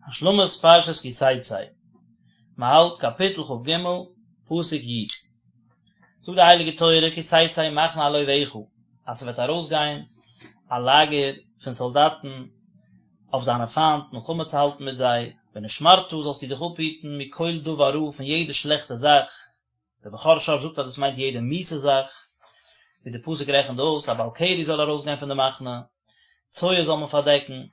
השלמת פרשת כי תצא, מען האלט קאפיטל כ"ג, פסוק י'. זאגט די הייליגע תורה כי תצא מחנה על אויביך, אז ס'וועט ארויסגיין א לאגער פון סאלדאטן אויף דיינע פיינט מלחמה צו האלטן מיט זיי, ונשמרת זאלסטו דיך אפהיטן מכל דבר רע פון יעדע שלעכטע זאך, דער בכור שור זאגט אז דאס מיינט יעדע מיאוסע זאך, ווי דער פסוק רעכנט אויס, א בעל קרי זאל ארויסגיין פון די מחנה, צואה זאל מען פארדעקן,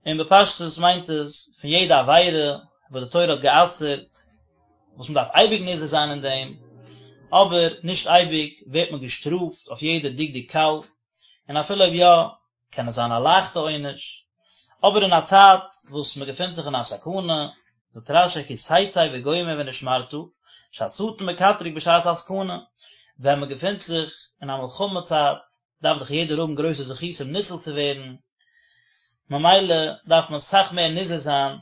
און בפשטות מיינט עס פון יעדע עבירה וואס די תורה האט גע'אסר'ט, וואס מען דארף אייביג נזהר זיין אין דעם, אבער נישט אייביג ווערט מען געשטראפט אויף יעדע דקדוק קל, און אפילו אויב יא, קען עס זיין א לייכטע עונש, אבער אין א צייט וואס מען געפינט זיך אין א סכנה, זאגט רש"י כי תצא וגומר ונשמרת, שהשטן מקטרג בשעת הסכנה, ווען מען געפינט זיך אין א מלחמה צייט, דארף דאך יעדער האבן גרויסע זכותים ניצול צו ווערן, ממילא דארף מען סאך מער נזהר זיין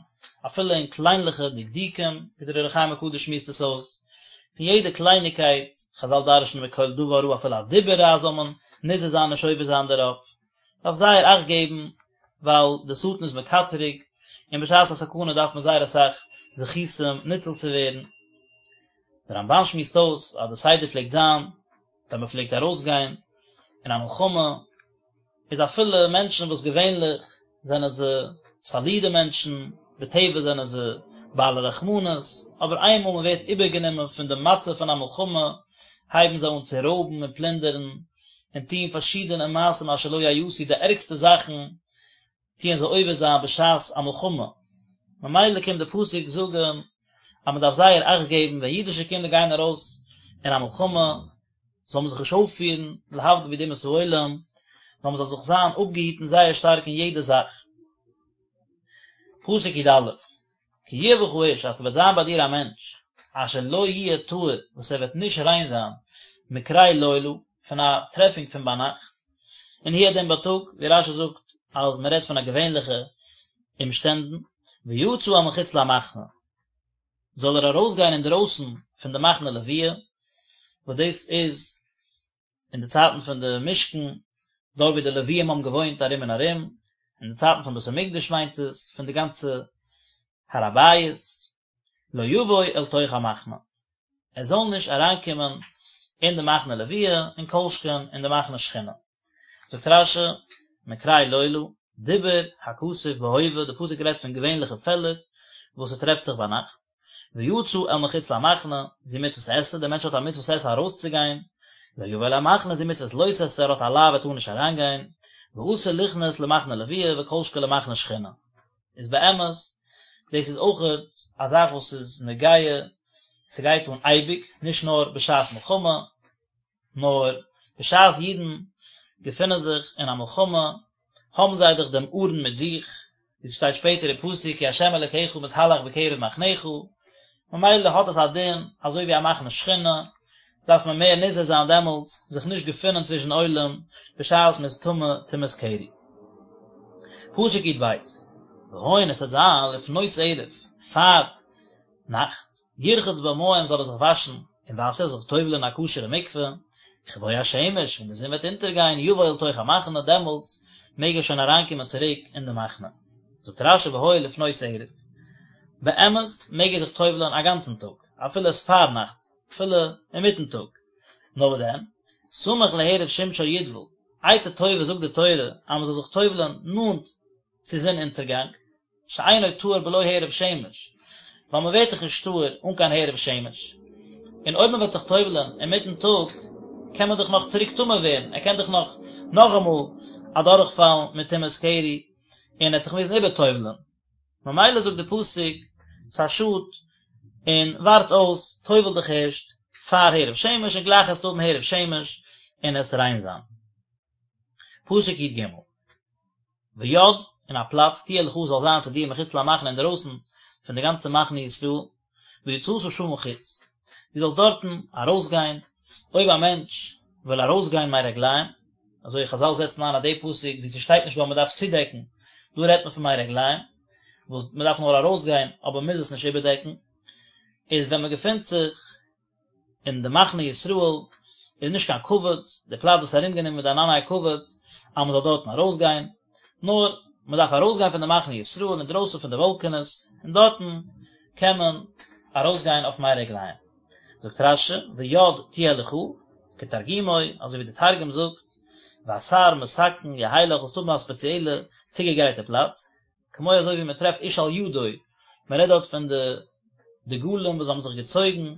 אפילו אין קליינליכע דקדוקים, ווי דער אור החיים הקדוש שמועסט עס אויס, פון יעדע קלייניגקייט, חז"ל דרש'נען מכל דבר רע אפילו א דיבור רע זאל מען נזהר זיין נישט עובר זיין דערויף, דארף זייער אכט געבן, ווייל דער שטן איז מקטרג, און בשעת א סכנה דארף מען זייער אסאך זכותים ניצול צו ווערן. דער רמב"ן שמועסט אויס אז די סדר פלעגט זיין ווען מען פלעגט ארויסגיין אין א מלחמה, איז אפילו מענטשן וואס געווענליך זענען זיי סאלידע מענטשן, בטבע זענען זיי בעלי רחמנות, אבער איינמאל מען ווערט איבערגענומען פון די מצב פון א מלחמה, הייבן זיי אן צו רויבן און פלינדערן, און טון פארשידענע מעשים אשר לא יעשו, די ערגסטע זאכן טוען זיי עובר זיין בשעת א מלחמה, ממילא קומט די פסוק זאגן אז מען דארף זייער אכט געבן ווען אידישע קינדער גייען ארויס אין א מלחמה, זאל מען זיך נישט אויפפירן להבדיל ווי די אומות העולם, נאר מען זאל זיך זיין אפגעהיטן זייער שטארק אין יעדע זאך. פסוק י"א, כי יהיה בך איש אז ס'וועט זיין ביי דיר א מענטש אשר לא יהיה טהור וואס ער וועט נישט ריין זיין מקרה לילה פון א טרעפונג פון ביינאכט, און הוא הדין בייטאג, ווי רש"י זאגט אז מען רעדט פון א געווענליכע אומשטענדן, ויצא אל מחוץ למחנה, זאל ער ארויסגיין אינדרויסן פון די מחנה לוויה, וואס דאס איז אין די צייטן פון די משכן, דארט ווי די לוויים האבן געוואוינט ארום און ארום, אין די צייטן פון בית המקדש מיינט עס, פון די גאנצע הר הבית, לא יבוא אל תוך המחנה, ער זאל נישט אריינקומען אין די מחנה לוויה, און כל שכן אין די מחנה שכינה. זאגט רש"י, מקרה לילה, דיבר הכתוב בהווה, די פסוק רעדט פון געווענליכע פעלער וואס ס'טרעפט זיך ביינאכט, ויצא אל מחוץ למחנה, זו מצוות עשה, דער מענטש האט א מצוות עשה ארויסצוגיין, לא יבוא אל המחנה, זו מצוות לא תעשה, ער האט א לאו ער טאר נישט אריינגיין, ואסור ליכנס למחנה לוויה וכל שכן למחנה שכינה. איז באמת, דאס איז אויכעט א זאך וואס איז נוגע, ס'גייט אן אייביג, נישט נאר בשעת מלחמה, נאר בשעת אידן געפינען זיך אין א מלחמה, האבן זיי דאך דעם ארון מיט זיך, ווי ס'שטייט שפעטער אין פסוק כי ה' אלקיך מתהלך בקרב מחניך, ממילא האט עס א דין אזוי ווי א מחנה שכינה, דארף מען מער נזהר זיין דעמאלטס זיך נישט געפינען צווישן עולם בשעת מ'איז טמא טומאת קרי. פסוק י"ב, והיה און עס וועט זיין לפנות ערב, פאר נאכט, ירחץ במים זאל ער זיך וואשן אין וואסער, זיך טובל'ען אין א כשר'ע מקווה, וכבוא השמש, ווען די זון וועט אונטערגיין, יבוא אל תוך המחנה, דעמאלטס מעג ער שוין אריינקומען צוריק אין די מחנה. זאגט רש"י והיה לפנות ערב, באמת מעג ער זיך טובל'ען א גאנצן טאג, אפילו עס פארנאכט, אפילו אינמיטן טאג, נאר וואס דען, סמוך להערב שמשו יטבול, עצה טובה זאגט די תורה אז מען זאל זיך טובל'ען נאנט צו זון אונטערגאנג, שאינו טהור בלא הערב שמש, ווייל מען ווערט דאך נישט טהור אן קיין הערב שמש, און אויב מען וועט זיך טובל'ען אינמיטן טאג, קען מען דאך נאך צוריק טמא ווערן, ער קען דאך נאך נאכאמאל אדורכפאלן מיט טומאת קרי, און ער וועט זיך מוזן איבערטובל'ען. ממילא זאגט די פסוק, ס'איז א שאד, און ווארט אויס, טובל דיך ערשט פאר הערב שמש, און גלייך עסטו האבן הערב שמש, און עסט ריין זיין. פסוק י"ג. ויד, און א פלאץ, תהיה לך זאל זיין צו דיר מחוץ למחנה אינדערויסן פון די גאנצע מחנה ישראל, ויצאת שמה חוץ, דו זאלסט דארטן ארויסגיין, אויב א מענטש וויל ארויסגיין מי רגליים, אזוי חזל זעצן איין אז די פסוק ווי ס'שטייט נישט דא אז מ'דארף צודעקן, דא רעדט מען פון מי רגליים, וואס מ'דארף נאר ארויסגיין אבער מ'מוז עס נישט איבערדעקן, איז ווען מ'געפינט זיך אין די מחנה ישראל איז נישט קיין כבוד, די פלאץ וואס איז ארומגענומען מיט די ענני הכבוד, אז מען זאל דארטן ארויסגיין, נאר. מען דארף ארויסגיין פון די מחנה ישראל אינדרויסן פון די וואלקענעס, און דארטן קען מען ארויסגיין אויף מי רגליים. זאגט רש"י, ויד תהיה לך, כתרגומו, אזוי ווי די תרגום זאגט, ואתר מתקן יהי לך, זאלסט האבן א ספעציעלע צוגעגרייטע פלאץ, כמו אזוי ווי מען טרעפט איש על ידו, מען רעדט דארט פון די דגלים וואס האבן זיך געצויגן,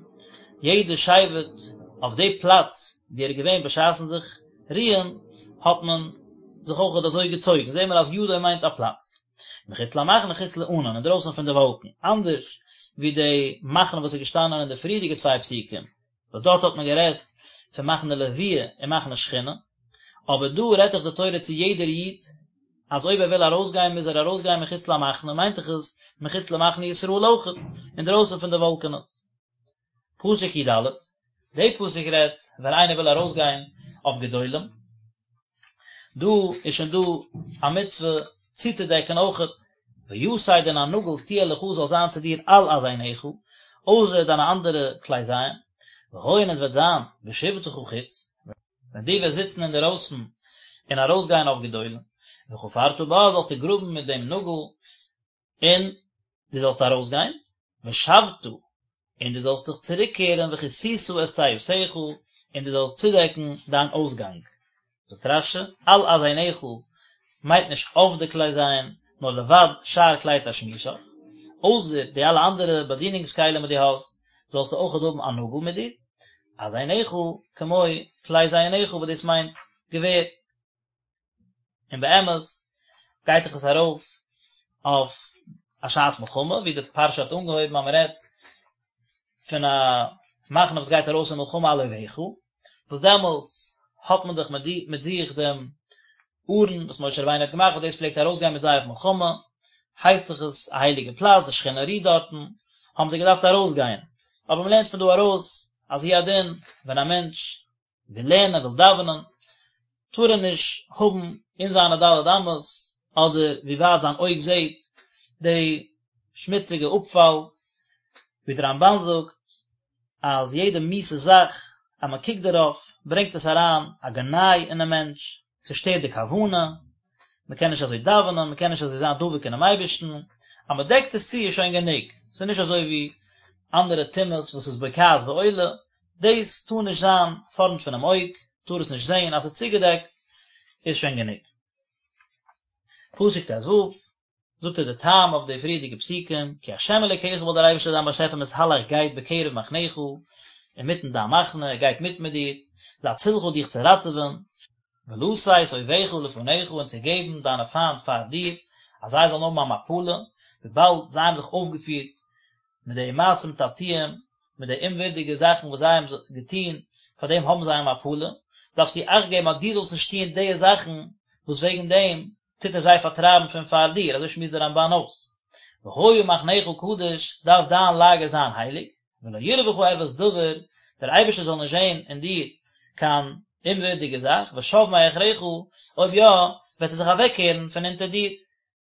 יעדע שבט אויף די פלאץ ווי ער איז געווען בשעת'ן זיך רוען, האט מען זיך אויכעט אזוי געצויגן, זעהן מיר אז ידו מיינט א פלאץ. מחוץ למחנה חוץ לענן, אינדרויסן פון די וואלקן, אנדערש ווי די מחנה וואס איז געשטאנען אין די פריערדיגע צוויי פסוקים, וואס דארט האט מען גערעדט פון מחנה לוויה און מחנה שכינה, אבער דא רעדט דאך די תורה צו יעדער איד, אז אויב ער וויל ארויסגיין מוז ער ארויסגיין מחוץ למחנה, מיינט דאך עס מחוץ למחנה ישראל אויכעט, אינדרויסן פון די וואלקענעס. פסוק י"ד, די פסוק רעדט ווען איינער וויל ארויסגיין אויף גדולים, דא איז שוין דא א מצוה צוצודעקן אויכעט, ויתד און א נאגל תהיה לך זאל זיין צו דיר על אזנך, אויסער דיינע אנדערע כלי זיין, והיה און עס וועט זיין בשבתך חוץ, ווען דו וועסט זיצן אינדערויסן און ארויסגיין אויף גדולים, וחפרת בה זאלסטו גראבן מיט דעם נאגל, און דו זאלסט ארויסגיין, ושבת, און דו זאלסט דיך צוריקקערן וכסית את צאתך, און דו זאלסט צודעקן דיין אויסגאנג. זאגט רש"י, על אזנך מיינט נישט אויף די כלי זיין, נאר לבד שאר כלי תשמישך, אויסער די אלע אנדערע באדינונגס כלים וואס דו האסט, זאלסטו אויכעט האבן א נאגל מיט דיר, אזנך כמו כלי זיינך וואס דאס מיינט געווער. און באמת גייט דאך עס ארויף אויף א שעת מלחמה ווי די פרשה האט אנגעהויבן אז מען רעדט פון א מחנה וואס גייט ארויס אין מלחמה על אויביך, וואס דעמאלטס האט מען דאך מיט זיך דעם ארון וואס משה רבינו האט געמאכט וואס דאס פלעגט ארויסגיין מיט זיי אויף מלחמה, הייסט דאך עס א הייליגע פלאץ, די שכינה רוהט דארטן, האבן זיי געדארפט ארויסגיין, אבער מען לערנט פון דא ארויס אז הוא הדין ווען א מענטש וויל לערנען, וויל דאווענען, טאר ער נישט האבן אין זיינע ד' אמות, אדער ווי ווייט זיין אויג זעט, די שמוציגע אפפאל, ווי דער רמב"ן זאגט, אז יעדע מיאוסע זאך אז מען קוקט דערויף, ברענגט עס אריין א גנאי אינעם מענטש, ס'שטערט די כוונה, מען קען נישט אזוי דאווענען, מען קען נישט אזוי זיין דבוק אינעם אייבערשטן, אז מען דעקט עס צו איז שוין גענוג, ס'איז נישט אזוי ווי אנדערע טומאות וואס איז בוקעת ועולה, דאס טאר נישט זיין פארנט פונעם אויג, טאר עס נישט זען, אז ס'איז צוגעדעקט איז שוין גענוג. פסוק ט"ו, זאגט ער די טעם אויף די פריערדיגע פסוקים, כי ה' אלוקיך ווייל דער אייבערשטער דיין באשעפער מתהלך גייט בקרב מחניך, אינמיטן דיין מחנה, ער גייט מיט מיט דיר, להצילך דיך צו ראטעווען, ולתת אויביך לפניך און צו געבן דיינע פיינט פאר דיר, אז זיי זאלן האבן א מפלה, וויבאלד זיי האבן זיך אויפגעפירט מיט די מעשים תעתועים, מיט די אומווירדיגע זאכן וואס זיי האבן געטון, פאר דעם האבן זיי א מפלה, דארפסטו אכט געבן אז דו זאלסט נישט טון די זאכן וואס וועגן דעם טוט ער זיי פארטרייבן פון פאר דיר, אזוי שמועסט דער רמב"ן אויס. והיה מחניך קדוש, דארף דיין לאגער זיין הייליג, ולא יראה בך ערות דבר, דער אייבערשטער זאל נישט זען אין דיר קיין אומווירדיגע זאך, ושב מאחריך, אויב יא, וועט ער זיך אוועקקערן פון אונטער דיר,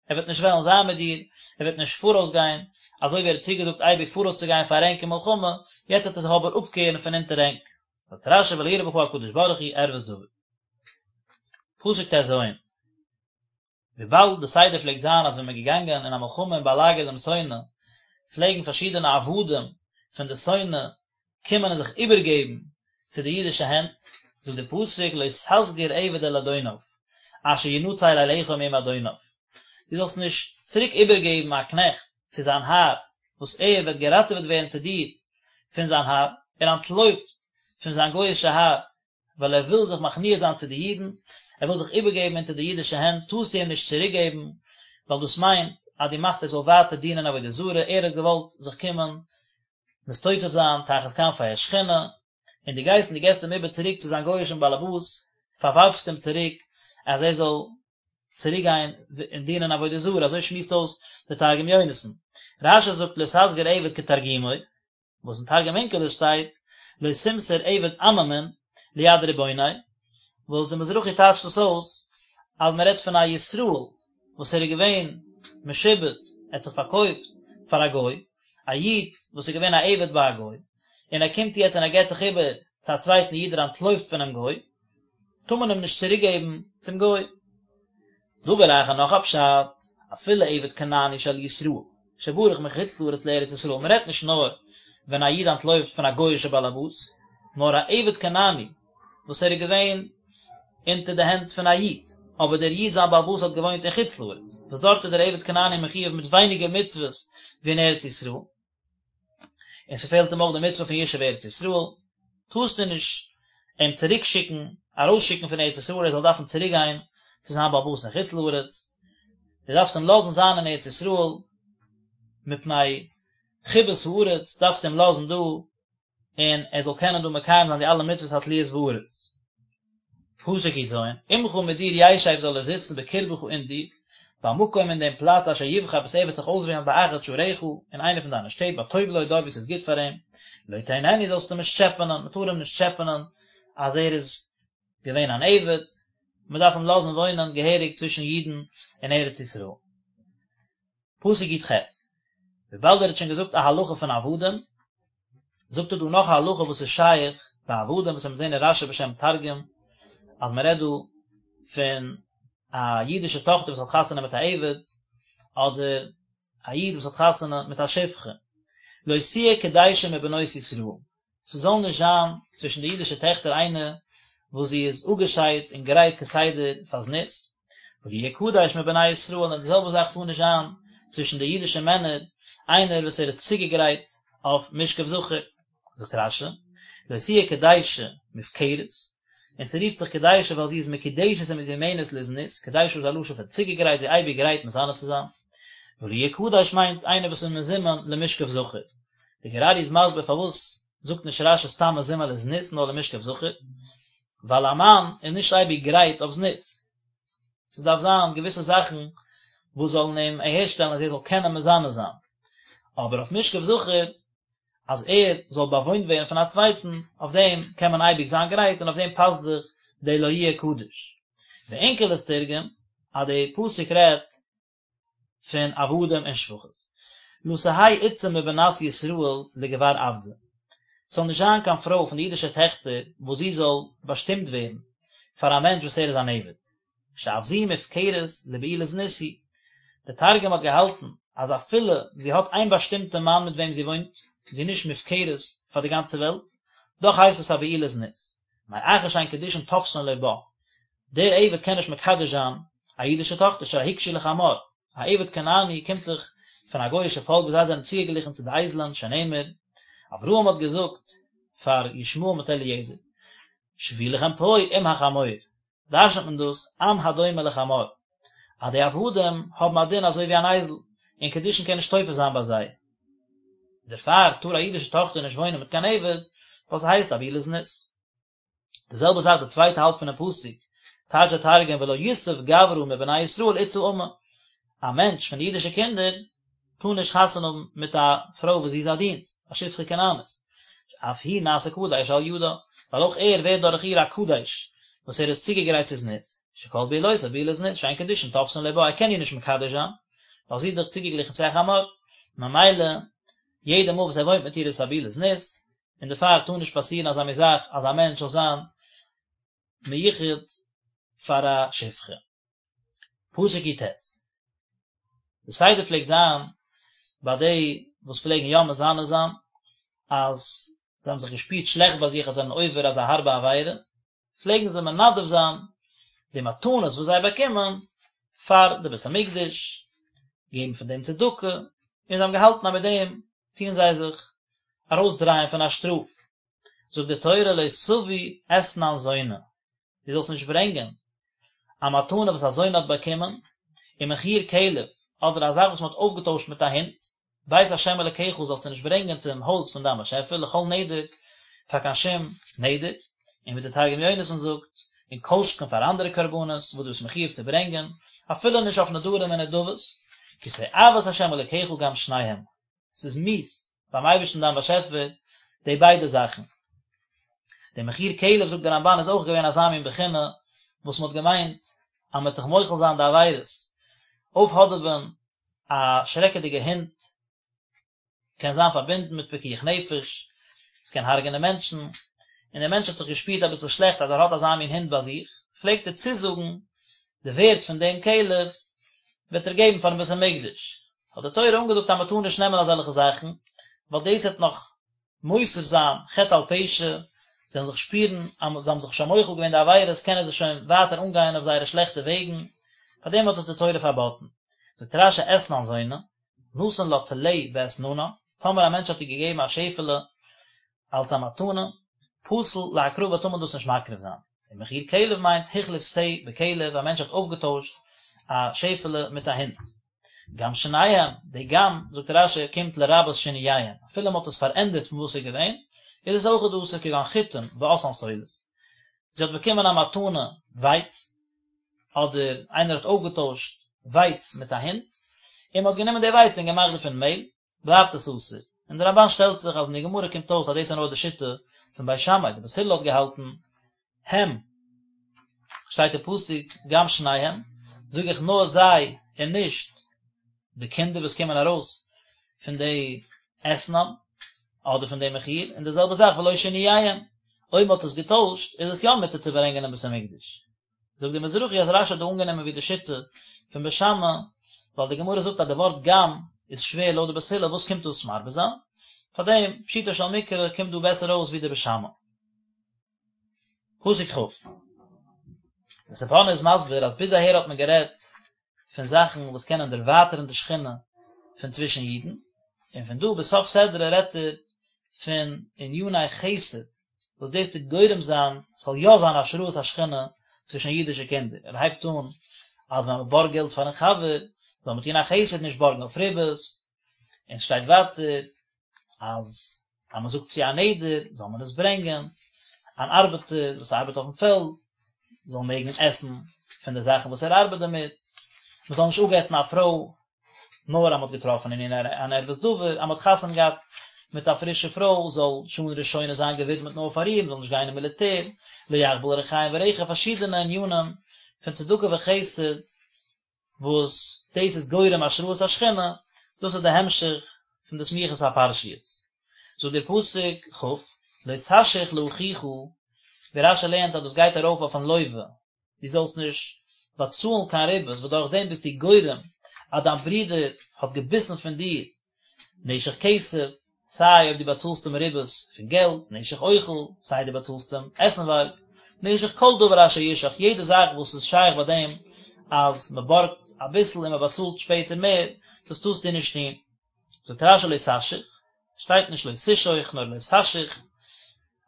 ער וועט נישט וועלן זיין מיט דיר, ער וועט נישט פאראויס גיין, אזוי ווי ער האט צוגעזאגט אייביג פאראויס צו גיין פאר ענק אין מלחמה, יעצט וועט ער זיך אבער אפקערן פון אונטער ענק. זאגט רש"י ולא יראה בך הקדוש ברוך הוא ערות דבר. פסוק ט"ז, וויבאלד די סדר פלעגט זיין אז ווען מען איז געגאנגען אין א מלחמה און באלאגערט דעם שונא, פלעגן פארשידענע עבדים פון די שונא קומען און זיך איבערגעבן צו די אידישע הענט, זאגט די פסוק לא תסגיר עבד אל אדוניו, אשר ינצל אליך מעם אדוניו, דו זאלסט נישט צוריק איבערגעבן א קנעכט צו זיין האר, וואס ער וועט געראטעוועט ווערן צו דיר פון זיין האר, ער אנטלויפט פון זיין גוי'אישע האר, ווייל ער וויל זיך מכניע זיין צו די אידן, ער וויל זיך איבערגעבן אונטער די אידישע הענט, טארסטו אים נישט צוריקגעבן, ווייל דאס מיינט אז דו מאכסט ער זאל ווייטער דינען עבודה זרה, ער האט געוואלט זיך קומען מסתופף זיין תחת כנפי השכינה, און דו גייסט און דו געבסט אים איבער צוריק צו זיין גוי'אישן באלעבאס, פארווארפסט אים צוריק אז ער זאל צוריק גיין און דינען עבודה זרה, אזוי שמועסט אויס דער תרגום יונתן. רש"י זאגט לא תסגיר עבד כתרגומו, וואס אין תרגום אונקלוס שטייט לא תמסור עבד עממין ליד רבוניה, וואס די מזרחי טייטשט דאס אויס אז מען רעדט פון א ישראל וואס ער איז געווען משועבד, ער האט זיך פארקויפט פאר א גוי, א איד וואס איז געווען א עבד ביי א גוי, און ער קומט יעצט און ער געבט זיך איבער צו א צווייטן איד, ער אנטלויפט פונעם גוי, טאר מען אים נישט צוריק געבן צום גוי. דבר אחר נאך א פשט, אפילו עבד כנעני של ישראל, שברח מחוץ לארץ לארץ ישראל, מען רעדט נישט נאר ווען א איד אנטלויפט פון א גוי'אישע באלעבאס, נאר א עבד כנעני וואס ער איז געווען אונטער די הענט פון א איד, אבער דער איד זיין באלעבאס האט געוואוינט אין חוץ לארץ, וואס דארט איז דער עבד כנעני מחויב מיט ווייניגער מצוות ווי אין ארץ ישראל. און ס'פעלט אים אויך די מצוה פון ישוב ארץ ישראל, טארסטו נישט אים צוריק שיקן, ארויס שיקן פון ארץ ישראל, ער זאל דארפן צוריק גיין צו זיין בעל הבית אין חוץ לארץ, דו דארפסט אים לאזן זיין אין ארץ ישראל, מפני חיבת הארץ דארפסטו אים לאזן דא, און ער זאל קענען דא מקיים זיין די אלע מצוות התלויות בארץ. פסוק י"ז, עמך מיט דיר ישב זאל ער זיצן בקרבך אין דיר, במקום אין דעם פלאץ אשר יבחר וואס ער וועט זיך אויסוועלן באחד שעריך, אין איינע פון דיינע שטעט בטוב לו דארט וואו ס'איז גוט פאר אים, לא תוננו זאלסטו אים נישט טשעפענען, מ'טאר אים נישט טשעפענען אז ער איז געווען אן עבד, מ'דארף אים לאזן וואוינען געהעריג צווישן אידן אין ארץ ישראל. פסוק י"ח, וויבאלד ער האט שוין געזאגט א הלכה פון עבדים, זאגט ער דא נאך א הלכה וואס איז שייך ביי עבדים, וואס מיר זעהן אין רש"י בשם תרגום, אז מען רעדט דא פון א אידישע טאכטער וואס האט חתונה מיט א עבד, אדער א איד וואס האט חתונה מיט א שפחה, לא תהיה קדשה מבנות ישראל, ס'זאל נישט זיין צווישן די אידישע טעכטער איינע וואס זי איז אפגעשיידט און גרייט כסדר פאר זנות, ולא יהיה קדש מבני ישראל, און די זעלבע זאך טאר נישט זיין צווישן די אידישע מענער איינער וואס ער איז צוגעגרייט אויף משכב זכר. זאגט רש"י, לא תהיה קדשה מופקרת, און ס'רופט זיך קדשה ווייל זי איז מקודשת ומזומנת לזנות, קדשה איז א לשון פון צוגעגרייט, זי איז אייביג גרייט מזנה צו זיין, ולא יהיה קדש מיינט איינער וואס איז מזומן למשכב זכר. די גור אריה איז מסביר פארוואס זאגט נישט רש"י סתם מזומן לזנות נאר למשכב זכר, ווייל א מאן איז נישט אייביג גרייט אויף זנות, ס'דארף זיין געוויסע זאכן וואס זאלן אים אהערשטעלן אז ער זאל קענען מזנה זיין, אבער אויף משכב זכר אז ער זאל באוואוינט ווערן פון א צווייטן, אויף דעם קען מען אייביג זיין גרייט און אויף דעם פאסט זיך די לא יהיה קדש. ואונקלוס תרגם אז די פסוק רעדט פון עבדים און שפחות. לא תהא אתתא מבנת ישראל לגבר עבדא. ס'זאל נישט זיין קיין פרוי פון די אידישע טעכטער וואס זי זאל באשטימט ווערן פאר א מענטש וואס ער איז אן עבד. שאף זו מופקרת לבעילת זנות היא. דער תרגום האט געהאלטן אז אפילו זי האט איין באשטימטע מאן מיט וועם זי וואוינט, זי איז נישט מופקרת פאר די גאנצע וועלט, דאך הייסט עס א בעילת זנות. מאחר שאין קידושין תופסין לו בה. דער עבד קען נישט מקדש זיין א אידישע טאכטער שהרי הוקשו לחמור, א עבד כנעני קומט דאך פון א גוי'אישע פאלק וואס זיי זענען צוגעגליכן צו די אייזלען שנאמר, אברהם האט געזאגט פאר ישמעאל מיט אליעזר, שבו לכם פה עם החמור, דרש'נט מען דאס עם הדומה לחמור, אז די עבדים האבן א דין אזוי ווי אן אייזל, און קידושין קען נישט תופס זיין ביי זיי. דערפאר טאר א אידישע טאכטער נישט וואוינען מיט קיין עבד, ווייל ס'הייסט א בעילת זנות. די זעלבע זאך די צווייטע האלב פונעם פסוק, טייטש דער תרגום ולא יסב גברא מבני ישראל אתתא אמה, א מענטש פון די אידישע קינדער טאר נישט חתונה האבן מיט א פרוי וואס זי איז א דינסט, א שפחה כנענית, אף הוא נעשה קדש על ידה, ווייל אויך ער ווערט דורך איר א קדש, וואס ער איז צוגעגרייט צו זנות, שכל בעילותיו בעילת זנות, שאין קידושין תופסין לו בה, ער קען איר נישט מקדש זיין, ווייל זי איז דאך צוגעגליכן צו א חמור, ממילא יעדע מאל וואס ער וואוינט מיט איר איז עס א בעילת זנות, און דערפאר טאר נישט פאסירן אזא מין זאך אז א מענטש זאל זיין מיוחד פאר א שפחה. פסוק י"ט. די סדר פלעגט זיין ביי די וואס פלעגן יא מזנה זיין, אז זיי האבן זיך געשפירט שלעכט ביי זיך אז זיי זענען עובר אזא הארבע עבירה, פלעגן זיי מנדב זיין די מתנות וואס זיי באקומען פאר די בית המקדש, געבן פון דעם צדקה, און זיי האבן געהאלטן אז מיט דעם טוען זיי זיך ארויסדרייען פון א שטראף. זאגט די תורה לא תביא אתנן זונה, דו זאלסט נישט ברענגען א מתנה וואס א זונה האט באקומען, ומחיר כלב, אדער א זאך וואס מען האט אויפגעטוישט מיט א הונט, בית ה' אלקיך זאלסטו נישט ברענגען צום הויז פון דיין באשעפער לכל נדר, פאר קיין שום נדר, און ווי דער תרגום יונתן זאגט, און כל שכן פאר אנדערע קרבנות וואס דו ביסט מחויב צו ברענגען, אפילו נישט אויף נדרים און נדבות, כי תועבת ה' אלקיך גם שניהם, ס'איז מיאוס ביים אייבערשטן דיין באשעפער די ביידע זאכן. די מחיר כלב זאגט דער רמב"ן איז אויך געווען אזא מין בחינה וואס מ'האט געמיינט אז מ'וועט זיך מוחל זיין די עבירות, אויפהאדעווען א שרעקעדיגע הונט קען זיין פארבינדן מיט פיקוח נפש, עס קען הרג'נען מענטשן, און דער מענטש האט זיך געשפירט אביסל שלעכט אז ער האט אזא מין הונט ביי זיך, פלעגט ער צוזאגן. די ווערט פון דעם כלב וועט ער געבן פארן בית המקדש, האט די תורה אנגעזאגט אז מען טאר נישט נעמען אזעלכע זאכן, ווייל דאס וועט נאך מוסיף זיין חטא על פשע, זיי וועלן זיך שפירן אז זיי האבן זיך שוין מוחל געווען די עבירות, קענען זיי שוין ווייטער אנגיין אויף זייערע שלעכטע וועגן, פארדעם האט עס די תורה פארבאטן. זאגט רש"י אתנן זונה, נתן לה טלה באתננה, טאמער א מענטש האט איר געגעבן א שעפעלע אלס א מתנה, פסול להקרבה טאר מען דאס נישט מקריב זיין. און מחיר כלב מיינט החליף שה בכלב, א מענטש האט אויפגעטוישט א שעפעלע מיט א הונט. גם שניהם, די גם, זאגט רש"י, קומט לרבות שינוייהם, אפילו מען האט עס פארענדערט פון וואס ס'איז געווען, איז עס אויכעט אסור כגון חיטים ועשאן סולת. זי האט באקומען א מתנה ווייץ, אדער איינער האט אויפגעטוישט ווייץ מיט א הונט, און מען האט גענומען די ווייץ און געמאכט דערפון מעהל, בלייבט עס אסור. און די רמב"ן שטעלט זיך אז אין די גמרא קומט אויס אז דאס איז נאר די שיטה פון בית שמאי, די בית הלל האט געהאלטן הם, שטייט אין פסוק גם שניהם, זאג איך נאר זיי און נישט די קינדער וואס קומען ארויס פון די אתנן אדער פון די מחיר, און די זעלבע זאך ולא שינוייהם, אויב מען האט עס געטוישט איז עס יא מותר צו ברענגען אין בית המקדש. זאגט די מזרחי אז רש"י האט דא אנגענומען ווי די שיטה פון בית שמאי, ווייל די גמרא זאגט אז די ווארט גם איז שווער לויט די בית הלל, וואס קומט דאס מרבה זיין? פארדעם פשוטו של מקרא קומט דא בעסער אויס ווי די בית שמאי. פסוק כ'. די ספורנו איז מסביר אז ביז אהער האט מען גערעדט פון זאכן וואס קענען דערווייטערן די שכינה פון צווישן אידן, און פון דא ביז סוף סדרה רעדט ער פון עניני חסד וואס דאס טוט גורם זיין ס'זאל יא זיין השראת השכינה צווישן אידישע קינדער. ער הייבט אן אז ווען מ'בארגט געלט פארן חבר זאל מען טון א חסד נישט בארגן אויף ריבית, און ס'שטייט ווייטער אז אז מען זאגט צו א נדר זאל מען עס ברענגען, אן ארבעטער וואס ארבעט אויפן פעלד זאל מעגן עסן פון די זאכן וואס ער ארבעט דערמיט, מען זאל נישט אפגט'ן א פרוי נאר אז מען האט געטראפן אין איר אן ערות דבר, אז מען האט חתונה געהאט מיט א פרישע פרוי זאל שנה ראשונה זיין געווידמעט נאר פאר איר, מען זאל נישט גיין אין מיליטער, לא יחבל רחיים ברכב, פארשידענע ענינים פון צדקה וחסד וואס דאס איז גורם השראת השכינה, דאס איז די המשך פון די סמיכות הפרשיות. זאגט דער פסוק כ', לא תשוך לאחיך, ווי רש"י לערנט אז דאס גייט ארויף אויפן לווה, דו זאלסט נישט באצאלן קיין ריבית, וואס דורך דעם ביסטו גורם אז דיין ברודער האט געביסן פון דיר נשך כסף, סיי אויב דו באצאלסט אים ריבית פון געלט, נשך אוכל, סיי דו באצאלסט אים עסנווארג, נשך כל דבר אשר ישך, יעדע זאך וואס איז שייך ביי דעם אז מען בארגט אביסל און מען באצאלט שפעטער מער, דאס טארסטו נישט טון. זאגט רש"י לא תשוך, שטייט נישט לא תשוך נאר לא תשוך,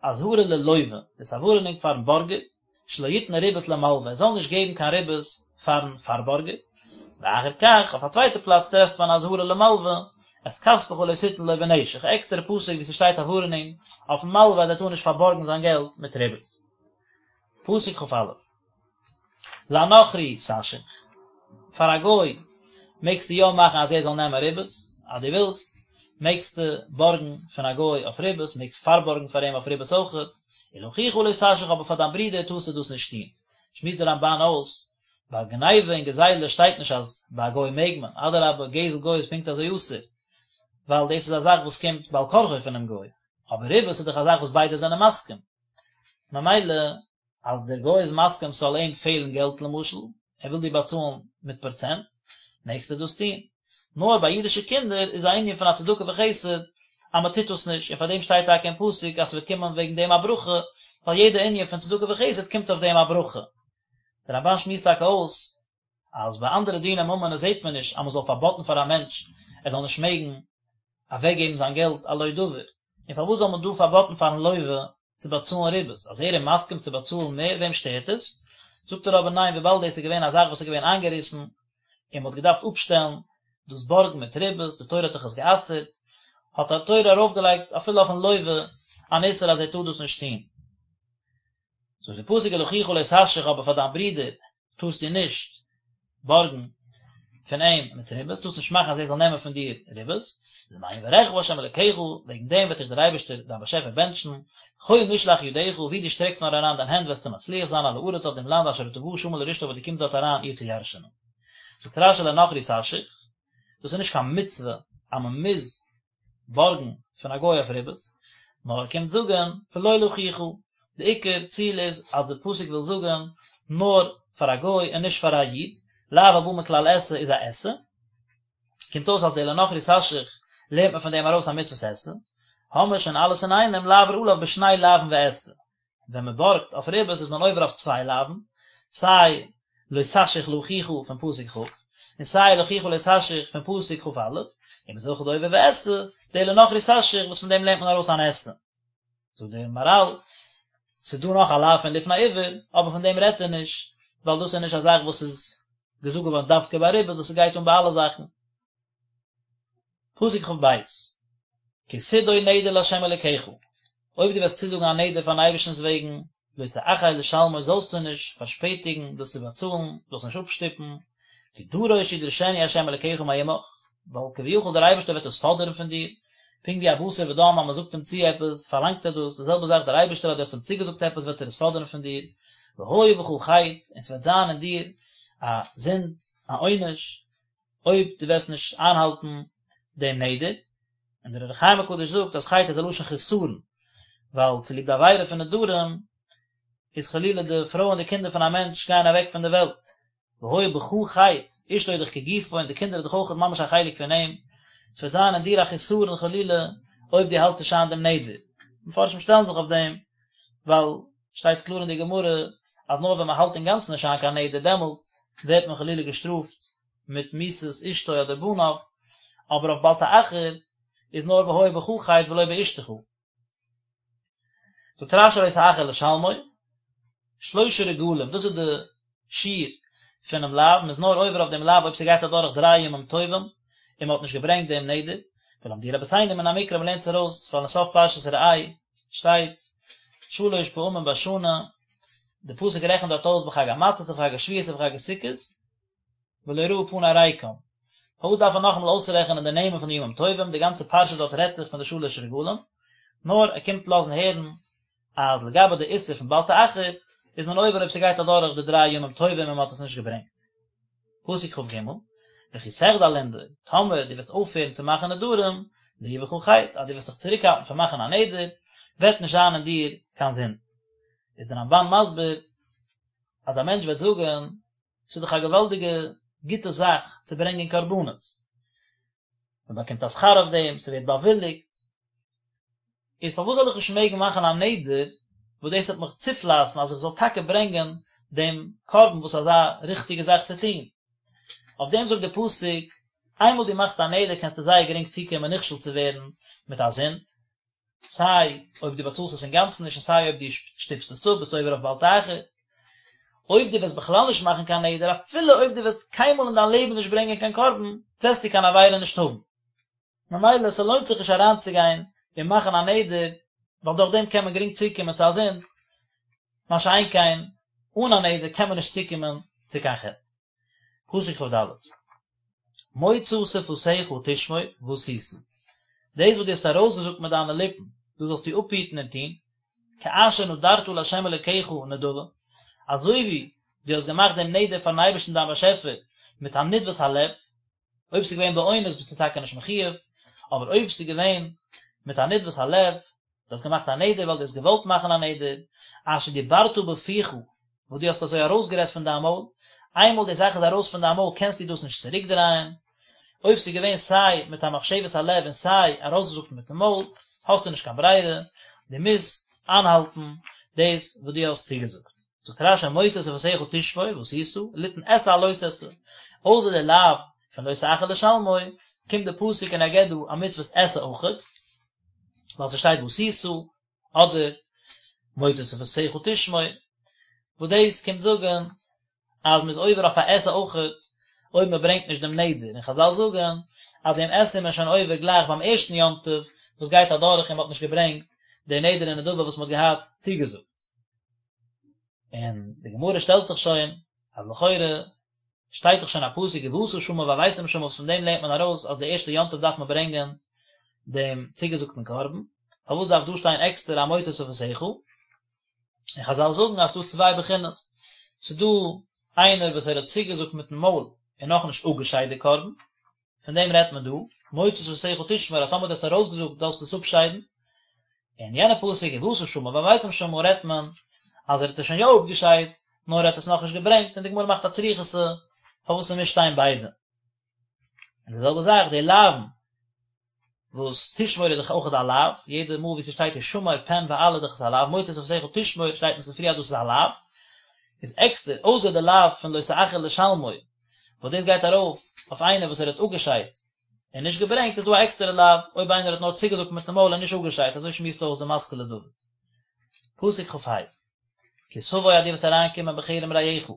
אזהרה ללווה, דאס איז א ווארענונג פארן בארגער, שלא יתן ריבית למלווה, ער זאל נישט געבן קיין ריבית פארן פארבארגער, ואחר כך, אויף א צווייטע פלאץ טרעפט מען אזהרה למלווה, את כספך לא תתן לו בנשך, א עקסטערע פסוק וואו ס'שטייט א ווארענונג אויפן מלווה אז ער טאר נישט פארבארגן זיין געלט מיט ריבית. פסוק כ"א. לנכרי תשוך, פאר א גוי מעגסטו יא מאכן אז ער זאל נעמען ריבית, אז דו ווילסט מעגסטו בארגן פון א גוי אויף ריבית, מעגסט פארבארגן פאר אים אויף ריבית אויכעט, ולאחיך לא תשוך אבער פאר דיין ברודער טארסטו דאס נישט טון. שמועסט דער רמב"ן אויס, ביי גניבה און גזילה שטייט נישט אז ביי א גוי מעג מען, אדרבה גזל גוי איז פונקט אזוי אסור, ווייל דאס איז א זאך וואס קומט בעל כרחו פונעם גוי, אבער ריבית איז דאך א זאך וואס ביידע זענען מסכים, ממילא אז דער גוי איז מסכים ס'זאל אים פעלן געלט למשל, ער וויל דיר באצאלן מיט פראצענט, מעגסטו דאס טון. נאר ביי אידישע קינדער איז א ענין פון א צדקה וחסד אז מען טוט דאס נישט, און פאר דעם שטייט טאקע אין פסוק אז ס'וועט קומען וועגן דעם א ברכה, ווייל יעדע ענין פון צדקה וחסד קומט אויף דעם א ברכה. דער רמב"ן שמועסט טאקע אויס אז ביי אנדערע דיני ממונות זעט מען נישט אז מען זאל פארבאטן פאר א מענטש ער זאל נישט מעגן אוועקגעבן זיין געלט על לא דבר, און פארוואס זאל מען דא פארבאטן פארן לווה צו באצאלן ריבית, אז ער איז מסכים צו באצאלן מער וועם שטערט עס? זאגט ער אבער ניין וויבאלד דאס איז געווען א זאך וואס איז געווען איינגעריסן און מען האט געדארפט אפשטעלן דאס בארגן מיט ריבית, די תורה האט דאך עס גע'אסר'ט, האט די תורה ארויפגעלייגט אפילו אויפן לווה אן איסור אז ער טאר דאס נישט טון. זאגט די פסוק ולאחיך לא תשוך אבער פאר דיין ברודער טארסטו נישט בארגן פון אים מיט ריבית, טארסט נישט מאכן אז ער זאל נעמען פון דיר ריבית, למען יברכך ה' אלקיך, וועגן דעם וועט דיך דער אייבערשטער דיין באשעפער בענטשן, בכל משלח ידך, וואו דו שטרעקסט נאר אריין דיין הענט וועסטו מצליח זיין על הארץ אויף דעם לאנד אשר אתה בא שמה לרשתה וואס דו קומסט דארט אריין איר צו ירש'ענען. זאגט רש"י לנכרי תשוך, דאס איז נישט קיין מצוה אז מען מוז בארגן פון א גוי אויף ריבית, נאר ער קומט זאגן ולא לאחיך, די עיקר ציל איז אז די פסוק וויל זאגן נאר. פאר א גוי און נישט פאר א איד, לאו הבא מכלל עשה איז א עשה, קומט אויס אז די לנכרי תשחית לערנט מען פון דעם ארויס א מצוות עשה, האמער שוין אלעס אינאיינעם לעבור עליו בשני לאווין ועשה, ווען מען בארגט אויף ריבית איז מען עובר אויף צוויי לאווין, סיי לא תשחית לאחיך פון פסוק כ', און סיי ולאחיך לא תשחית פון פסוק כ"א, און מען איז אויכעט עובר ועשה, די לנכרי תשחית וואס פון דעם לערנט מען ארויס אן עשה. זאגט דער מהר"ל, ס'איז דא נאך א לאו פון לפני עור, אבער פון דעם רעדט ער נישט, ווייל דאס איז נישט א זאך וואס איז געזאגט געווארן דווקא ביי ריבית, דאס גייט אן ביי אלע זאכן. פסוק כ"ב, כי תדור נדר לה' אלקיך, אויב דו וועסט צוזאגן א נדר פארן אייבערשטנ'ס וועגן, לא תאחר לשלמו זאלסטו נישט פארשפעטיגן דאס צו באצאלן, זאלסט נישט אפשטופן, כי דרוש ידרשנו ה' אלקיך מעמך, ווייל כביכול דער אייבערשטער וועט דאס פאדערן פון דיר, פונקט ווי א בשר ודם אז מען זאגט אים צו עפעס פארלאנגט ער דאס, די זעלבע זאך דער אייבערשטער אז דו האסט אים צוגעזאגט עפעס וועט ער עס פאדערן פון דיר, והיה בך חטא, און ס'וועט זיין אין דיר א זינד, א עונש, אויב דו וועסט נישט איינהאלטן דעם נדר, און דער אור החיים הקדוש זאגט אז חטא איז א לשון חסרון, ווייל צוליב די עבירה פון נדרים איז חלילה די פרוי און די קינדער פון א מענטש גייען אוועק פון די וועלט, והיה בך חטא, אשתו איז דאך כגופו און די קינדער איז דאך אויך ממש א חלק פון אים, ס'וועט זיין אין דיר א חסרון חלילה אויב דו האלטסט נישט איין דעם נדר. מפרשים שטעלן זיך אויף דעם, ווייל שטייט קלאר אין די גמרא אז נאר ווען מען האלט אינגאנצן נישט איין קיין נדר דעמאלטס ווערט מען חלילה געשטראפט מיט מיתת אשתו אדער בניו, אבער אויף בל תאחר איז נאר והיה בך חטא ולא באשתך. זאגט רש"י לא תאחר לשלמו, שלשה רגלים, דאס איז די שיעור פונעם לאו, מען איז נאר עובר אויף דעם לאו אויב ס'גייט אדורך דריי ימים טובים און מען האט נישט געברענגט דעם נדר, ולמדוהו רבותינו מן המקרא מען לערנט עס ארויס ווייל אין סוף פרשת ראה שטייט שלש פעמים בשנה, די פסוק רעכנט דארט אויס בחג המצות ובחג השבועות ובחג הסוכות, ולא יראו פני ריקם. פארוואס דארף ער נאכאמאל אויסרעכענען די נעמען פון די ימים טובים, די גאנצע פרשה דארט רעדט זיך פון די שלש רגלים, נאר ער קומט לאזן הערן אז לגבי די איסור פון בל תאחר איז מען עובר אויב ס'גייט אדורך די דריי ימים טובים און מ'האט עס נישט געברענגט. פסוק כ"ג, וכי תחדל לנדור, טאמער דו וועסט אויפהערן צו מאכן נדרים, לא יהיה בך חטא, אז דו וועסט זיך צוריקהאלטן פון מאכן א נדר, וועט נישט זיין אין דיר קיין זינד. איז דער רמב"ן מסביר אז א מענטש וועט זאגן, ס'איז דאך א געוואלדיגע גוטע זאך צו ברענגען קרבנות, מען באקומט א שכר אויף דעם, ס'ווערט באוויליגט, איז פארוואס זאל איך נישט מעגן מאכן א נדר וואס דאס וועט מיך צופלייסן אז איך זאל טאקע ברענגען דעם קרבן וואס איז אזא ריכטיגע זאך צו טון? אויף דעם זאגט דער פסוק, איינמאל דו מאכסט א נדר קענסטו זייער גרינג צוקומען נכשל צו ווערן מיט א זינד, סיי אויב דו באצאלסט עס אינגאנצן נישט און סיי אויב דו שטופסט עס אפ ביסטו עובר אויף בל תאחר. אויב דו וועסט בכלל נישט מאכן קיין נדר אפילו אויב דו וועסט קיינמאל אין דיין לעבן נישט ברענגען קיין קרבן וועסטו קיין עבירה נישט האבן. ממילא ס'לוינט זיך נישט אריינצוגיין און מאכן א נדר ווייל דורך דעם קען מען גרינג צוקומען צו א זינד, מה שאין כן אן א נדר קען מען נישט צוקומען צו קיין חטא. פסוק כ"ד, מוצא שפתיך תשמור ועשית, דאס וואס דו האסט ארויסגעזאגט מיט דיינע ליפן, דאס זאלסטו אפהיטן און טון, כאשר נדרת לה' אלוקיך נדבה, אזוי ווי דו האסט געמאכט דעם נדר פארן אייבערשטן דיין באשעפער מיט א נדבת הלב, אויב ס'איז געווען באונס ביסטו טאקע נישט מחיוב, אבער אויב ס'איז געווען מיט א נדבת הלב, דו האסט געמאכט א נדר ווייל דו האסט געוואלט מאכן א נדר, אשר דיברת בפיך, וואס דו האסט אזוי ארויסגערעדט פון דיין מויל, איינמאל די זאך איז ארויס פון דיין מויל קענסטו דאס נישט צוריקדרייען, אויב ס'איז געווען סיי מיט א מחשבת הלב און סיי ארויסגעזאגט מיטן מויל, האסטו נישט קיין ברירה, דו מוזט איינהאלטן דאס וואס דו האסט צוגעזאגט. זאגט רש"י מוצא שפתיך תשמור ועשית, ליתן עשה על לא תעשה, אויסער די לאו פון לא תאחר לשלמו, קומט די פסוק און ער געבט דא א מצוות עשה אויכעט, ווייל ס'שטייט ועשית, אדער מוצא שפתיך תשמור, וואס דאס קומט זאגן אז מ'איז עובר אויף א עשה אויכעט אויב מ'ברענגט נישט דעם נדר, און חזל זאגן אז דעם עשה איז מען שוין עובר גלייך ביים ערשטן יום טוב וואס גייט אדורך און מ'האט נישט געברענגט די נדר און נדבה וואס מ'האט געהאט צוגעזאגט. און די גמרא שטעלט זיך שוין אז לכאורה שטייט דאך שוין א פסוק ובאת שמה והבאתם שמה וואס פון דעם לערנט מען ארויס אז די ערשטע יום טוב דארף מען ברענגען דעם צוגעזאגטן קרבן, פארוואס דארף דא שטיין עקסטער א מוצא שפתיך? און חזל זאגן אז ס'דא צוויי בחינות, ס'דא איינער וואס ער האט צוגעזאגט מיטן מויל און נאכנישט אפגעשיידט די קרבן, פון דעם רעדט מען דא, מוצא שפתיך תשמור אז טאמער דו האסט ארויסגעזאגט זאלסטו עס אפשיידן, און יענע פסוק ובאת שמה והבאתם שמה רעדט מען אז ער האט עס שוין יא אפגעשיידט, נאר ער האט עס נאכנישט געברענגט, און די גמרא מאכט א צריכותא פארוואס ס'מוז שטיין ביידע. און די זעלבע זאך די לאווין וואס תשמור איז דאך אויך א לאו, יעדע מאל ווי ס'שטייט השמר פן ואל איז דאך עס א לאו, מוצא שפתיך תשמור שטייט אין ספרי אז דאס איז א לאו, איז עקסטער, אויסער די לאו פון לא תאחר לשלמו, וואס דאס גייט ארויף אויף איינער וואס ער האט אפגעשיידט און נישט געברענגט, איז דא א עקסטערע לאו אויב איינער האט נאר צוגעזאגט מיטן מויל און נישט אפגעשיידט, אזוי שמועסט אויס די משכיל לדוד. פסוק כ"ה, כי תבוא אז דו וועסט אריינקומען בכרם רעך,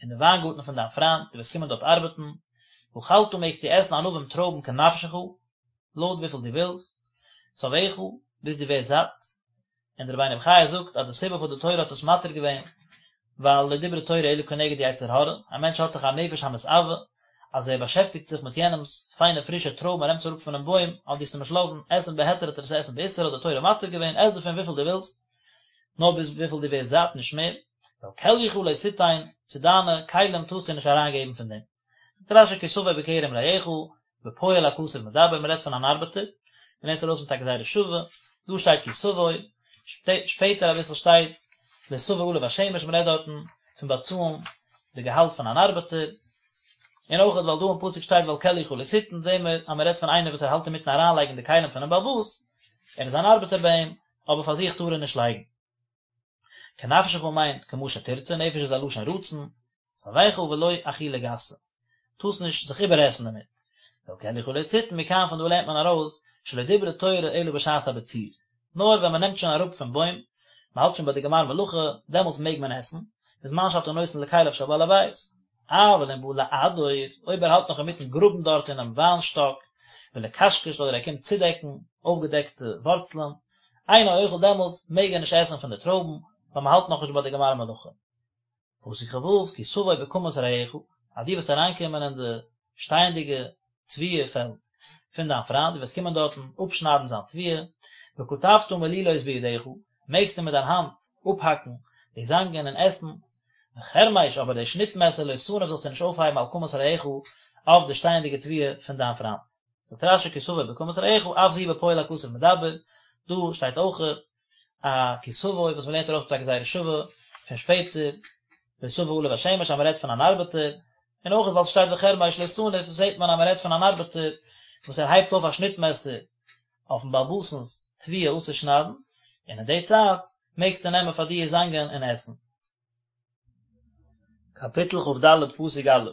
אין די וויינגארטן פון דיין פריינט, דו וועסט קומען דארט ארבעטן, ואכלת מעגסטו עסן ענבים טרויבן כנפשך, לויט וויפיל דו ווילסט, שבעך, ביז דו ווערסט זאט. און דער רבינו בחיי זאגט אז די סיבה פארוואס די תורה האט עס מתיר געווען, ווייל לא דברה תורה אלא כנגד יצר הרע, א מענטש האט דאך א נפש המתאווה, אז ער באשעפטיגט זיך מיט יענעמ'ס פיינע פרישע טרויבן, ער נעמט עס אראפ פונעם בוים, אז דו וועסט אים נישט לאזן עסן בהיתר וועט ער עס עסן באיסור, האט די תורה מתיר געווען, עס דערפון וויפיל דו ווילסט, נאר ביז וויפיל דו ווערסט זאט, נישט מער. ואל כליך לא תתן, צו דיינע כלים טארסטו נישט אריינגעבן פון דעם. זאגט רש"י כי תבוא בכרם רעך, בפועל הכתוב מדבר, מען רעדט פון אן ארבעטער, מען לערנט ארויס מיט א גזירה שווה, דא שטייט כי תבוא, שפעטער אביסל שטייט לא תבוא עליו השמש, מען רעדט דארטן פון באצאלן די געהאלט פון אן ארבעטער, און אויך ווייל דא אין פסוק שטייט ואל כליך לא תתן, זעהן מיר אז מען רעדט פון איינער וואס ער האלט אינמיטן אריינלייגן די כלים פונעם בעל הבית, ער איז אן ארבעטער ביי אים, אבער פאר זיך טאר ער נישט לייגן. כנפשך מיינט כמה שתרצה, נפש איז א לשון רצון, שבעך ולא אכילה גסה, טארסט נישט זיך איבערעסן דערמיט. ואל כליך לא תתן, מכאן פון דא לערנט מען ארויס, שלא דברה תורה אלא בשעת הבציר, נאר ווען מען נעמט שוין אראפ פון בוים, מען האלט שוין ביי די גמר מלאכה, דעמאלטס מעג מען עסן, בזמן שאתה נותן לכליו של בעל הבית. אבל אם בא לעדור, אויב ער האלט נאך אינמיטן גראבן דארט אינעם וויין שטאק, ולקשקש אדער ער קומט צודעקן אויפגעדעקטע ווארצלען, אינו אוכל דעמאלטס מעג ער נישט עסן פון די טרויבן, ווייל מען האלט נאכנישט ביי די גמר מלאכה. פסוק כ"ו, כי תבוא בקמת רעך, אז דו וועסט אריינקומען אין די שטייענדיגע תבואה פעלד פון דיין פריינד, דו וועסט קומען דארטן אפשניידן זיין תבואה, וקטפת מלילות בידך, מעגסטו מיט דיין האנט אפהאקן די זאנגען און עסן, וחרמש, אבער די שניט מעסער לא תניף זאלסטו נישט אויפהייבן על קמת רעך אויף די שטייענדיגע תבואה פון דיין פריינד. זאגט רש"י כי תבוא בקמת רעך אף זו בפועל הכתוב מדבר, דא שטייט אויכעט א כי תבוא וואס מ'לערנט ארויס מיט א גזירה שווה פון שפעטער, לא תבוא עליו השמש אז מ'רעדט פון אן ארבעטער, און אויכעט ווייל ס'שטייט וחרמש לא תניף זעט מען אז מ'רעדט פון אן ארבעטער וואס ער הייבט אויף א שניט מעסער אויפן בעל הבית'נס תבואה אפצושניידן, און אין די צייט מעגסטו נעמען פאר דיר זאנגען און עסן. קאפיטל כ"ד פסוק א',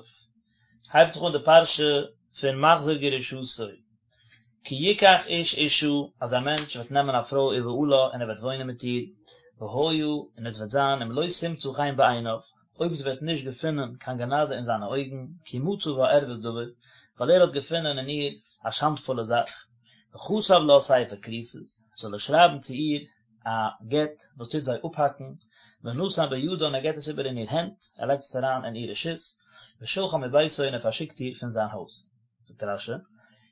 הייבט זיך אן די פרשה פון מחזיר גרושתו, כי יקח איש אשה, אז א מענטש וועט נעמען א פרוי ובעלה און ער וועט וואוינען מיט איר, והיה, און עס וועט זיין אם לא תמצא חן בעיניו, אויב זי וועט נישט געפינען קיין גענאדע אין זיינע אויגן, כי מצא בה ערות דבר, ווייל ער האט געפונען אין איר א שאנדפולע זאך, וכתב לה ספר כריתות, זאל ער שרייבן צו איר א גט וואס טוט זיי אפהאקן, ונתן בידה און ער געבט עס איבער אין איר הענט, ער לייגט עס אריין אין איר רשות, ושלחה מביתו און ער פארשיקט איר פון זיין הויז. זאגט רש"י,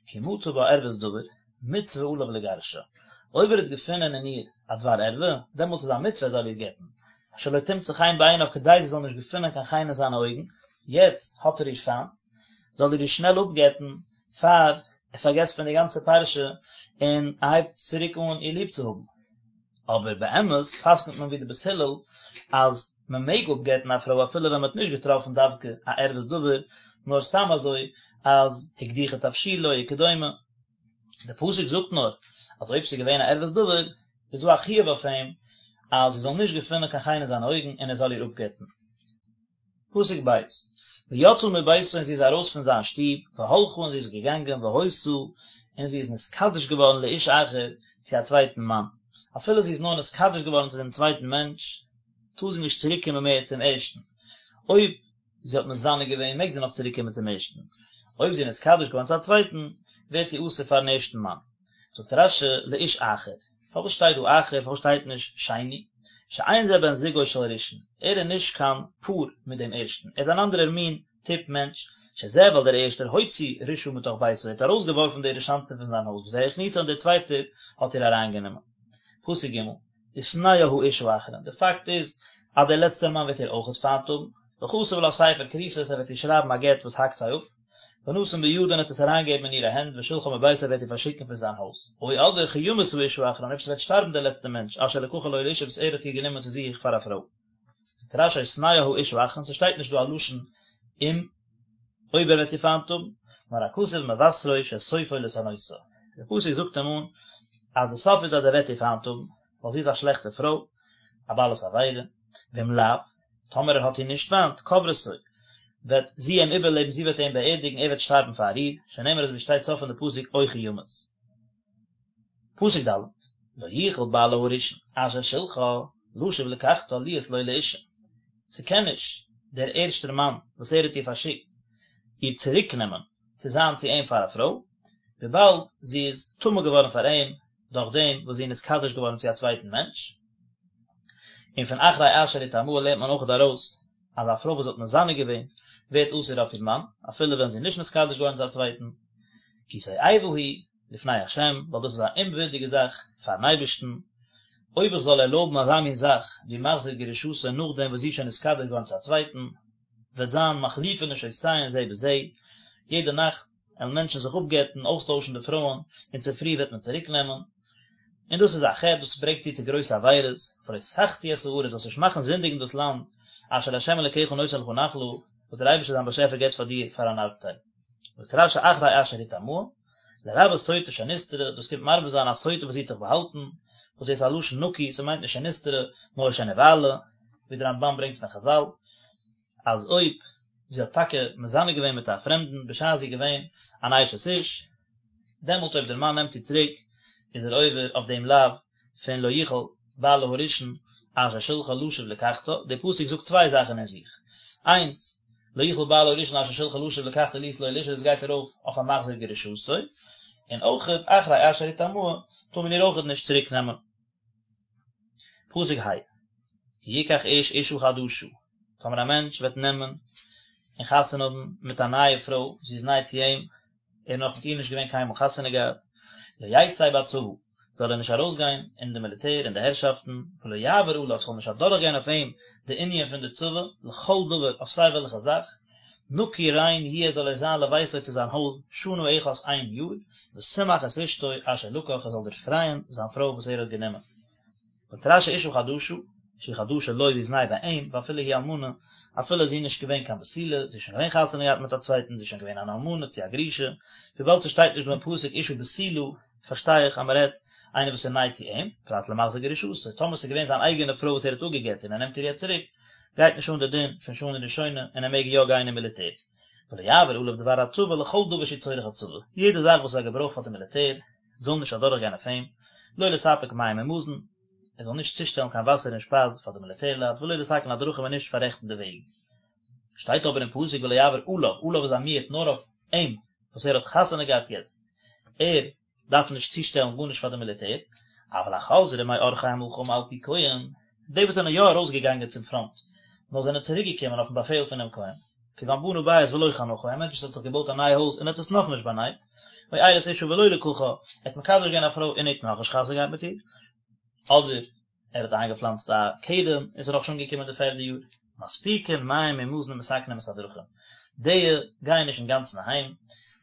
כי מצא בה ערות דבר, מצוה עליו לגרשה, אויב ער האט געפונען אין איר א דבר ערווה, דעמאלטס איז א מצוה ער זאל איר גט'ן, שלא תמצא חן בעיניו כדי זי זאל נישט געפונען קיין חן אין זיינע אויגן, יעצט האט ער איר פיינט, זאל ער איר שנעל אפגט'ן פאר ער פארגעסט פון די גאנצע פרשה און ער הייבט צוריק אן איר ליב צו האבן. אבער באמת פסק'נט מען ווי די בית הלל אז מען מעג אפגט'ן א פרוי אפילו ווען מען האט נישט געטראפן דווקא א ערות דבר, נאר סתם אזוי אז הקדיחה תבשילו וכדומה. די פסוק זאגט נאר אז אויב ס'איז געווען א ערות דבר איז דא א חיוב אויף אים אז זי זאל נישט געפינען קיין חן אין זיינע אויגן און ער זאל איר אפגט'ן. פסוק ב', ויצאה מביתו און זי איז ארויס פון זיין שטוב, והלכה און זי איז געגאנגען והיתה און זי איז נתקדש געווארן לאיש אחר צו א צווייטן מאן, אפילו זי איז נאר נתקדש געווארן צו דעם צווייטן מענטש, טאר זי נישט צוריק קומען מער צום ערשטן, אויב זי האט מזנה געווען מעג זי נאך צוריק קומען צום ערשטן, אויב זי איז נתקדש געווארן צו א צווייטן, ווערט זי אסור פארן ערשטן מאן. זאגט רש"י לאיש אחר, פארוואס שטייט דא אחר, פארוואס שטייט נישט שני? שאין זה בן זוגו של ראשון, ער איז נישט קיין פאר מיט דעם ערשטן, ער איז אן אנדערער מין טיפ מענטש, שזה ווייל דער ערשטער הוציא רשעה מתוך ביתו, ער האט ארויסגעווארפן די רשענטע פון זיין הויז, וזה הכניסה און דער צווייטער האט איר אריינגענומען. פסוק ג', ושנאה האיש האחרון, די פאקט איז אז דער לעצטער מאן וועט איר אויכעט פיינט האבן, וכתב לה ספר כריתות, ער וועט איר שרייבן א גט וואס האקט זיי אפ, ונתן בידה און האט עס אריינגעגעבן אין אירע הענט ושלחה מביתו וועט איר פארשיקן פון זיין הויז, או אדער כי ימות האיש האחרון אויב ס'וועט שטארבן דער לעצטער מענטש אשר לקחה לו לאשה וואס ער האט איר גענומען צו זיך פאר א פרוי. זאגט רש"י או שנאה האיש האחרון, ס'שטייט נישט דא א לשון אם, אויב ער וועט איר פיינט האבן, נאר הכתוב מבשרו שסופו לשנאותה, דער פסוק זאגט אים אן אז די סוף איז אז ער וועט איר פיינט האבן, ווייל זי איז א שלעכטע פרוי, א בעלת עבירה, ואם לאו, טאמער ער האט איר נישט פיינט, קוברתו, וועט זי אים איבערלעבן, זי וועט אים באערדיגן, ער וועט שטארבן פאר איר, שנאמר אזוי ווי שטייט סוף פון די פסוק או כי ימות. פסוק ד', לא יוכל בעלה הראשון אשר שלחה לשוב לקחתה להיות לו לאשה, ס'קען נישט דער ערשטער מאן וואס ער האט איר פארשיקט איר צוריקנעמען צו זיין צו אים פאר א פרוי, וויבאלד זי איז טמא געווארן פאר אים דורך דעם וואס זי איז נתקדש געווארן צו א צווייטן מענטש. און פון אחרי אשר הטמאה לערנט מען אויכעט ארויס אז א פרוי וואס האט מזנה געווען ווערט אסור אויף איר מאן אפילו ווען זי איז נישט נתקדש געווארן צו א צווייטן, כי תועבה היא לפני ה', ווייל דאס איז א אומווירדיגע זאך פארן אייבערשטן, אויב איך זאל ערלויבן אזא מין זאך ווי מחזיר גרושתו נאכדעם וואס זי איז שוין נתקדש געווארן צו א צווייטן, וועט זיין מחליפין נשותיהן זה בזה, יעדע נאכט וועלן מענטשן זיך אפגט'ן, אויסטוישן די פרויען, און צופרי וועט מען צוריק נעמען, און דאס איז א חטא, דאס ברענגט צו צו גרויסע עבירות, ולא תחטיא את הארץ, זאלסט נישט מאכן זינדיגן דאס לאנד, אשר ה' אלוקיך נותן לך נחלה, וואס דער אייבערשטער דיין באשעפער געבט פאר דיר פאר אן ארבטייל. זאגט רש"י אחרי אשר הטמאה, לרבות סוטה שנסתרה, דאס קומט מרבה זיין א סוטה וואס זי האט זיך באהאלטן, וואס דאס איז א לשון נקי, ס'מיינט נישט שנסתרה, נאר שנבעלה, ווי דער רמב"ן ברענגט פון חז"ל, אז אויב זי האט טאקע מזנה געווען מיט א פרעמדן בשעת זי איז געווען אן אשת איש, דעמאלט אויב דער מאן נעמט איר צוריק, איז ער עובר אויף דעם לאו פון לא יוכל בעלה הראשון אשר שלחה לשוב לקחתה, דער פסוק זאגט צוויי זאכן אין זיך, איינס, לא יוכל בעלה הראשון אשר שלחה לשוב לקחתה להיות לו לאשה דאס גייט ארויף אויף א מחזיר גרושתו, און אויכעט אחרי אשר הטמאה טאר מען איר אויכעט נישט צוריק נעמען. פסוק ה', כי יקח איש אשה חדשה, טאמער א מענטש וועט נעמען און חתונה האבן מיט א נייע פרוי, זי איז ניי צו אים, ער איז נאך מיט איר נישט געווען קיינמאל חתונה געהאט, לא יצא בצבא, זאל ער נישט ארויסגיין אין די מיליטער, אין די הערשאפטן, ולא יעבור עליו, ס'זאל נישט אדורכגיין אויף אים די ענין פון די צבא, לכל דבר, אויף סיי וועלכע זאך, נקי ריין יהיה זאל ער זיין לביתו צו זיין הויז, שנה אחת איין יאר, ושמח את אשתו אשר לקח, ער זאל דערפרייען זיין פרוי וואס ער האט גענומען. זאגט רש"י אשה חדשה, שהיא חדשה לו זי איז ניי ביי אים, ואפילו היא אלמנה, אפילו איז זי נישט געווען קיין בתולה, זי איז שוין געווען חתונה געהאט מיט א צווייטן, זי איז שוין געווען אן אלמנה צו א גרושה, וויבאלד ס'שטייט נישט דא אין פסוק אשה בתולה, פארשטיי איך אז מ'רעדט איינער וואס איז ניי צו אים, פרט למחזיר גרושתו, טאמער ס'איז געווען זיין אייגענע פרוי וואס ער האט אפגע'גט און ער נעמט איר יעצט צוריק, גייט נישט אן די דין פון שנה ראשונה און ער מעג יא גיין אין מיליטער. ולא יעבור עליו דבר הצבא לכל דבר שהוא צורך הצבא, יעדע זאך וואס איז א געברויך פאר די מיליטער, זאל נישט אדורכגיין אויף אים, לא לספק מים ומזון, ער זאל נישט צושטעלן קיין וואסער און שפייז פאר די מיליטערלייט, ולא לתקן הדרכים און נישט פאררעכטן די וועגן. שטייט אבער אין פסוק ולא יעבור עליו, עליו איז א מיעוט נאר אויף אים וואס ער האט חתונה געהאט יעצט, ער דארף נישט צושטעלן גארנישט פאר די מיליטער, אבל החוזרים מעורכי המלחמה על פי כהן, די וואס זענען יא ארויסגעגאנגען צום פראנט, נאר זענען צוריקגעקומען אויפן באפעל פונעם כהן, כגון בנה בית ולא חנכו, א מענטש וואס האט זיך געבויט א נייע הויז און האט עס נאכנישט באנייט, או ארש אשה ולא לקחה, ער האט מקדש געווען א פרוי און ער האט נאכנישט חתונה געהאט מיט איר, אדער ער האט איינגעפלאנצט א כרם און ס'איז נאכנישט אנגעקומען די פערדע יאר. מספיקין מים ומזון ומתקנים את הדרכים, די גייען נישט אינגאנצן אהיים,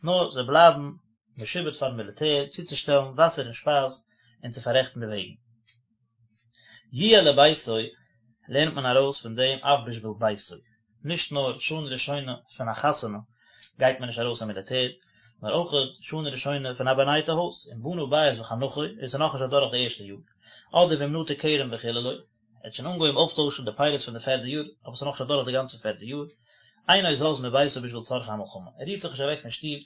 נאר זיי בלייבן משועבד פארן מיליטער צוצושטעלן וואסער און שפייז און צו פאררעכטן די וועגן. יהיה לביתו לערנט מען ארויס פון דעם אף בשביל ביתו, נישט נאר שנה ראשונה פון א חתונה גייט מען נישט ארויס אין מיליטער, נאר אויך שנה ראשונה פון א באנייטע הויז, אם בנה בית וחנכו, עס איז נאכנישט אדורך די ערשטע יאר, אדער ואם נטע כרם וחיללו, ער האט שוין אנגעהויבן אויפטוישן די פירות פון די פערדע יאר, אבער עס איז נאכנישט אדורך די גאנצע פערדע יאר, אינו זז מביתו בשביל צרכי המלחמה, ער רירט זיך נישט אוועק פון שטוב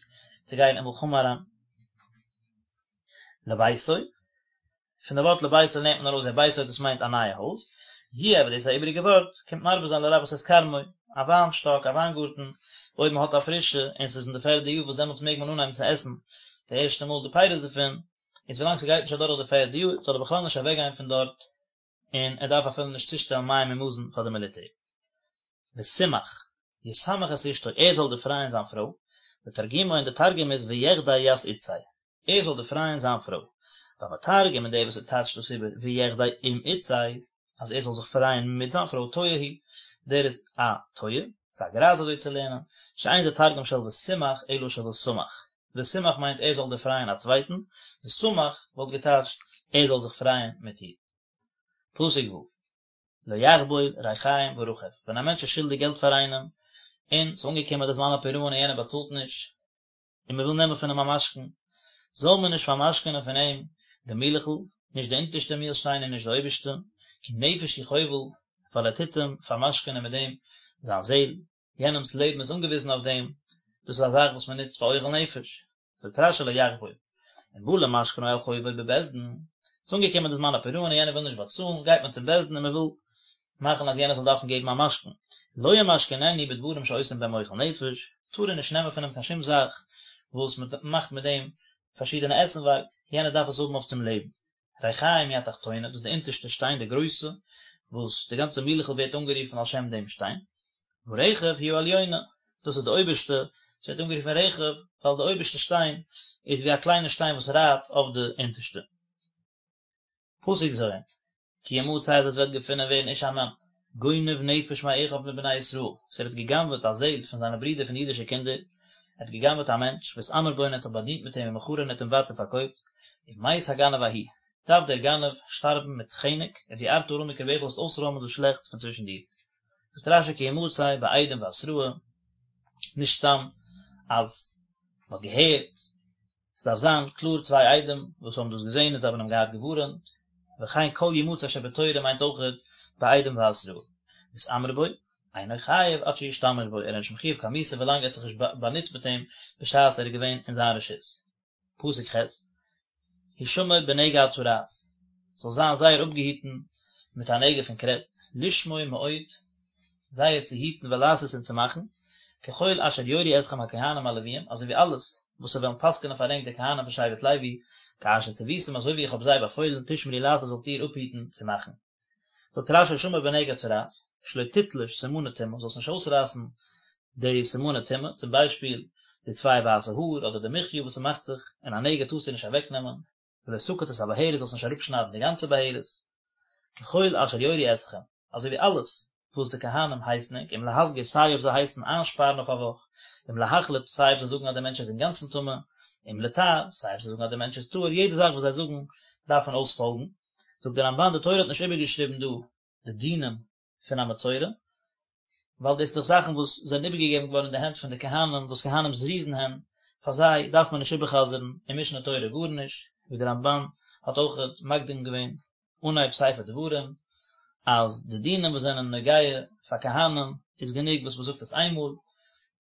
צו גיין אין מלחמה אריין. לביתו, פון די ווארט לביתו לערנט מען ארויס דער ביתו דאס מיינט א נייע הויז, יהיה אבער דאס איז א איבעריגע ווארט, קומט מרבה זיין לרבות את כרמו, א וויין שטאק, א וויינגארטן, אויב מען האט א פרישע און ס'איז אין די פערדע יאר וואס דעמאלטס מעג מען אנהייבן צו עסן די ערשטע מאל די פירות דערפון, איז ווילאנג ס'גייט נישט אדורך די פערדע יאר זאל ער בכלל נישט אוועקגיין פון דארט, און ער דארף אפילו נישט צושטעלן מים און מזון פאר די מיליטער. ושמח, ישמח את אשתו, ער זאל דערפרייען זיין פרוי, ותרגומו און די תרגום איז ויחדי ית אתתיה. ער זאל דערפרייען זיין פרוי. והמתרגם און דער וואס ער טייטשט דאס איבער ויחדי עם אתתיה, אז ער זאל זיך פרייען מיט זיין פרוי טועה הוא, דער איז א טועה, ס'איז א גרייז אזוי צו לערנען, שאין זה תרגום של ושמח אלא של ושמח, ושמח מיינט ער זאל דערפרייען א צווייטן, ושמח וואלט געטייטשט ער זאל זיך פרייען מיט איר. פסוק ו'. לא יחבול ריחיים ורכב, ווען א מענטש איז שולדיג געלט פאר איינעם, און ס'איז אנגעקומען די זמן הפירעון און יענער באצאלט נישט, און מען וויל נעמען פון אים א משכון, זאל מען נישט פארמשכונען פון אים די מילעכל, נישט די אונטערשטע מילשטיין און נישט די אויבערשטע, כי נפש הוא חובל, ווייל ער טוט אים פארמשכונען מיט דעם זיין זעל, יענעמ'ס לעבן איז אנגעוויזן אויף דעם, דאס איז א זאך וואס מען נוצט פאר אוכל נפש. זאגט רש"י לא יחבול, אם בא למשכנו על חובו בבית דין, ס'איז אנגעקומען די זמן הפירעון און יענער וויל נישט באצאלן, גייט מען צום בית דין און מען וויל מאכן אז יענער זאל דארפן געבן א משכון, לא ימשכננו בדברים שעושים בהם אוכל נפש, טאר ער נישט נעמען פון אים קיין שום זאך וואס מען מאכט מיט דעם פארשידענע עסנווארג, יענער דארף עס האבן אויף צום לעבן. ריחיים היא התחתונה, דאס איז די אונטערשטע שטיין, די גרויסע, וואס די גאנצע מילעכל ווערט אנגערופן על שם דעם שטיין. ורכב היא העליונה, דאס איז די אויבערשטע, עס ווערט אנגערופן רכב, ווייל די אויבערשטע שטיין איז ווי א קליינע שטיין וואס רייט אויף די אונטערשטע. פסוק ז', כי ימצא אז עס וועט געפונען ווערן איש א מאן, גונב נפש מאחיו מבני ישראל, וואס ער האט גע'גנב'עט א זעהל פון זיינע ברידער פון די אידישע קינדער, ער האט גע'גנב'עט א מענטש, והתעמר בו און ער האט זיך באדינט מיט אים ומכרו און ער האט אים ווייטער פארקויפט, ומת הגנב ההוא, דארף דער גנב שטארבן מיט חנק, וביערת הרע מקרבך זאלסט אויסרוימען דאס שלעכטס פון צווישן דיר. זאגט רש"י כי ימצא בעדים והתראה, נישט סתם אז מען האט געהערט, ס'דארף זיין קלאר צוויי עדים וואס האבן דאס געזען און זיי האבן אים געהאט געווארענט, וכן כל ימצא שבתורה מיינט אויכעט בעדים והתראה. והתעמר בו, אינו חייב עד שישתמש בו, ער איז נישט מחויב קיין מיתה ווילאנג ער האט זיך נישט באנוצט מיט אים בשעת ער איז געווען אין זיין רשות. פסוק ח', הישמר בנגע הצרעת, זאל זיין זייער אפגעהיטן מיט א נגע פון קרעץ, לשמור מאוד, זייער צו היטן ולעשות און צו מאכן, ככל אשר יורו אתכם הכהנים הלוויים, אזוי ווי אלעס וואס זיי וועלן פסק'נען פאר ענק די כהנים פון שבט לוי, כאשר צויתים אזוי ווי איך האב זיי באפוילן, תשמרו לעשות זאלט איר אפהיטן צו מאכן. זאגט רש"י הישמר בנגע צרעת, שלא תתלוש סימני טומאה, זאלסט נישט אויסרייסן די סימני טומאה, צום ביישפיל די צוויי ווייסע האר אדער די מחיה וואס ס'מאכט זיך אין א נגע טארסטו נישט אוועקנעמען, ולא תקוץ את הבהרת זאלסט נישט אראפשניידן די גאנצע בהרת, ככל אשר יורו אתכם, אזוי ווי אלעס וואס די כהנים הייסן ענק, אם להסגיר סיי אויב זיי הייסן איינשפארן אויף א וואך, אם להחליט סיי אויב זיי זאגן אז דער מענטש איז אינגאנצן טמא, אם לטהר סיי אויב זיי זאגן אז דער מענטש איז טהור, יעדע זאך וואס זיי זאגן דארף מען אויספאלגן. זאגט דער רמב"ן די תורה האט נישט איבערגעשריבן דא די דינים פון א מצורע, ווייל דאס איז דאך זאכן וואס זענען איבערגעגעבן געווארן אין די הענט פון די כהנים וואס כהנים זריזין הן, פאר זיי דארף מען נישט איבער'חזר'ן אין משנה תורה גארנישט, ווי דער רמב"ן האט אויך מקדים געווען אנהייב ספר דברים אז די דינים וואס זענען נוגע פאר כהנים איז גענוג וואס מען זאגט עס איינמאל,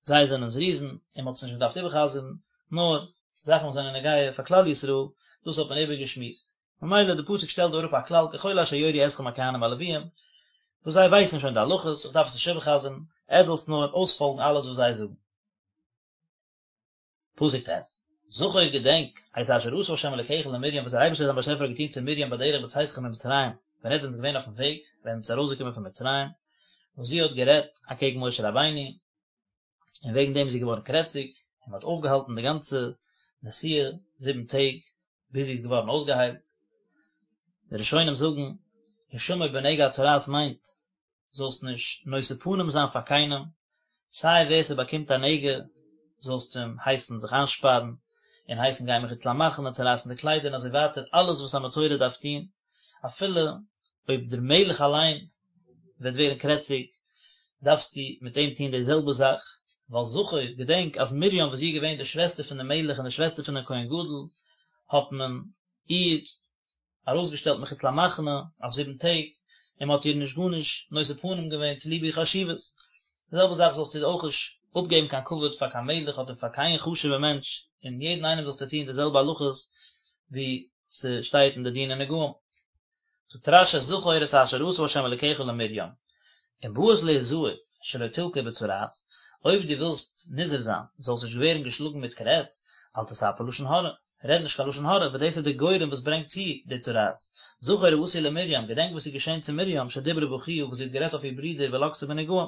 זיי זענען זריזין און מען האט עס נישט געדארפט איבער'חזר'ן, נאר זאכן וואס זענען נוגע פאר כלל ישראל, דאס האט מען איבערגעשמועסט. ממילא די פסוק שטעלט דא אראפ א כלל ככל אשר יורו אתכם הכהנים הלוויים, וואס זיי ווייסן שוין די הלכות, איך דארף עס נישט איבער'חזר'ן, עטס זאלטס נאר אויספאלגן אלעס וואס זיי זאגן. פסוק ט', זכור געדענק, את אשר עשה ה' אלוקיך למרים וואס דער אייבערשטער דיין באשעפער האט געטון צו מרים בדרך בצאתכם ממצרים, ווען עטס זענטס געווען אויפן וועג, ווען עטס ארויסגעקומען פון מצרים, וואס זי האט גערעדט אקעגן משה רבינו, און וועגן דעם איז זי געווארן קרעציג, און מען האט אויפגעהאלטן די גאנצע נסיעה זיבן טעג ביז זי איז געווארן אויסגעהיילט. די ראשונים זאגן, הישמר בנגע הצרעת מיינט, זאלסט נישט נושא פנים זיין פאר קיינעם, סיי ווער ס'באקומט א נגע זאלסטו אים הייסן זיך איינשפארן, און הייסן גיין מחוץ למחנה, צערייסן די קליידער און אזוי ווייטער, אלעס וואס א מצורע דארף טון, אפילו אויב דער מלך אליין וועט ווערן קרעציג, דארפסטו מיט אים טון די זעלבע זאך, ווייל זכור, געדענק אז מרים וואס זי איז געווען די שוועסטער פון דעם מלך און די שוועסטער פון דעם כהן גדול, האט מען איר ארויסגעשטעלט מחוץ למחנה אויף זיבן טעג, און מען האט איר נישט גארנישט נושא פנים געווען צוליב איר חשיבות. די זעלבע זאך זאלסטו אויך נישט אפגעבן קיין כבוד פאר קיין מלך אדער פאר קיין חשוב'ע מענטש, און יעדן איינעם זאלסטו טון די זעלבע הלכות ווי ס'שטייט אין די דיני נגעים. זאגט רש"י זכור את אשר עשה ה' אלקיך למרים, אם באת להזהר שלא תלקה בצרעת, אויב דו ווילסט נזהר זיין זאלסט נישט ווערן געשלאגן מיט קרעץ, אל תספר לשון הרע, רעד נישט קיין לשון הרע, ווייל דאס איז די גורם וואס ברענגט צו די צרעת. זכור העשוי למרים, געדענק וואס איז געשען צו מרים, שדיברה באחיה, וואס זי האט גערעדט אויף איר ברודער ולקתה בנגעים.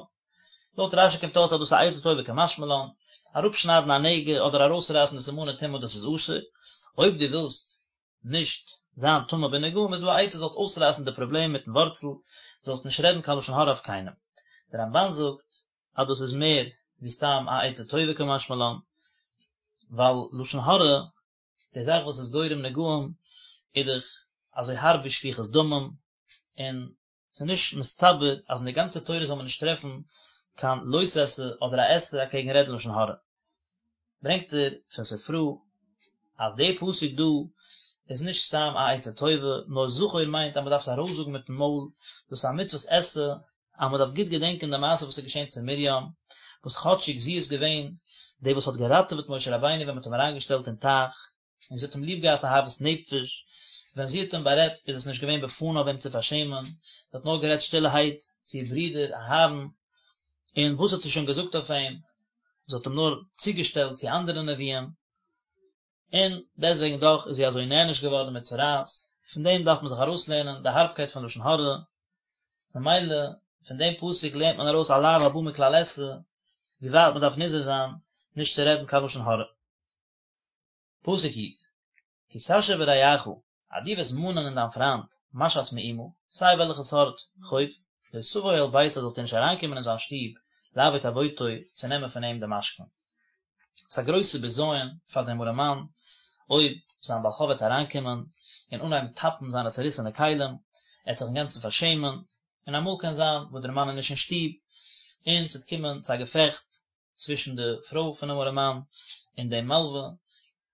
לויט רש"י קומט אויס אז דאס איז א עצה טובה קא משמע לן, אראפשניידן א נגע אדער ארויסרייסן די סימני טומאה דאס איז אסור, אויב דו ווילסט נישט זיין טמא בנגעים איז דא א עצה זאלסט אויסרייסן די פראבלעם מיטן ווארצל, זאלסט נישט רעדן קיין לשון הרע אויף קיינעם. דער רמב"ן זאגט אז דאס איז מער ווי סתם א עצה טובה קא משמע לן, ווייל לשון הרע, די זאך וואס איז גורם נגעים, איז דאך אזוי הארב ווי שפיכות דמים, און. ס'איז נישט מסתבר אז אין די גאנצע תורה זאל מען נישט טרעפן קיין לא תעשה אדער א עשה אקעגן רעדן לשון הרע. ברענגט ער פון ספרא אז די פסוק דא איז נישט סתם א עצה טובה, נאר זכור מיינט אז מען דארף עס ארויסזאגן מיטן מויל, דאס איז א מצוות עשה אז מען דארף גוט געדענקען די מעשה וואס איז געשען צו מרים, וואס כאטשיג זי איז געווען די וואס האט געראטעוועט משה רבינו ווען מען האט אים אריינגעשטעלט אין טייך, און זי האט אים ליב געהאט אהבת נפש, ווען זי האט אים בארעדט איז עס נישט געווען בפניו אים צו פארשעמען, זי האט נאר גערעדט שטילערהייט צו איר ברודער אהרן, און וואס האט זי שוין געזאגט אויף אים, זי האט אים נאר צוגעשטעלט צו אנדערע נביאים, און דעסטוועגן דאך איז זי אזוי נענש געווארן מיט צרעת, פון דעם דארף מען זיך ארויסלערנען די הארבקייט פון לשון הרע, ממילא פון דעם פסוק לערנט מען ארויס א לאו הבא מכלל עשה, ווי ווייט מען דארף נזהר זיין נישט צו רעדן קיין לשון הרע. פסוק י', כי תשה ברעך, אז דו וועסט מאנען אין דיין פריינט, משאת מאומה, סיי וועלכע סארט חוב, לא תבוא אל ביתו זאלסטו נישט אריינקומען אין זיין שטוב, לעבוט עבוטו, צו נעמען פון אים די משכון. ס'איז א גרויסע בזיון פאר דעם ארעמאן, אויב זיין בעל חוב וועט אריינקומען און אנהייבן טאפן זיינע צעריסענע כלים, ער וועט זיך אינגאנצן פארשעמען, און אמאל קען זיין וואס דער מאן איז נישט אין שטוב, און ס'וועט קומען צו א געפעכט צווישן די פרוי פונעם ארעמאן און דעם מלווה,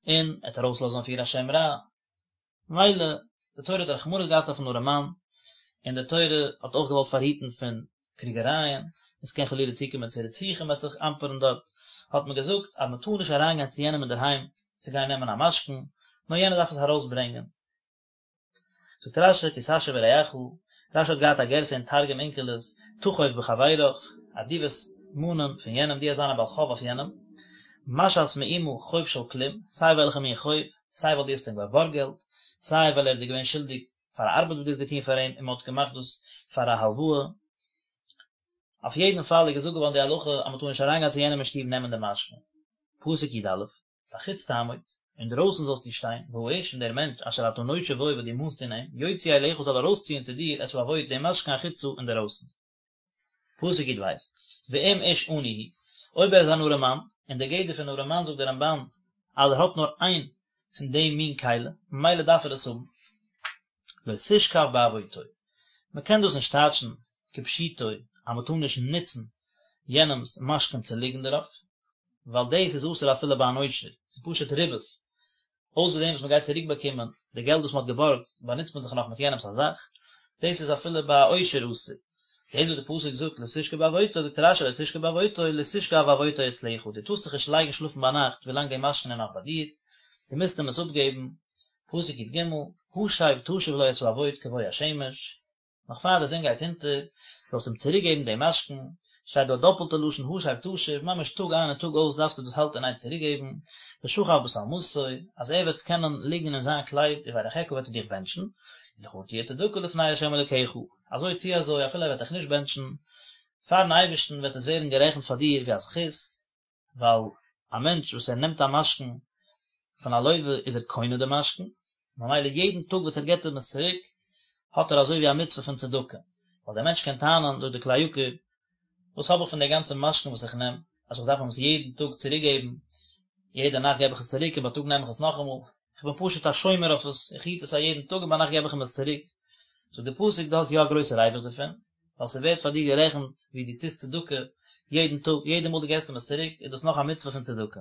און ער וועט ארויסלאזן אויף איר א שם רע. ממילא, די תורה האט רחמנות געהאט אויפן ארעמאן, און די תורה האט אויך געוואלט פארהיטן פון קריגערייען, עס קען חלילה צוקומען צו רציחה, מען וועט זיך אמפערן דארט, האט מען געזאגט אז מען טאר נישט אריינגיין צו יענעם אינדערהיים צו גיין נעמען א משכון, נאר יענער דארף עס ארויסברענגען. זאגט רש"י כי תשה ברעך, רש"י האט געהאט א גירסא אין תרגום אונקלוס, תחוב בחברך, אז דו וועסט מאנען פון יענעם, דו וועסט זיין א בעל חוב אויף יענעם, משאת מאומה חוב של כלום, סיי וועלכע מין חוב, סיי ווייל דו האסט אים געבארגט געלט, סיי ווייל ער איז דיר געווען שולדיג פאר א ארבעט וואס דו האסט געטון פאר אים און מען האט געמאכט דאס פאר א הלוואה. אויף יעדן פאל איז געזאגט געווארן די הלכה אז מען טאר נישט אריינגיין צו יענעם אין שטוב נעמען די משכון. פסוק י"א. בחוץ תעמוד, אינדרויסן זאלסטו שטיין, והאיש און דער מענטש אשר אתה נושה בו וואס דו מאנסט אין אים, יוציא אליך זאל ארויסציען צו דיר את העבוט דעם משכון החוצה אינדערויסן. פסוק י"ב, ואם איש עני הוא, אויב ער איז אן ארעמאן, און דער גדר פון ארעמאן זאגט דער רמב"ן אז ער האט נאר איין פון דעם מין כלי, ממילא דארף ער עס האבן, לא תשכב בעבוטו, מען קען דאס נישט טייטשן כפשוטו אז מען טאר נישט נוצן יענעמ'ס משכון צו ליגן דערויף, ווייל דאס איז אסור אפילו ביי אן עושר, ס'איז פשוט ריבית, אויסער דעם וואס מען גייט צוריק באקומען די געלט וואס מען האט געבארגט, באנוצט מען זיך נאך מיט יענעמ'ס א זאך, דאס איז אפילו ביי א עושר אסור. דאס וואס די פסוק זאגט לא תשכב בעבוטו, זאגט רש"י לא תשכב בעבוטו, לא תשכב ועבוטו אצלך, דו טארסט זיך נישט לייגן שלאפן ביינאכט ווילאנג די משכון איז נאך ביי דיר, דו מוזט אים עס אפגעבן, פסוק י"ג, השב תשיב לו את העבוט כבוא השמש, נאך פאר די זון גייט אונטער, זאלסט אים צוריק געבן דעם משכון, שטייט דא א דאפלטע לשון השב תשיב, ממש טאג איין און טאג אויס דארפסטו דאס האלטן אין איין צוריק געבן, ושכב בשלמתו, אז ער וועט קענען ליגן אין זיין קלייד, וברכך וועט ער דיך בענטשן, ולך תהיה צדקה לפני ה' אלוקיך, אזוי צי אזוי אפילו ער וועט דיך נישט בענטשן, פארן אייבערשטן וועט עס ווערן גערעכנט פאר דיר ווי א זכות, ווייל א מענטש וואס ער נעמט א משכון פון א לוה איז ער קונה די משכון, ממילא יעדן טאג וואס ער געבט אים עס צוריק האט ער אזוי ווי א מצוה פון צדקה, ווייל דער מענטש קען טענה'ן זאגט די כלי יקר, וואס האב איך פון די גאנצע משכון וואס איך נעם, אז איך דארף אים עס יעדן טאג צוריק געבן, יעדע נאכט געב איך עס צוריק און בייטאג נעם איך עס נאכאמאל, איך בין פשוט א שומר אויף עס, איך היט עס א יעדן טאג און ביינאכט געב איך אים עס צוריק, זאגט די פסוק דו האסט יא א גרויסע ריווח דערפון, ווייל ס'ווערט פאר דיר גערעכנט ווי דו טוסט צדקה יעדן טאג, יעדע מאל דו געסט אים עס צוריק איז דאס נאך א מצוה פון צדקה.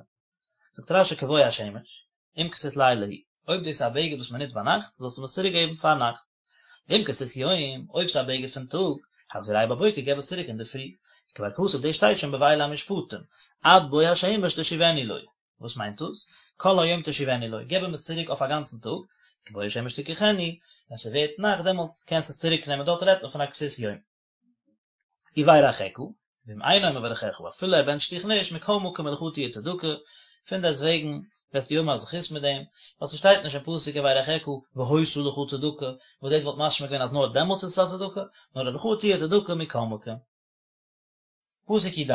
זאגט רש"י כבוא השמש, אם כסות לילה הוא, אויב דאס איז א בגד וואס מען נוצט ביינאכט, זאלסטו אים עס צוריק געבן פארנאכט. ואם כסות יום, אויב ס'איז א בגד פון טאג, החזירהו בבוקר, געב עס צוריק אינדערפרי. כבר כתוב, דאס שטייט שוין בואלה המשפטים, עד בוא השמש תשיבנו לו. וואס מיינט דאס? כל היום תשיבנו לו, געב אים עס צוריק אויף א גאנצן טאג, כבוא השמש תקחנו, ווען ס'ווערט נאכט דעמאלט קענסטו עס צוריק נעמען, דארט רעדט מען פון א כסות יום. וברכך, ואם אינו מברכך, אפילו ער בענטשט דיך נישט, מכל מקום ולך תהיה צדקה, פונדעסטוועגן וועסטו האבן א זכות מיט דעם, ווייל ס'שטייט נישט אין פסוק וברכך והיתה לך צדקה, וואס דאס וואלט משמע געווען אז נאר דעמאלטס איז עס א צדקה, נאר ולך תהיה צדקה מכל מקום. פסוק י"ד,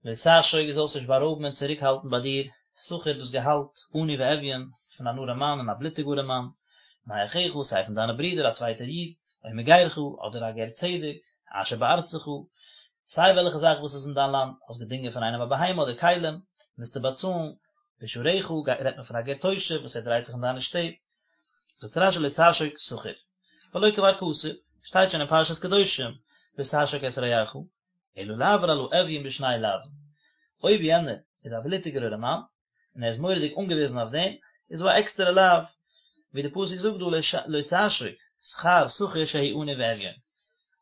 לא תעשוק דו זאלסט נישט בארויבן און צוריקהאלטן ביי דיר שכר דאס געהאלט עני ואביון פון אן ארעמאן און א בלוטיג ארעמאן, מאחיך סיי פון דיינע ברידער א צווייטער איד, או מגרך אדער א גר צדק, אשר בארצך, סיי וועלכע זאך וואס איז אין דיין לאנד, האסט געדינגען פון איינעם א בהמה אדער כלים, מוזטו באצאלן, בשעריך, רעדט מען פון א גר תושב וואס ער דרייט זיך אין דיינע שטעט, זאגט רש"י לא תעשוק שכר, והלא כבר כתוב. שטייט שוין אין פרשת קדושים לא תעשוק את רעך, אלא לעבור על האביון בשני לאווין, אויב יענער איז א בלוטיגער ארעמאן, און ער איז מורא'דיג אנגעוויזן אויף דעם, איז דא א עקסטערע לאו, ווי די פסוק זאגט דא לא תעשוק שכר שכיר שהוא עני ואביון,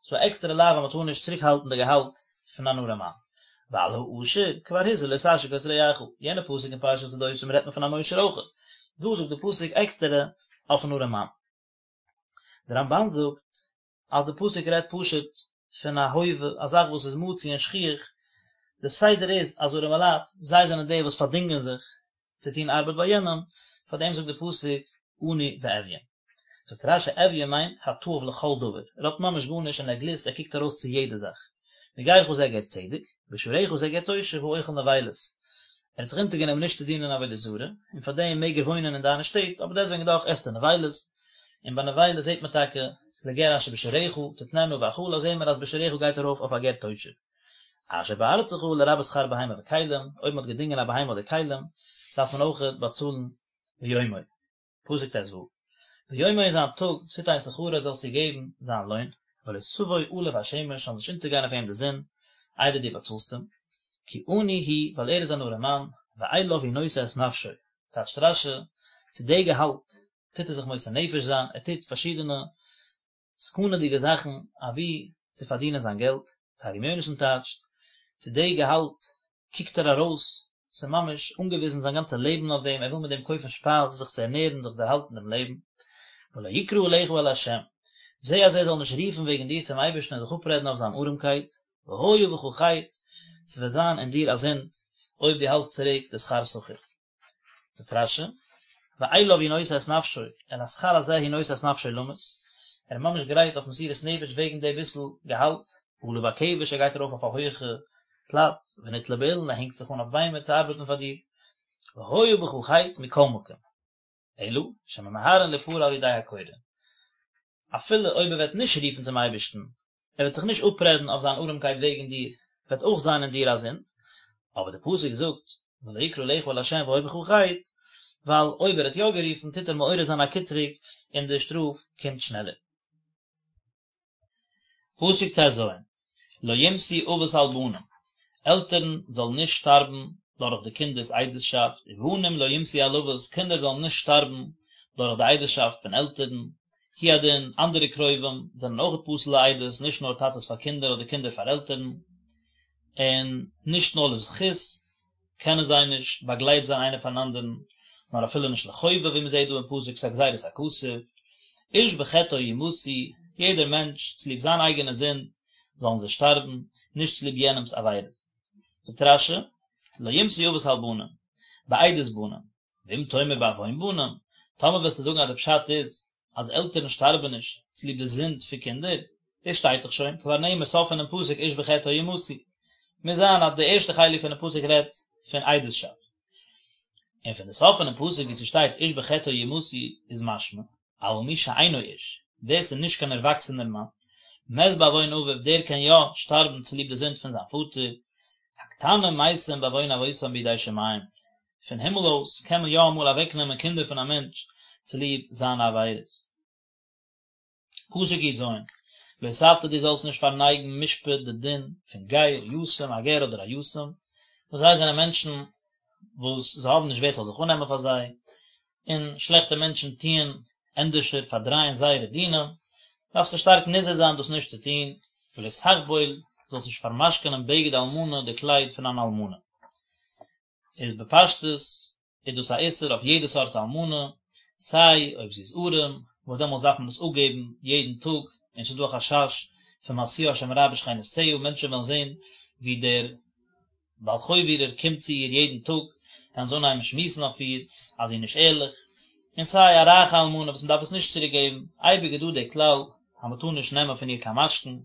ס'איז דא א עקסטערע לאו אז מ'טאר נישט צוריק האלטן די געהאלט פון אן ארעמאן. ועל העשיר כבר הוזהר לא תעשוק את רעך, יענע פסוק אין פרשת קדושים רעדט מען פון אן עושר אויכעט, דא זאגט די פסוק עקסטערע אויפן ארעמאן. די רמב"ן זאגט אז די פסוק רעדט פשוט פון א הווה, א זאך וואס איז מצוי און שכיח, די סדר איז אז ארעמעלייט, זיי זענען די וואס פארדינגען זיך צו טון ארבעט ביי יענעם, פאר דעם זאגט די פסוק עני ואביון. זאגט רש"י אביון מיינט התאב לכל דבר, ער האט ממש גארנישט און ער גליסט, ער קוקט ארויס צו יעדע זאך. מגרך זה גר צדק, בשעריך זה גר תושב האוכל נבילות. ער האט זיך אונטערגענומען נישט צו דינען עבודה זרה, און פאר דעם מעג ער וואוינען אין דיינע שטעט, אבער דעסוועגן דאך עסט ער נבילות, און ביי נבילות זעט מען טאקע לגר אשר בשעריך, תתננה בהאכלה זעהן מיר אז בשעריך גייט ארויף אויף א גר תושב. אשר בארצך לרבות שכר בהמה וכלים, אויב מען האט געדינגען א בהמה אדער כלים, דארף מען אויכעט באצאלן ביומו. פסוק ט"ו, ביומו אין זיין טאג תתן שכרו זאלסטו געבן זיין לוין, ולא תבוא עליו השמש זאל נישט אונטערגיין אויף אים די זון, איידער דו באצאלסט אים, כי עני הוא, ווייל ער איז אן ארעם מאן, ואליו הוא נושא את נפשו, טייטשט רש"י, צו די געהאלט טוט ער זיך מוסר נפש זיין, ער טוט פארשידענע סכנה'דיגע זאכן אבי צו פארדינען זיין געלט, תרגום יונתן טייטשט, צו די געהאלט קוקט ער ארויס, ס'איז ממש אנגעוויזן זיין גאנצע לעבן אויף דעם, ער וויל מיט דעם קויפן שפייז, זיך צו ערנערן, זיך דערהאלטן דעם לעבן. ולא יקרא עליך אל ה', זע אז ער זאל נישט רופן וועגן דיר צום אייבערשטן און זיך אפרעדן אויף זיין ארעמקייט, והיה בך חטא, ס'וועט זיין אין דיר א זינד, אויב דו האלטסט צוריק די שכר שכיר. זאגט רש"י, ואליו הוא נושא את נפשו, אל השכר הזה הוא נושא את נפשו למות, ער איז ממש גרייט אויף מסירות נפש וועגן די ביסל געהאלט, עלה בכבש ער גייט ארויף אויף א הויעכע פלאץ, ונתלה באילן ער הענגט זיך אן אויף ביימער צו ארבעטן פאר דיר, והיה בך חטא מכל מקום. אלא שממהרין ליפרע על ידי הקורא. אפילו אויב ער וועט נישט רופן צום אייבערשטן, ער וועט זיך נישט אפרעדן אויף זיין ארעמקייט וועגן דיר, וועט אויך זיין אין דיר א זינד, אבער דער פסוק זאגט, ולא יקרא עליך אל ה' והיה בך חטא, ווייל אויב ער האט יא גערופן טוט ער מעורר זיין א קטרוג און די שטראף קומט שנעלער. פסוק ט"ז, לא יומתו אבות על בנים, עלטערן זאלן נישט שטארבן דורך די קינדער'ס עדות'שאפט, ובנים לא יומתו על אבות, קינדער זאלן נישט שטארבן דורך די עדות'שאפט פון עלטערן, הוא הדין, אנדערע קרובים זענען אויך פסול לעדות, נישט נאר טאטעס פאר קינדער אדער קינדער פאר עלטערן, און נישט נאר לזכות, קענען זיי נישט באגלייבט זיין איינער פארן אנדערן, נאר אפילו נישט לחובה ווי מען זעט דא אין פסוק ס'איז א גזירת הכתוב, איש בחטאו יומתו, יעדער מענטש צוליב זיין אייגענע זינד זאלן זיי שטארבן, נישט צוליב יענעמ'ס עבירות. זאגט רש"י, לא יומתו אבות על בנים, בעדות בנים, ואם תאמר בעוון בנים, טאמער וועסטו זאגן אז די פשט איז אז עלטערן שטארבן נישט צוליב די זינד פון קינדער, דאס שטייט דאך שוין, כבר נאמר סוף פונעם פסוק איש בחטאו יומתו. מוז זיין אז די ערשטע חלק פונעם פסוק רעדט פון עדות'שאפט. און פון די סוף פונעם פסוק וואו ס'שטייט איש בחטאו יומתו איז משמע, אבל מי שאינו איש, ווער ס'איז נישט קיין ערוואקסענער מאן, מת בעוון אביו, דער קען יא שטארבן צוליב די זינד פון זיין פאטער, הקטנים מתים בעוון אבותם בידי שמים, פון הימל אויס קען מען יא אמאל אוועקנעמען קינדער פון א מענטש צוליב זיינע עבירות. פסוק י"ז, לא תטה דו זאלסט נישט פארנייגן משפט די דין פון גר, יתום, א גר אדער א יתום, וואס זיי זענען מענטשן וואס זיי האבן נישט ווער ס'זאל זיך אננעמען פאר זיי, און שלעכטע מענטשן טוען ענדערשער פארדרייען זייערע דינים, דארפסטו שטארק נזהר זיין דאס נישט צו טון, ולא תחבול, זאלסט נישט פארמשכונען בגד אלמנה די קלייד פון אן אלמנה. איז בפשטות איז דאס א איסור אויף יעדע סארט אלמנה, סיי אויב זי איז ארעם, וואס דעמאלטס דארף מען עס אפגעבן יעדן טאג, און ס'איז דא א חשש פון משיאה שם רע בשכנותיה, מענטשן וועלן זען ווי דער בעל חוב אירער קומט צו איר יעדן טאג, וועלן זיי אנהייבן שמועסן אויף איר אז זי איז נישט ערליך, און סיי א רייכע אלמנה וואס מען דארף עס נישט צוריק געבן, אייביג איז דא דער כלל אז מען טאר נישט נעמען פון איר קיין משכון,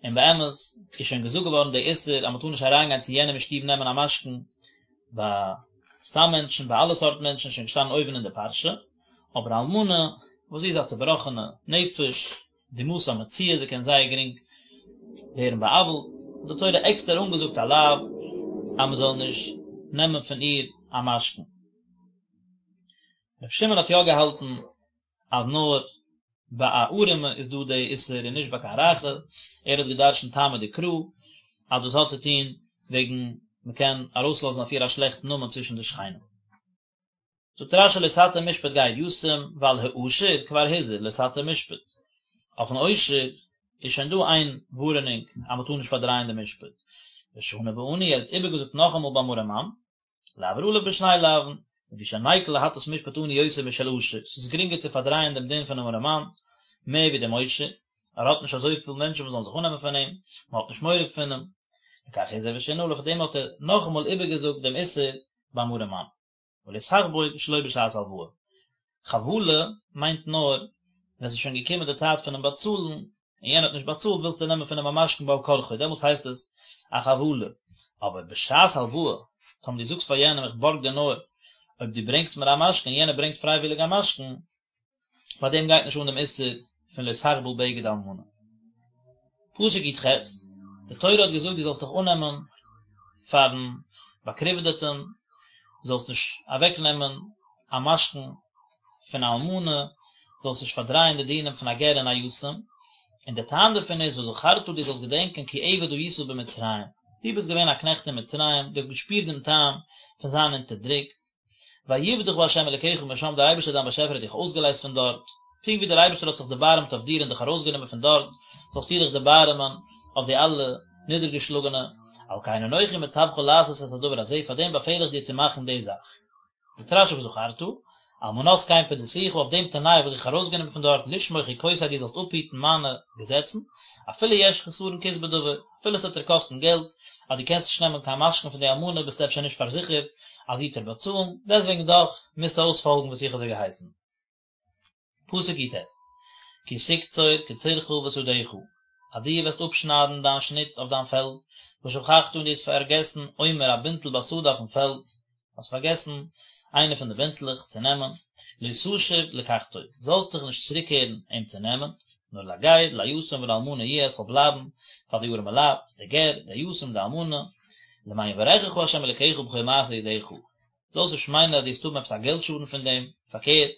און באמת איז שוין געזאגט געווארן די איסור אז מען טאר נישט אריינגיין צו יענעם אין שטוב נעמען א משכון, ביי סתם מענטשן, ביי אלע סארט מענטשן איז שוין געשטאנען אויבן אין די פרשה, אבער אלמנה וואס זי איז א צובראכענע נפש, דמעתה מצויה, זי קען זייער גרינג ווערן בא'עוול'ט, האט די תורה עקסטער אנגעזאגט א לאו אז מען זאל נישט נעמען פון איר א משכון. רבי שמעון האט יא געהאלטן אז נאר. ביי א ארעמע איז דא די איסור און נישט ביי קיין רייכע, ער האט גע'דרש'נט טעמא דקרא אז דאס האט צו טון וועגן מ'קען ארויסלאזן אויף איר א שלעכטן נאמען צווישן די שכנים. זאגט רש"י לא תטה משפט גר יתום ועל העשיר כבר הוזהר לא תטה משפט, אויפן עושר איז שוין דא איין ווארענונג אז מ'טאר נישט פארדרייען די משפט, ושנה בעני ער האט איבערגעזאגט נאכאמאל ביים ארעמאן, לעבור עליו בשני לאווין, לפי שניקל להטות משפט עני יותר משל עשיר, ס'איז גרינגער צו פארדרייען דעם דין פונעם ארעמאן מער ווי דעם עושר, ער האט נישט אזויפיל מענטשן וואס זאלן זיך אננעמען פון אים, מען האט נישט מורא פון אים, לכך הזהיר ושינה עליו, פאר דעם האט ער נאכאמאל איבערגעזאגט דעם איסור ביים ארעמאן. ולא תחבול שלא בשעת הלוואה. חבלה מיינט נאר ווען ס'איז שוין געקומען די צייט פונעם באצאלן און יענער האט נישט באצאלט ווילסטו נעמען פון אים א משכון בעל כרחו דעמאלטס הייסט עס א חבלה, אבער בשעת הלוואה טאמער דו זאגסט פאר יענעם איך בארג דיר נאר אויב דו ברענגסט מיר א משכון און יענער ברענגט פרייוויליג א משכון, ביי דעם גייט נישט אן דעם איסור פון לא תחבול בגד אלמנה. פסוק י"ח, די תורה האט געזאגט דו זאלסט דיך אננעמען פארן באקריוודעטן, זאלסט נישט אוועקנעמען א משכון פון א אלמנה, זאלסט נישט פארדרייען די דינים פון א גר און א יתום, און דער טעם דערפון איז וזכרת דו זאלסט געדענקען כי עבד היית במצרים, דו ביסט געווען א קנעכט אין מצרים, דו האסט געשפירט דעם טעם פון זיין אונטערדרוקט, ויפדך ה' אלקיך משם, דער אייבערשטער דיין באשעפער האט דיך אויסגעלייזט פון דארט, פונקט ווי דער אייבערשטער האט זיך דערבארעמט אויף דיר און דיך ארויסגענומען פון דארט, זאלסטו דיך דערבארעמען אויף די אלע נידערגעשלאגענע, על כן אנכי מצווך לעשות את הדבר הזה, פאר דעם באפעל איך דיר צו מאכן די זאך. זאגט רש"י וזכרת, על מנת כן פדיתיך, אויף דעם תנאי האב איך דיך ארויסגענומען פון דארט, לשמור חוקותי דו זאלסט אפהיטן מיינע געזעצן, אפילו יש חסרון כיס בדבר, אפילו עס וועט דיר קאסטן געלט, אז דו קענסט נישט נעמען קיין משכון פון די אלמנה ביסטו אפשר נישט פארזיכערט אז זי וועט דיר באצאלן, דעסוועגן דאך מוזטו אויספאלגן וואס איך האב דיר געהייסן. פסוק י"ט, כי תקצור קצירך בשדך, אז דו וועסט אפשניידן דיין שניט אויף דיין פעלד, ושכחת און דו האסט פארגעסן עומר א בינטל בשדה אויפן פעלד, האסט פארגעסן איינע פון די בינטלעך צו נעמען, לא תשוב לקחתו, זאלסט דיך נישט צוריקקערן אים צו נעמען, נאר לגר, ליתום ולאלמנה יהיה, עס זאל בלייבן פאר די ארעמע לייט, די גר, די יתום, די אלמנה, למען יברכך ה' אלקיך בכל מעשה ידיך, זאלסט נישט מיינען אז דו וועסט האבן עפעס א געלט שאדן פון דעם, פארקערט,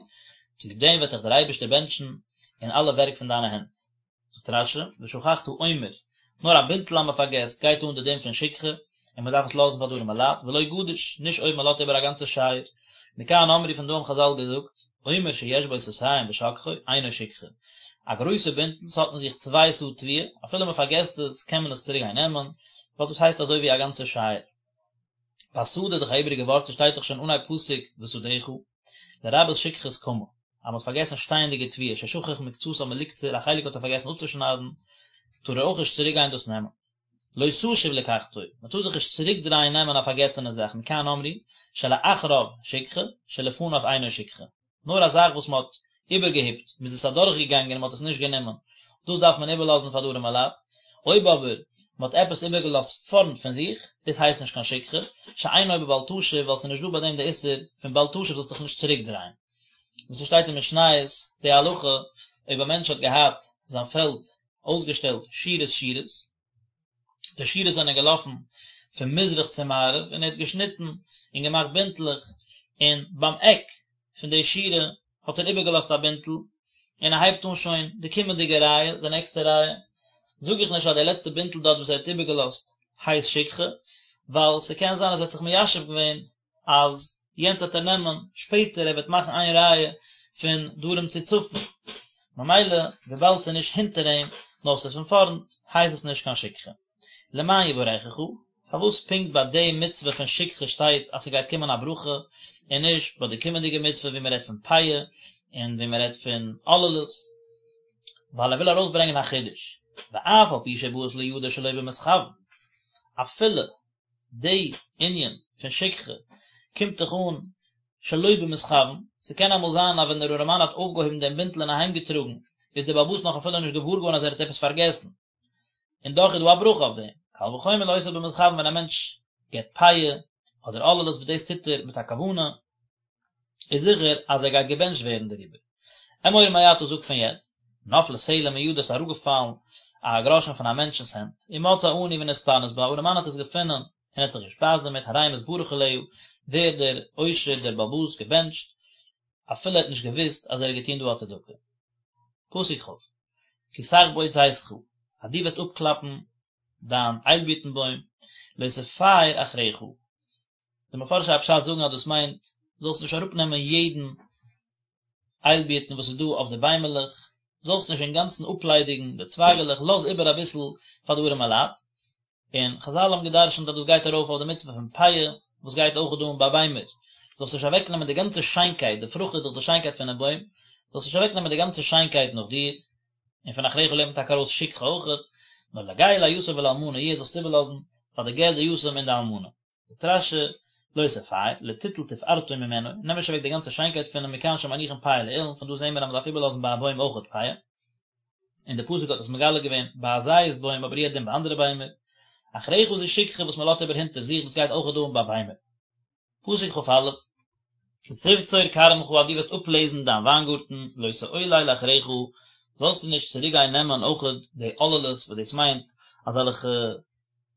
צוליב דעם וועט דיך דער אייבערשטער בענטשן אין אלע ווערק פון דיינע הענט. זאגט רש"י, ושכחת עומר, נאר א בינטל אז מען פארגעסט, גייט אן די דין פון שכחה, און מען דארף עס לאזן פאר די ארעמע לייט, ולא גדיש, נישט אויב מען לאזט איבער א גאנצע שייער. מכאן אמרו פון דא האבן חז"ל געזאגט, עומר שיש בו סאתים ושכחו, אינו שכחה. א גרויסע בינטל, ס'האט אין זיך צוויי סאה תבואה, אפילו מען פארגעסט עס, קען מען עס צוריק גיין נעמען, ווייל דאס הייסט אזוי ווי א גאנצע שייער. בשדה איז דאך א איבעריגע ווארט, ס'שטייט דאך שוין אנהייב פסוק בשדך, לרבות שכחת קמה, אז מ'האט פארגעסן שטייענדיגע תבואה, ששכח מקצתה מלקצור, א חלק האט ער פארגעסן אפצושניידן, טאר ער אויך נישט צוריק גיין דאס נעמען. לא תשוב לקחתו, מ'טאר זיך נישט צוריק דרייען נעמען א פארגעסענע זאך, מכאן אמרו, שלאחריו שכחה, שלפניו אינו שכחה. נאר א זאך וואס מען האט איבערגעהיפט, מען איז עס אדורכגעגאנגען און מען האט עס נישט גענומען, דאס דארף מען איבערלאזן פאר די ארעמע לייט, אויב אבער מען האט עפעס איבערגעלאזט פארנט פון זיך, דאס הייסט נישט קיין שכחה, שאינו בבל תשוב, ווייל ס'איז נישט דא ביי דעם די איסור פון בל תשוב זאלסט דיך נישט צוריקדרייען. ווי ס'שטייט אין משניות די הלכה, אויב א מענטש האט געהאט זיין פעלד אויסגעשטעלט שורות שורות, די שורות זענען געלאפן פון מזרח צו מערב און ער האט געשניטן און געמאכט בינטלעך און ביים עק פון די שורה האט ער איבערגעלאזט א בינטל און ער הייבט אן שוין די קומענדיגע רייע, די נעקסטע רייע, זאג איך נישט אז די לעצטע בינטל דארט וואס ער האט איבערגעלאזט הייסט שכחה, ווייל ס'קען זיין אז ער האט זיך מיישב געווען אז יענץ וועט ער נעמען שפעטער, ער וועט מאכן איין רייע פון דרום צו צפון, ממילא וויבאלד ס'איז נישט הינטער אים נאר ס'איז פון פארנט הייסט עס נישט קיין שכחה. למען יברכך, פארוואס פונקט ביי די מצוה פון שכחה שטייט אז ס'גייט קומען א ברכה, און נישט ביי די קומענדיגע מצוה ווי מ'רעדט פון פאה און ווי מ'רעדט פון עוללות? ווייל ער וויל ארויסברענגען א חידוש, ואף על פי שבאת לידו שלא במתכוין, אפילו די ענין פון שכחה קומט דאך אן שלא במתכוין, ס'קען אמאל זיין אז ווען דער ארעמאן האט אויפגעהויבן דעם בינטל און אהיימגעטראגן, איז דער בעל הבית נאך אפילו נישט געוואר געווארן אז ער האט עפעס פארגעסן, און דאך איז דא א ברכה אויף דעם, קל וחומר לעושה במתכוין ווען א מענטש געבט פאה אדער עוללות וואס דאס טוט ער מיט א כוונה, איז זיכער אז ער גייט געבענטשט ווערן דעריבער. אמור מעתה זאג פון יעצט, נפלה סלע מידו ס'איז אראפגעפאלן א גראשן פון א מענטשנ'ס הענט, ומצאה עני ונתפרנס בה, א ארעמאן האט עס געפונען און האט זיך געשפייזט דערמיט, הרי מתברך עליה, ווערט דער עושר דער בעל הבית געבענטשט, אפילו ער האט נישט געוואוסט אז ער האט געטון דא א צדקה. פסוק כ', כי תחבוט זיתך, אז דו וועסט אפקלאפן דיין איילבירטן בוים, לא תפאר אחריך. די מפרשי הפשט זאגן אז דאס מיינט, זאלסט נישט אראפנעמען יעדן איילבירטן וואס איז דא אויף די ביימעלעך, זאלסט נישט אינגאנצן אפליידיגן די צווייגעלעך, לאז איבער אביסל פאר די ארעמע לייט. און חזל האבן גע'דרש'נט אז דאס גייט ארויף אויף די מצוה פון פאה, וואס גייט אויך אן ביי ביימער, זאלסט נישט אוועקנעמען די גאנצע שיינקייט, די פרוכט איז דאך די שיינקייט פונעם בוים, זאלסט נישט אוועקנעמען די גאנצע שיינקייט נאך דיר, און פון אחריך לערנט מען טאקע ארויס שכחה אויכעט, נאר לגר ליתום ולאלמנה יהיה זאלסט איבערלאזן פאר די גר די יתום און די אלמנה. זאגט רש"י, לא תפאר, לא תיטול תפארתו ממנו, נעם נישט אוועק די גאנצע שיינקייט פון אים מכאן שמניחין פאה לאילן, פון דא זעהן מיר אז מען דארף איבערלאזן ביי א בוים אויכעט פאה, און די פסוק האט עס מגלה געווען ביי א זית בוים אבער הוא הדין ביי אנדערע ביימער, אחריך זו שכחה וואס מען לאזט איבער הינטער זיך דאס גייט אויכעט אן ביי ביימער. פסוק כ"א, כי תבצור כרמך אז דו וועסט אפלעזן דיין וויינגארטן, לא תעולל אחריך, זאלסטו נישט צוריק גיין נעמען אויכעט די עוללות וואס דאס מיינט אזעלכע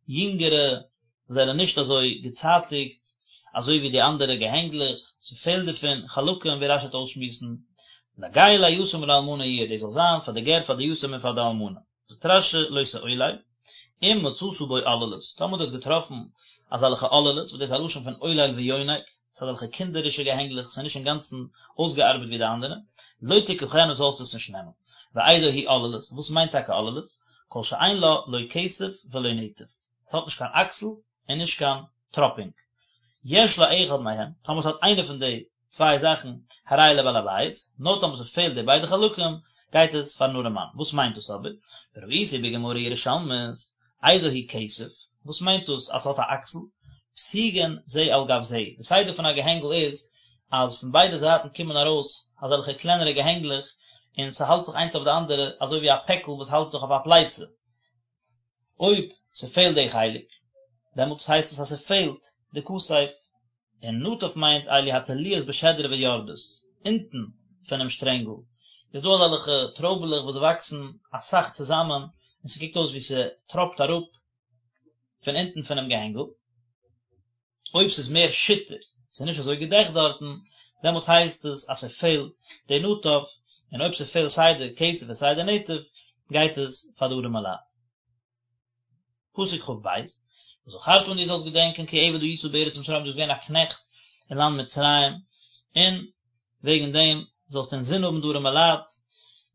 יונגערע וואס זענען נישט אזוי געצייטיגט אזוי ווי די אנדערע געהענגלעך, ס'פעלט דערפון חלקים ווי רש"י וועט אויסשמועסן, לגר ליתום ולאלמנה יהיה, דאס זאל זיין פאר די גר פאר די יתום און פאר די אלמנה. זאגט רש"י לא תעולל, אם מצאת בו עוללות, טאמער דו האסט געטראפן אזעלכע עוללות, וואס דאס איז א לשון פון עולל ויונק, ס'איז אזעלכע קינדערישע געהענגלעך, ס'איז נישט אינגאנצן אויסגעארבעט ווי די אנדערע, לא תקחנה זאלסטו עס נישט נעמען. ואיזו היא עוללות, וואס מיינט טאקע עוללות? כל שאין לה לא כתף ולא נטף, ס'האט נישט קיין אקסל און נישט קיין טראפינג. יש לה אחד מהם, טאמער ס'האט איינע פון די צוויי זאכן, הרי היא לבעל הבית, נאר טאמער ס'פעלט די ביידע חלקים, גייט עס פארן ארעמאן. וואס מיינט דאס אבער? וראיתי בגמרא ירושלמית, איזו היא כתף, וואס מיינט דאס אז ס'האט א אקסל? פתיגין זה על גב זה, די סדר פון א געהענגל איז אז פון ביידע זייטן קומען ארויס אזעלכע קלענערע געהענגלעך און ס'האלט זיך איינס אויף די אנדערע אזוי ווי א פעקל וואס האלט זיך אויף א פלייצע. אויב ס'פעלט די חלק, דעמאלטס הייסט עס אז ס'פעלט די כתף. און נטף מיינט אלו התלויות בשדרה ויורדות, אונטן פונעם שטרענגל איז דא אזעלכע טרויבעלעך וואס וואקסן אסאך צוזאמען און ס'קוקט אויס ווי ס'טראפט אראפ פון אונטן פונעם געהענגל, אויב ס'איז מער שיטער, ס'איז נישט אזוי געדעכט דארטן, דעמאלטס הייסט עס אז ס'פעלט די נטף, און אויב ס'פעלט סיי די כתף און סיי די נטף, גייט עס פאר די ארעמע לייט. פסוק כ"ב, וזכרת און דו זאלסט געדענקען כי עבד היית בארץ מצרים דו ביסט געווען א קנעכט אין לאנד מצרים, און וועגן דעם זאלסטו אינזין האבן די ארעמע לייט,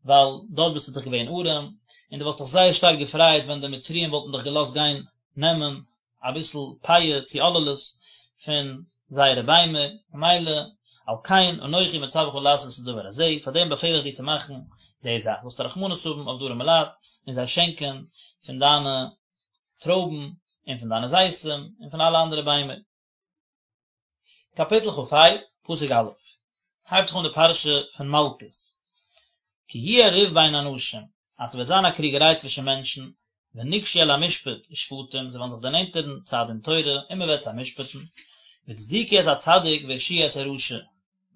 ווייל דארט ביסטו דאך געווען ארעם, און דו וואלסט דיך זייער שטארק געפרייט ווען די מצריים וואלטן דיך געלאזט גיין נעמען אביסל פאה צו עוללות פון זייערע ביימער, ממילא על כן אנכי מצווך לעשות את הדבר הזה, פאר דעם באפעל איך דיר צו מאכן די זאך, זאלסטו רחמנות האבן אויף די ארעמע לייט און זיי שענקען פון דיינע טרויבן און פון דיינע זיתים און פון אלע אנדערע ביימער. קאפיטל כ"ה, פסוק א', הייבט זיך אן די פרשה פון מלקות, כי יהיה ריב בין אנשים, אז ס'וועט זיין א קריגעריי צווישן מענטשן, ונגשו אל המשפט ושפטום, זיי וועלן זיך דערנענטערן צו א דין תורה און מען וועט זיי משפט'ן, והצדיקו את הצדיק והרשיעו את הרשע,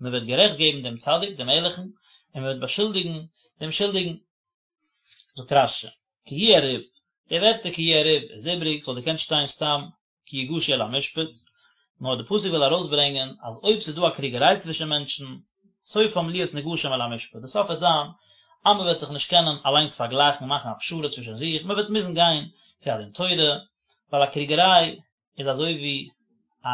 מען וועט גערעכט געבן דעם צדיק, דעם ערליכן, און מען וועט באשולדיגן דעם שולדיגן. זאגט רש"י, כי יהיה ריב, די ווערטער כי יהיה ריב איז איבריג, ס'וואלט געקענט שטיין סתם כי יגשו אל המשפט, נאר די פסוק וויל ארויסברענגען אז אויב ס'איז דא א קריגעריי צווישן מענטשן, סופם להיות נגשים אל המשפט, די סוף וועט זיין אז מען וועט זיך נישט קענען אליינס פארגלייכן און מאכן א פשרה צווישן זיך, מען וועט מוזן גיין צו א דין תורה, ווייל א קריגעריי איז אזוי ווי א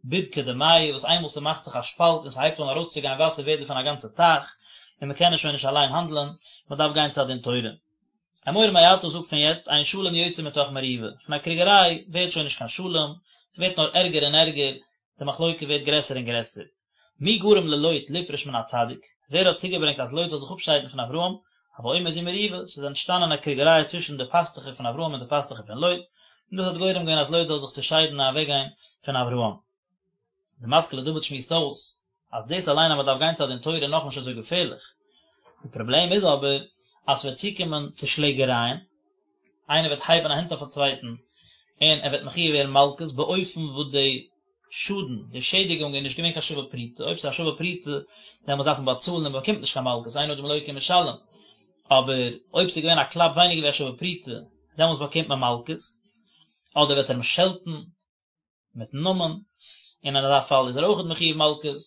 בדקא דמיא וואס איינמאל ס'מאכט זיך א שפאלט און ס'הייבט אן ארויסצוגיין וואסער ווערט דערפון א גאנצע טייך, און מען קען עס שוין נישט אליין האנדלען, מען דארף גיין צו א דין תורה. אמור מעתה זאג פון יעצט אין שלום יוצא מתוך מריבה, פון א קריגעריי ווערט שוין נישט קיין שלום, ס'ווערט נאר ערגער און ערגער, די מחלוקה ווערט גרעסער און גרעסער. מי גרם ללוט לפרוש מן הצדיק, ווער האט צוגעברענגט אז לוט זאל זיך אפשיידן פון אברהם, הוי אומר זו מריבה, ס'איז אנטשטאנען א קריגעריי צווישן די פאסטוכער פון אברהם און די פאסטוכער פון לוט, און דאס האט גורם געווען אז לוט זאל זיך צעשיידן און אוועקגיין פון אברהם. די משכיל לדוד שמועסט אויס אז דאס אליין אז מען דארף גיין צו א דין תורה איז נאכנישט אזוי געפערליך, די פראבלעם איז אבער אז ס'וועט צוקומען צו שלעגערייען, איינער וועט הייבן א הענט אויף א צווייטן און ער וועט מחויב ווערן מלקות באופן וואס די שאדן, די שעדיגונג איז נישט געווען קיין שווה פרוטה, אויב ס'איז א שווה פרוטה דעמאלטס דארף מען באצאלן און מען באקומט נישט קיין מלקות, אין אדם לוקה ומשלם, אבער אויב ס'איז געווען א קלאפ ווייניגער ווי א שווה פרוטה דעמאלטס באקומט מען מלקות, אדער וועט ער אים שעלטן מיטן נאמען, און אין אזא פאל איז ער אויכעט מחויב מלקות.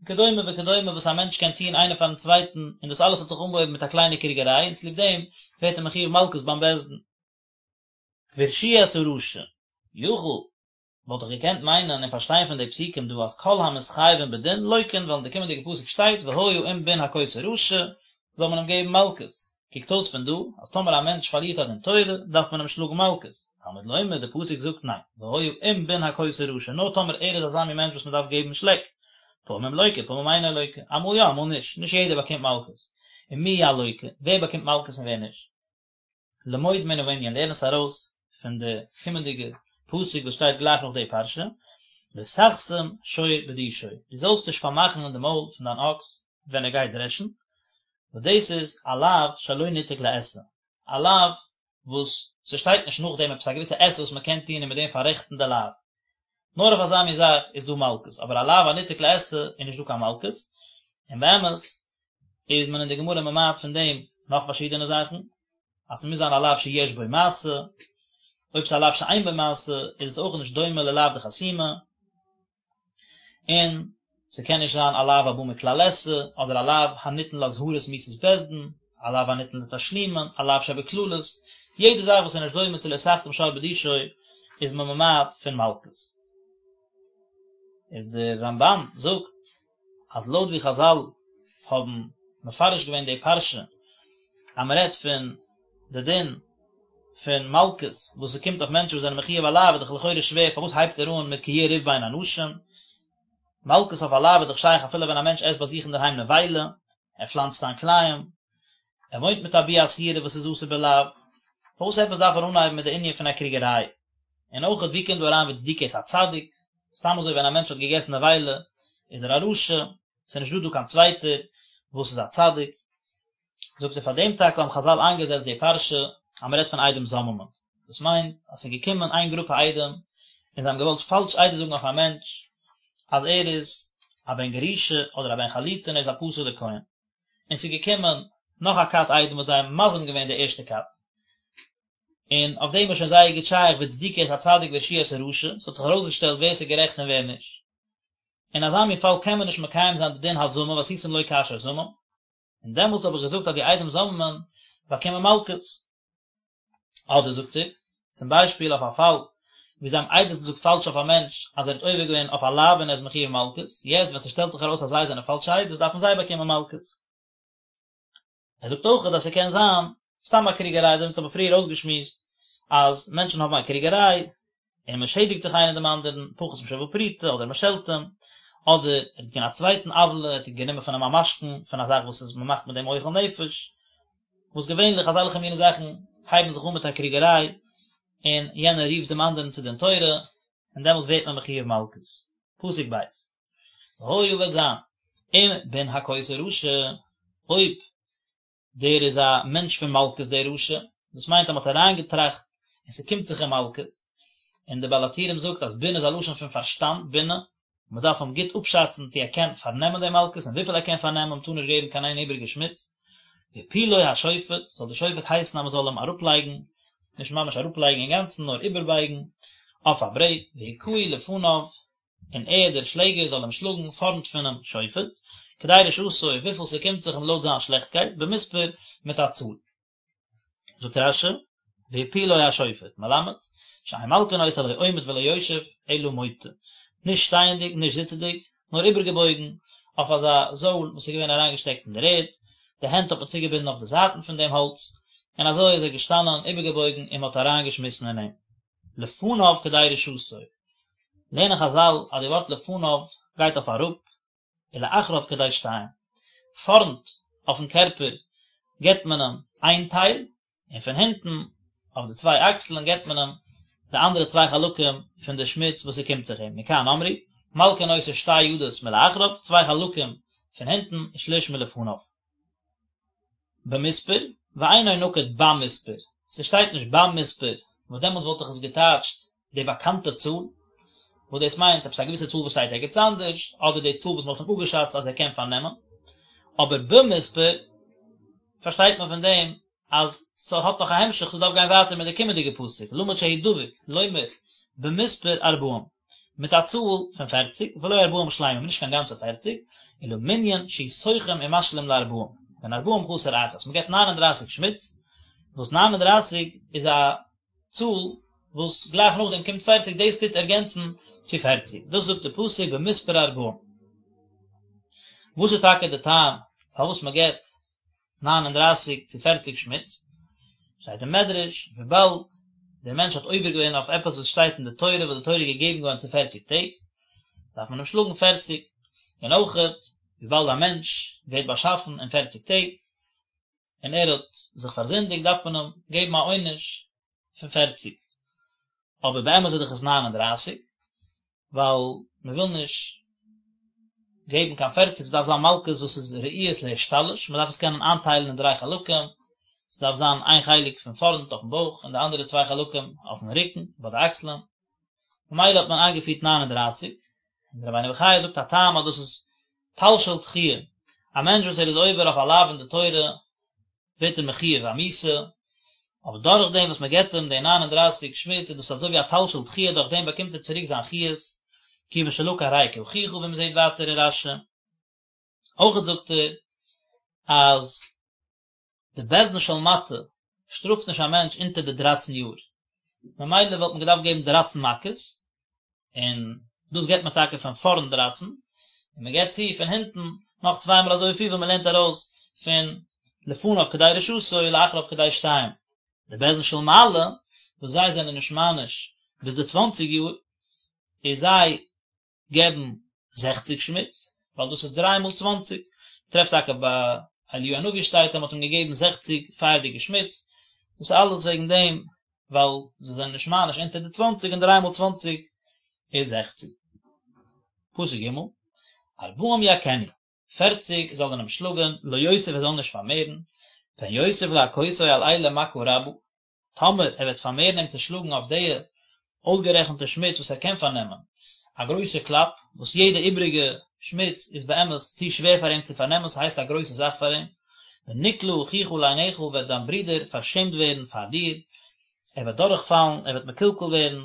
וכדומה וכדומה וואס א מענטש קען טון איינער פארן צווייטן, און דאס אלעס האט זיך אנגעהויבן מיט א קליינע קריגעריי און צוליב דעם ווערט ער מחויב מלקות ביים בית דין. והרשיעו את הרשע, יכול, וואלט איך געקענט מיינען און פארשטיין פון די פסוקים דא אז כל המתחייבין בדין לוקין ווייל אין די קומענדיגע פסוק שטייט והיה אם בן הכות הרשע זאל מען אים געבן מלקות, קוקט אויס פון דא אז טאמער א מענטש פארלירט א דין תורה דארף מען אים שלאגן מלקות, תלמוד לומר די פסוק זאגט ניין והיה אם בן הכות הרשע נאר טאמער ער איז אזא מין מענטש וואס מען דארף געבן שלעק, פעמים לוקה פעמים אינו לוקה, אמאל יא אמאל נישט, נישט יעדער באקומט מלקות, ומי הלוקה, ווער באקומט מלקות און ווער נישט? למוד מן הענין, לערן עס ארויס פון די קומענדיגע פסוק וואס שטייט גלייך נאך די פרשה, לא תחסום שור בדישו, דו זאלסט נישט פארמאכן די מויל פון דיין אקס ווען ער גייט דרעשן, וואס דאס איז א לאו שלא ניתק לעשה, א לאו וואס ס'שטייט נישט נאכדעם עפעס א געוויסע עשה וואס מ'קען טון און מיט דעם פאררעכטן די לאו, נאר אויף אזא מין זאך איז דא מלקות, אבער א לאו הניתק לעשה איז נישט דא קיין מלקות, און באמת איז מען אין די גמרא ממעט פון דעם נאך פארשידענע זאכן, אז ס'מוז זיין א לאו שיש בו מעשה, אויב ס'איז א לאו שאין בו מעשה איז עס אויך נישט דומה ללאו דחסימה, און ס'קען נישט זיין א לאו הבא מכלל עשה, אדער א לאו הניתן לאזהרת מיתת בית דין, א לאו הניתן לתשלומין, א לאו שבקללות, יעדע זאך וואס איז נישט דומה צו לא תחסום שור בדישו איז מען ממעט פון מלקות. איז דער רמב"ן זאגט אז לויט ווי חז"ל האבן מפרש געווען די פרשה אז מען רעדט פון די דין פון מלקות וואס ס'קומט אויף מענטשן וואס זענען מחויב א לאו איז דאך לכאורה שווער פארוואס הייבט ער אן מיט כי יהיה ריב בין אנשים? מלקות אויף א לאו איז דאך שייך אפילו ווען א מענטש עסט ביי זיך אינדערהיים נבילה, ער פלאנצט איין כלאים, ער וואוינט מיט א ביאה אסורה וואס איז אסור בלאו, פארוואס עפעס דארף ער אנהייבן מיט די ענין פון א קריגעריי? און אויכעט ווי קומט דא אריין והצדיקו את הצדיק? סתם אזוי ווען א מענטש האט געגעסן נבילה איז ער א רשע, ס'איז נישט דא דא קיין צווייטער וואס איז א צדיק, זאגט ער פאר דעם טאקע האבן חז"ל איינגעזעצט די פרשה אז מ'רעדט פון עדים זוממין, דאס מיינט אז ס'איז געקומען איין גרופע עדים און זיי האבן געוואלט פאלש עדות זאגן אויף א מענטש אז ער איז א בן גרושה אדער א בן חלוצה און ער איז א פסול'ער כהן, און ס'איז געקומען נאך א כת עדים וואס זיי האבן מזים געווען די ערשטע כת, און אויף דעם איז שוין זייער גוט שייך והצדיקו את הצדיק והרשיעו את הרשע, ס'האט זיך ארויסגעשטעלט ווער ס'איז גערעכט און ווער נישט. אין אזא מין פאל קען מען נישט מקיים זיין די דין הזמה ועשיתם לו כאשר זמם, און דעמאלטס האב איך געזאגט אז די עדים זוממין באקומען מלקות. אדער זאגט ער, צום ביישפיל אויף א פאל ווי זיי האבן עדות געזאגט פאלש אויף א מענטש אז ער האט עובר געווען אויף א לאו און ער איז מחויב מלקות, יעצט ווען ס'שטעלט זיך ארויס אז זיי זענען פאלשע עדות דארפן זיי באקומען מלקות. ער זאגט אויך אז ס'קען זיין סתם א קריגעריי, אזוי ווי אונז האבן פריער אויסגעשמועסט אז מענטשן האבן א קריגעריי און מען שעדיגט זיך איינער דעם אנדערן, פחות משוה פרוטה, אדער מען שעלט אים, אדער ער האט געטון א צווייטן עוולה, ער האט גענומען פון אים א משכון פון א זאך וואס איז מען מאכט מיט דעם אוכל נפש, וואס געווענליך אזעלכע מיני זאכן הייבן זיך אן מיט א קריגעריי, און יענער רופט דעם אנדערן צו דין תורה, און דעמאלטס ווערט מען מחויב מלקות. פסוק ב'. והיה וועט זיין, אם בן הכות הרשע, אויב דער איז א מענטש פון מלקות דער רשע, דאס מיינט אז מען האט אריינגעטראכט און ס'קומט זיך אים מלקות, און דער בעל הטורים זאגט אז בן איז א לשון פון פארשטאנד, בינה, מען דארף אים גוט אפשאצן צו ער קען פארנעמען די מלקות און וויפיל ער קען פארנעמען, מען טאר נישט געבן קיין איין איבעריגע שמיץ. והפילו השופט, זאל דער שופט הייסן אז מען זאל אים אראפלייגן, נישט ממש אראפלייגן אינגאנצן נאר איבערבייגן, אויף א ברעט, והכהו לפניו, און ער, דער שלעגער, זאל אים שלאגן פארנט פונעם שופט, כדי רשעתו, וויפיל ס'קומט זיך אים לויט זיין שלעכטקייט, במספר, מיט א צאל. זאגט רש"י, והפילו השופט, מלמד, שאין מלקין אותו לא עומד ולא יושב, אלא מוטה, נישט שטייענדיג, נישט זיצעדיג, נאר איבערגעבויגן אויף אזא זויל וואס איז געווען אריינגעשטעקט אין דער ערד, די הענט האט מען צוגעבינדן אויף די זייטן פון דעם האלץ, און אזוי איז ער געשטאנען איבערגעבויגן און מען האט אריינגעשמיסן אין אים. לפניו כדי רשעתו. לערנען חז"ל אז די ווארט לפניו גייט אויף אראפ, ולאחריו כדי שתיים. פארנט אויפן קערפער געבט מען אים איין טייל, און פון הינטן אויף די צוויי אקסלען געבט מען אים די אנדערע צוויי חלקים פון די שמיץ וואס ס'קומט זיך אים. מכאן אמרו, מלקין אותו שתי ידות מלאחריו, צוויי חלקים פון הינטן, ושליש מלפניו. במספר, ואינו נקוד במספר, ס'שטייט נישט במספר, וואס דעמאלטס וואלט איך עס געטייטשט די באקאנטע צאל, וואס דאס מיינט עפעס א געוויסע צאל וואס שטייט ערגעץ אנדערש, אדער די צאל וואס מ'האט אים אפגעשאצט אז ער קען פארנעמען, אבער במספר פארשטייט מען פון דעם אז ס'האט נאך א המשך, ס'דארף גיין ווייטער מיט די קומענדיגע פסוק, למד שהוא דבוק, לומר, במספר ארבעים, מיט א צאל פון פערציג, ולא ארבעים שלימים, נישט קיין גאנצע פערציג, אלא מנין שהוא סוכם ומשלים לארבעים, והן ארבעים חסר אחת, מען געבט ניין און דרייסיג שמיץ, וואס 39 איז א צאל וואס גלייך נאכדעם קומט פערציג, דאס טוט ערגענצן צו פערציג, דאס זאגט די פסוק במספר ארבעים. וואס איז טאקע די טעם פארוואס מען געבט 39 צו פערציג שמיץ? שטייט אין מדרש, וויבאלד דער מענטש האט עובר געווען אויף עפעס וואס שטייט אין די תורה, וואס די תורה איז געגעבן געווארן צו פערציג טעג, דארף מען אים שלאגן פערציג, און אויכעט וויבאלד א מענטש ווערט באשאפן אין פערציג טעג, און ער האט זיך פארזינדיגט דארף מען אים געבן א עונש פון פערציג, אבער באמת איז דאך עס 39, ווייל מען וויל נישט געבן קיין פערציג, ס'דארף זיין מלקות וואס איז ראויות להשתלש, מען דארף עס קענען איינטיילן אין דריי חלקים, ס'דארף זיין איין חלק פון פארנט אויפן בויך און די אנדערע צוויי חלקים אויפן רוקן ביי די אקסלען, ממילא האט מען איינגעפירט 39, און דער רבינו בחיי זאגט א טעם אז דאס איז טל של דחיה, א מענטש וואס ער איז עובר אויף א לאו אין די תורה ווערט ער מחויב א מיתה, אבער דורך דעם וואס מען געבט אים די 39 שמיץ איז דאס אזוי ווי א טל של דחיה דורך דעם באקומט ער צוריק זיין חיות, כיוון שלקה הרי הוא כאחיך ווי מען זעט ווייטער אין רש"י. אויכעט זאגט ער אז די בית דין של מטה שטראפט נישט א מענטש אונטער די דרייצן יאר, ממילא וואלט מען געדארפט געבן דרייצן מכות, און דאס געבט מען טאקע פון פארנט דרייצן, און מען געבט צו פון הינטן נאך צוויי מאל אזויפיל ווי מען לערנט ארויס פון לפניו כדי רשעתו ולאחריו כדי שתיים. די בית דין של מעלה וואס זיי זענען נישט מעניש ביז די צוואנציג יאר, איז זיי געבן זעכציג שמיץ, ווייל דאס איז דריי מאל צוואנציג, טרעפט טאקע ביי אליהו הנביא שטייט אז מען האט אים געגעבן זעכציג פייערדיגע שמיץ, דאס איז אלעס וועגן דעם ווייל זיי זענען נישט מעניש אונטער די צוואנציג און דריי מאל צוואנציג איז זעכציג. פסוק ג', ארבעים יכנו, פערציג זאל ער אים שלאגען, לא יוסיף ער זאל נישט פארמערן, פן יוסיף להכותו על אלה מכה רבה, טאמער ער וועט פארמערן אים צו שלאגן אויף די אויסגערעכנטע שמיץ וואס ער קען פארנעמען, א גרויסע קלאפ, וואס יעדע איבריגע שמיץ איז באמת צו שווער פאר אים צו פארנעמען, ס'הייסט א גרויסע זאך פאר אים, ונקלה אחיך לעיניך וועט דיין ברודער פארשעמט ווערן פאר דיר, ער וועט דורכפאלן, ער וועט מקולקל ווערן,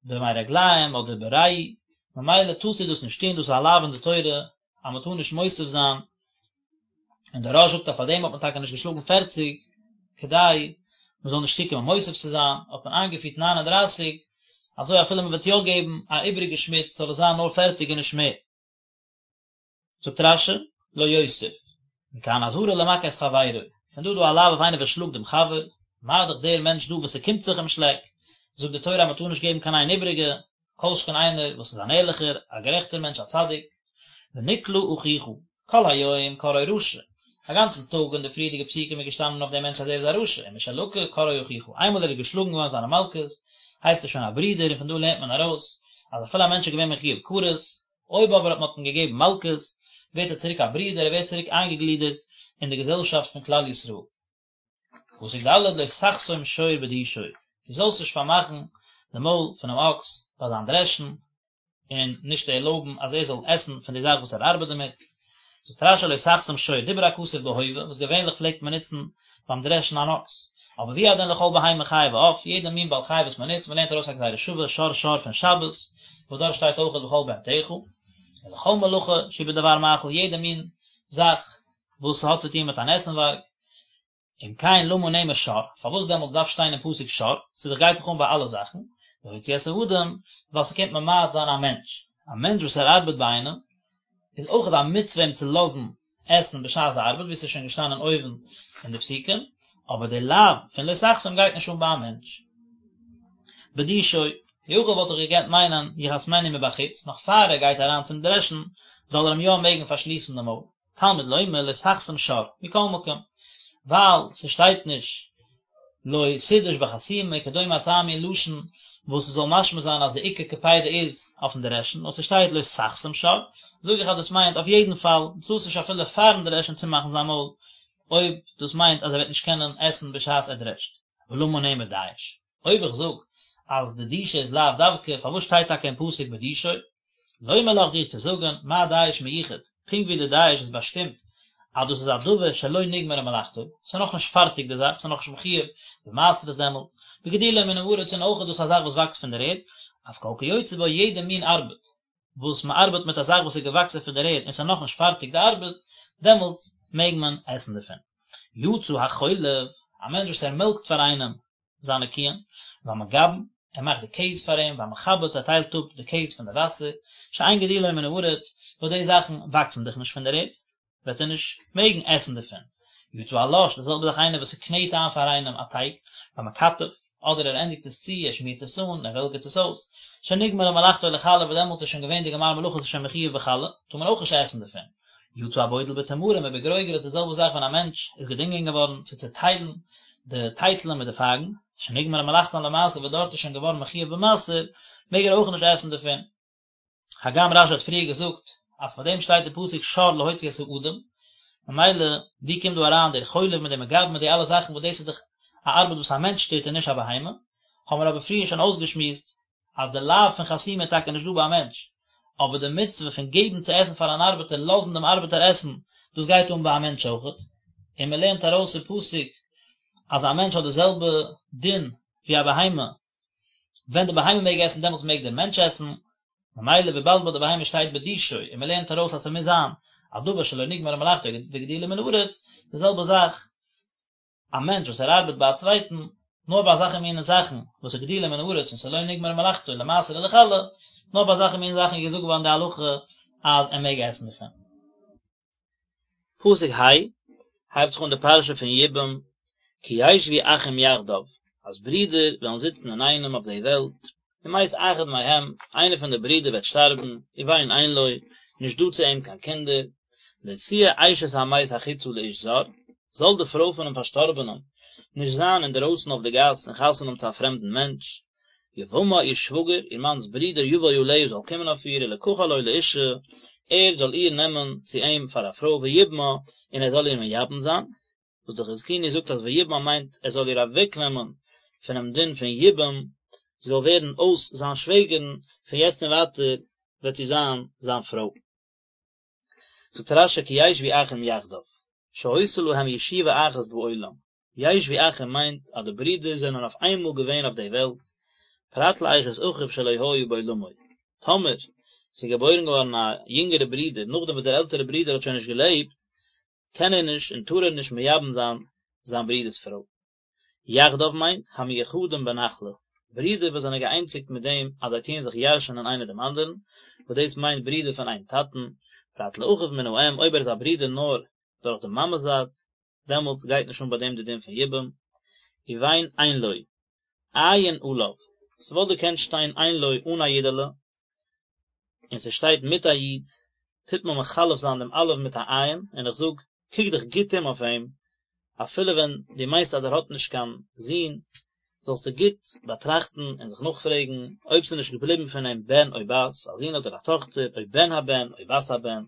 במי רגליים אדער בריעי, ממילא טארסטו דאס נישט טון, דאס איז א לאו אין די תורה אז מען טאר נישט מוסיף זיין און דער רא"ש זאגט אז פאר דעם האט מען טאקע נישט געשלאגן פערציג, כדי מען זאל נישט צוקומען מוסיף צו זיין, האט מען איינגעפירט 39, אזוי אפילו מען וועט יא געבן א איבריגע שמיץ זאל עס זיין נאר פערציג און נישט מער. זאגט רש"י, לא יוסיף, מכאן אזהרה למכה את חברו, פון דא איז דא א לאו אויף איינער וואס שלאגט דעם חבר, מה דאך דער מענטש דא וואס ס'קומט זיך אים שלעק, זאגט די תורה אז מען טאר נישט געבן קיין איין איבריגע, כל שכן איינער וואס איז אן ערליכער, א גערעכטער מענטש, א צדיק, ונקלה אחיך, כל היום קראו רשע, א גאנצן טאג אין די פריערדיגע פסוקים איז געשטאנען אויף דעם מענטש אז ער איז א רשע, ומשלקה קראו אחיך, איינמאל ער איז געשלאגן געווארן זיינע מלקות, הייסט ער שוין א ברודער, און פון דא לערנט מען ארויס, אז אפילו א מענטש איז געווען מחויב כרת, אויב אבער האט מען אים געגעבן מלקות, ווערט ער צוריק א ברודער, ער ווערט צוריק איינגעגלידערט אין די געזעלשאפט פון כלל ישראל. פסוק ד' לא תחסום שור בדישו, דו זאלסט נישט פארמאכן די מויל פונעם אקס ביי זיין דרעשן, און נישט ערלויבן אז ער זאל עסן פון די זאך וואס ער ארבעט דערמיט. זאגט רש"י לא תחסום שור, דיבר הכתוב בהווה, וואס געווענליך פלעגט מען נוצן ביים דרעשן אן אקס, אבער והוא הדין לכל בהמה חיה ועוף, יעדע מין בעל חי וואס מען נוצט, מען לערנט ארויס א גזירה שווה, שור שור פון שבת, וואס דארט שטייט אויכעט וכל בהמתך, ולכל מלאכה שהיא בדבר מאכל, יעדע מין זאך וואס האט צו טון מיט אן עסנווארג, אם כן למה נאמר שור, פארוואס דעמאלט דארף שטיין אין פסוק שור, ס'דאך גייט דאך אן ביי אלע זאכן, להוציא את האדם, ווייל ס'קומט ממעט זיין א מענטש, א מענטש וואס ער ארבעט ביי איינעם, איז אויכעט א מצוה אים צו לאזן עסן בשעת די ארבעט, ווי ס'איז שוין געשטאנען אויבן אין די פסוקים, אבער די לאו פון לא תחסום גייט נישט אן ביי א מענטש. בדישו, יכול וואלט איך געקענט מיינען יחסמנו מבחוץ, נאך פאר ער גייט אריין צום דרעשן, זאל ער אים יא מעגן פארשליסן די מויל. תלמוד לומר לא תחסום שור, מכל מקום, ווייל ס'שטייט נישט לא תדוש בחסימה וכדומה אזא מין לשון וואס ס'זאל משמע זיין אז די עיקר קפידה איז אויפן דרעשן, נאר ס'שטייט לא תחסום שור, זאג איך אז דאס מיינט אויף יעדן פאל, דו טארסט נישט אפילו פארן דרעשן צומאכן זיין מויל, אויב דאס מיינט אז ער וועט נישט קענען עסן בשעת ער דרעשט. ולמה נאמר דיש? אויב איך זאג אז די דישה איז לאו דווקא, פארוואס שטייט טאקע אין פסוק בדישו? לומר לך דיר צו זאגן, מה דיש מיוחד, פונקט ווי די דיש איז באשטימט אז דאס איז א דבר שלא נגמרה מלאכתו, ס'איז נאכנישט פארטיג די זאך, ס'איז נאכנישט מחויב במעשרות דעמאלטס, וגידולו מן הארץ און אויך איז דאס א זאך וואס וואקסט פון דער ערד, אף כל כיוצא בו יעדע מין ארבעט. וואס מען ארבעט מיט א זאך וואס איז געוואקסן פון דער ערד און ס'איז נאכנישט פארטיג די ארבעט, דעמאלטס מעג מען עסן דערפון. יצא החולב, א מענטש וואס ער מעלקט פאר איינעם זיינע קיען, והמגבן, ער מאכט די קעז פאר אים, והמחבץ, ער טיילט אפ די קעז פון די וואסער, שאין גידולו מן הארץ, וואס די זאכן וואקסן דאך נישט פון דער ערד, וועט ער נישט מעגן עסן דערפון. יצא הלש, די זעלבע זאך איינער וואס ס'קנעט איין פאר איינעם א טייג, והמקטף, אדער ער ענדיגט עס צו, ער שמירט עס אן, ער וועלגערט עס אויס, שנגמרה מלאכתו לחלה, וואס דעמאלטס איז שוין געווען די גמר מלאכה, ס'איז שוין מחויב בחלה, טאר מען אויך נישט עסן דערפון. יצא הבודל בתמרים ובגרוגרות, די זעלבע זאך ווען א מענטש איז געדינגען געווארן צו צעטיילן די טייטלען מיט די פייגן, שנגמרה מלאכתן למעשר וואס דארט איז שוין געווארן מחויב במעשר, מעג ער אויך נישט עסן דערפון. הגם רשי האט פריער געזאגט אז פאר דעם שטייט די פסוק שור להוציא את האדם, ממילא ווי קומט דא אריין דער חולב מיט דעם מגבן מיט די אלע זאכן וואס דאס איז דאך א ארבעט וואס א מענטש טוט און נישט א בהמה, האבן מיר אבער פריער שוין אויסגעשמועסט אז די לאו פון חסימה איז טאקע נישט דא ביי א מענטש, אבער די מצוה פון געבן צו עסן פאר אן ארבעטער, לאזן דעם ארבעטער עסן, דאס גייט אן ביי א מענטש אויכעט, און מען לערנט ארויס אין פסוק אז א מענטש האט די זעלבע דין ווי א בהמה, ווען די בהמה מעג עסן דעמאלטס מעג דער מענטש עסן, ממילא וויבאלד ביי די בהמה שטייט בדישו און מען לערנט ארויס אז ס'מוז זיין א דבר שלא נגמרה מלאכתו וגידולו מן הארץ, די זעלבע זאך א מענטש וואס ער ארבעט ביי א צווייטן, נאר ביי אזעלכע מינע זאכן וואס איז גידולו מן הארץ און ס'איז לא נגמרה מלאכתו למעשר ולחלה, נאר ביי אזעלכע מינע זאכן איז געזאגט געווארן די הלכה אז ער מעג עסן דערפון. פסוק ה' הייבט זיך אן די פרשה פון יבום, כי ישבו אחים יחדיו, אז ברידער וועלן זיצן אינאיינעם אויף די וועלט, ומת אחד מהם, איינער פון די ברידער וועט שטארבן, ובן אין לו, נישט דא צו אים קיין קינדער, לא תהיה אשת המת החוצה לאיש זר, זאל די פרוי פונעם פארשטארבענעם נישט זיין אינדערויסן אויף די גאס און חתונה האבן צו א פרעמדן מענטש, יבמה איר שוואגער, איר מאנ'ס ברודער יבוא עליה זאל קומען אויף איר ולקחה לו לאשה, ער זאל איר נעמען צו אים פאר א פרוי ויבמה, און ער זאל איר מייבם זיין, וואס די חזקוני זאגט אז ויבמה מיינט ער זאל איר אוועקנעמען פונעם דין פון יבום, זי זאל ווערן אויס זיין שוועגערן, פון יעצט און ווייטער וועט זי זיין זיין פרוי. זאגט רש"י כי ישבו אחים יחדיו, שהיתה להם ישיבה אחת בעולם, ישבו אחים מיינט אז די ברידער זענען אויף איינמאל געווען אויף די וועלט, פרט לאשת אחיו שלא היה בעולמו, טאמער ס'איז געבוירן געווארן א יונגערע ברודער נאכדעם וואס דער עלטערע ברודער האט שוין נישט געלעבט, קען ער נישט און טאר ער נישט מייבם זיין זיין ברודער'ס פרוי. יחדיו מיינט, המיוחדים בנחלה, ברידער וואס זענען געאיינציגט מיט דעם אז זיי טוען זיך ירש'ענען איינער דעם אנדערן, וואס דאס מיינט ברידער פון איין טאטן, פרט לאחיו מן האם, אויב ער איז א ברודער נאר דורך די מאמע'ס זייט, דעמאלטס גייט נישט אן ביי דעם די דין פון יבום, ובן אין לו, עיין עליו, ס'וואלט געקענט שטיין אין לו אן א יודעלע, און ס'שטייט מיט א יוד, טוט מען מחלף זיין דעם אלף מיט א עין, און איך זאג, קוק דיך גוט אום אויף אים, אפילו ווען דו מיינסט אז ער האט נישט קיין זון, זאלסטו גוט באטראכטן און זיך נאכפרעגן אויב ס'איז נישט געבליבן פון אים בן או בת, א זון אדער א טאכטער, או בן הבן או בת הבן,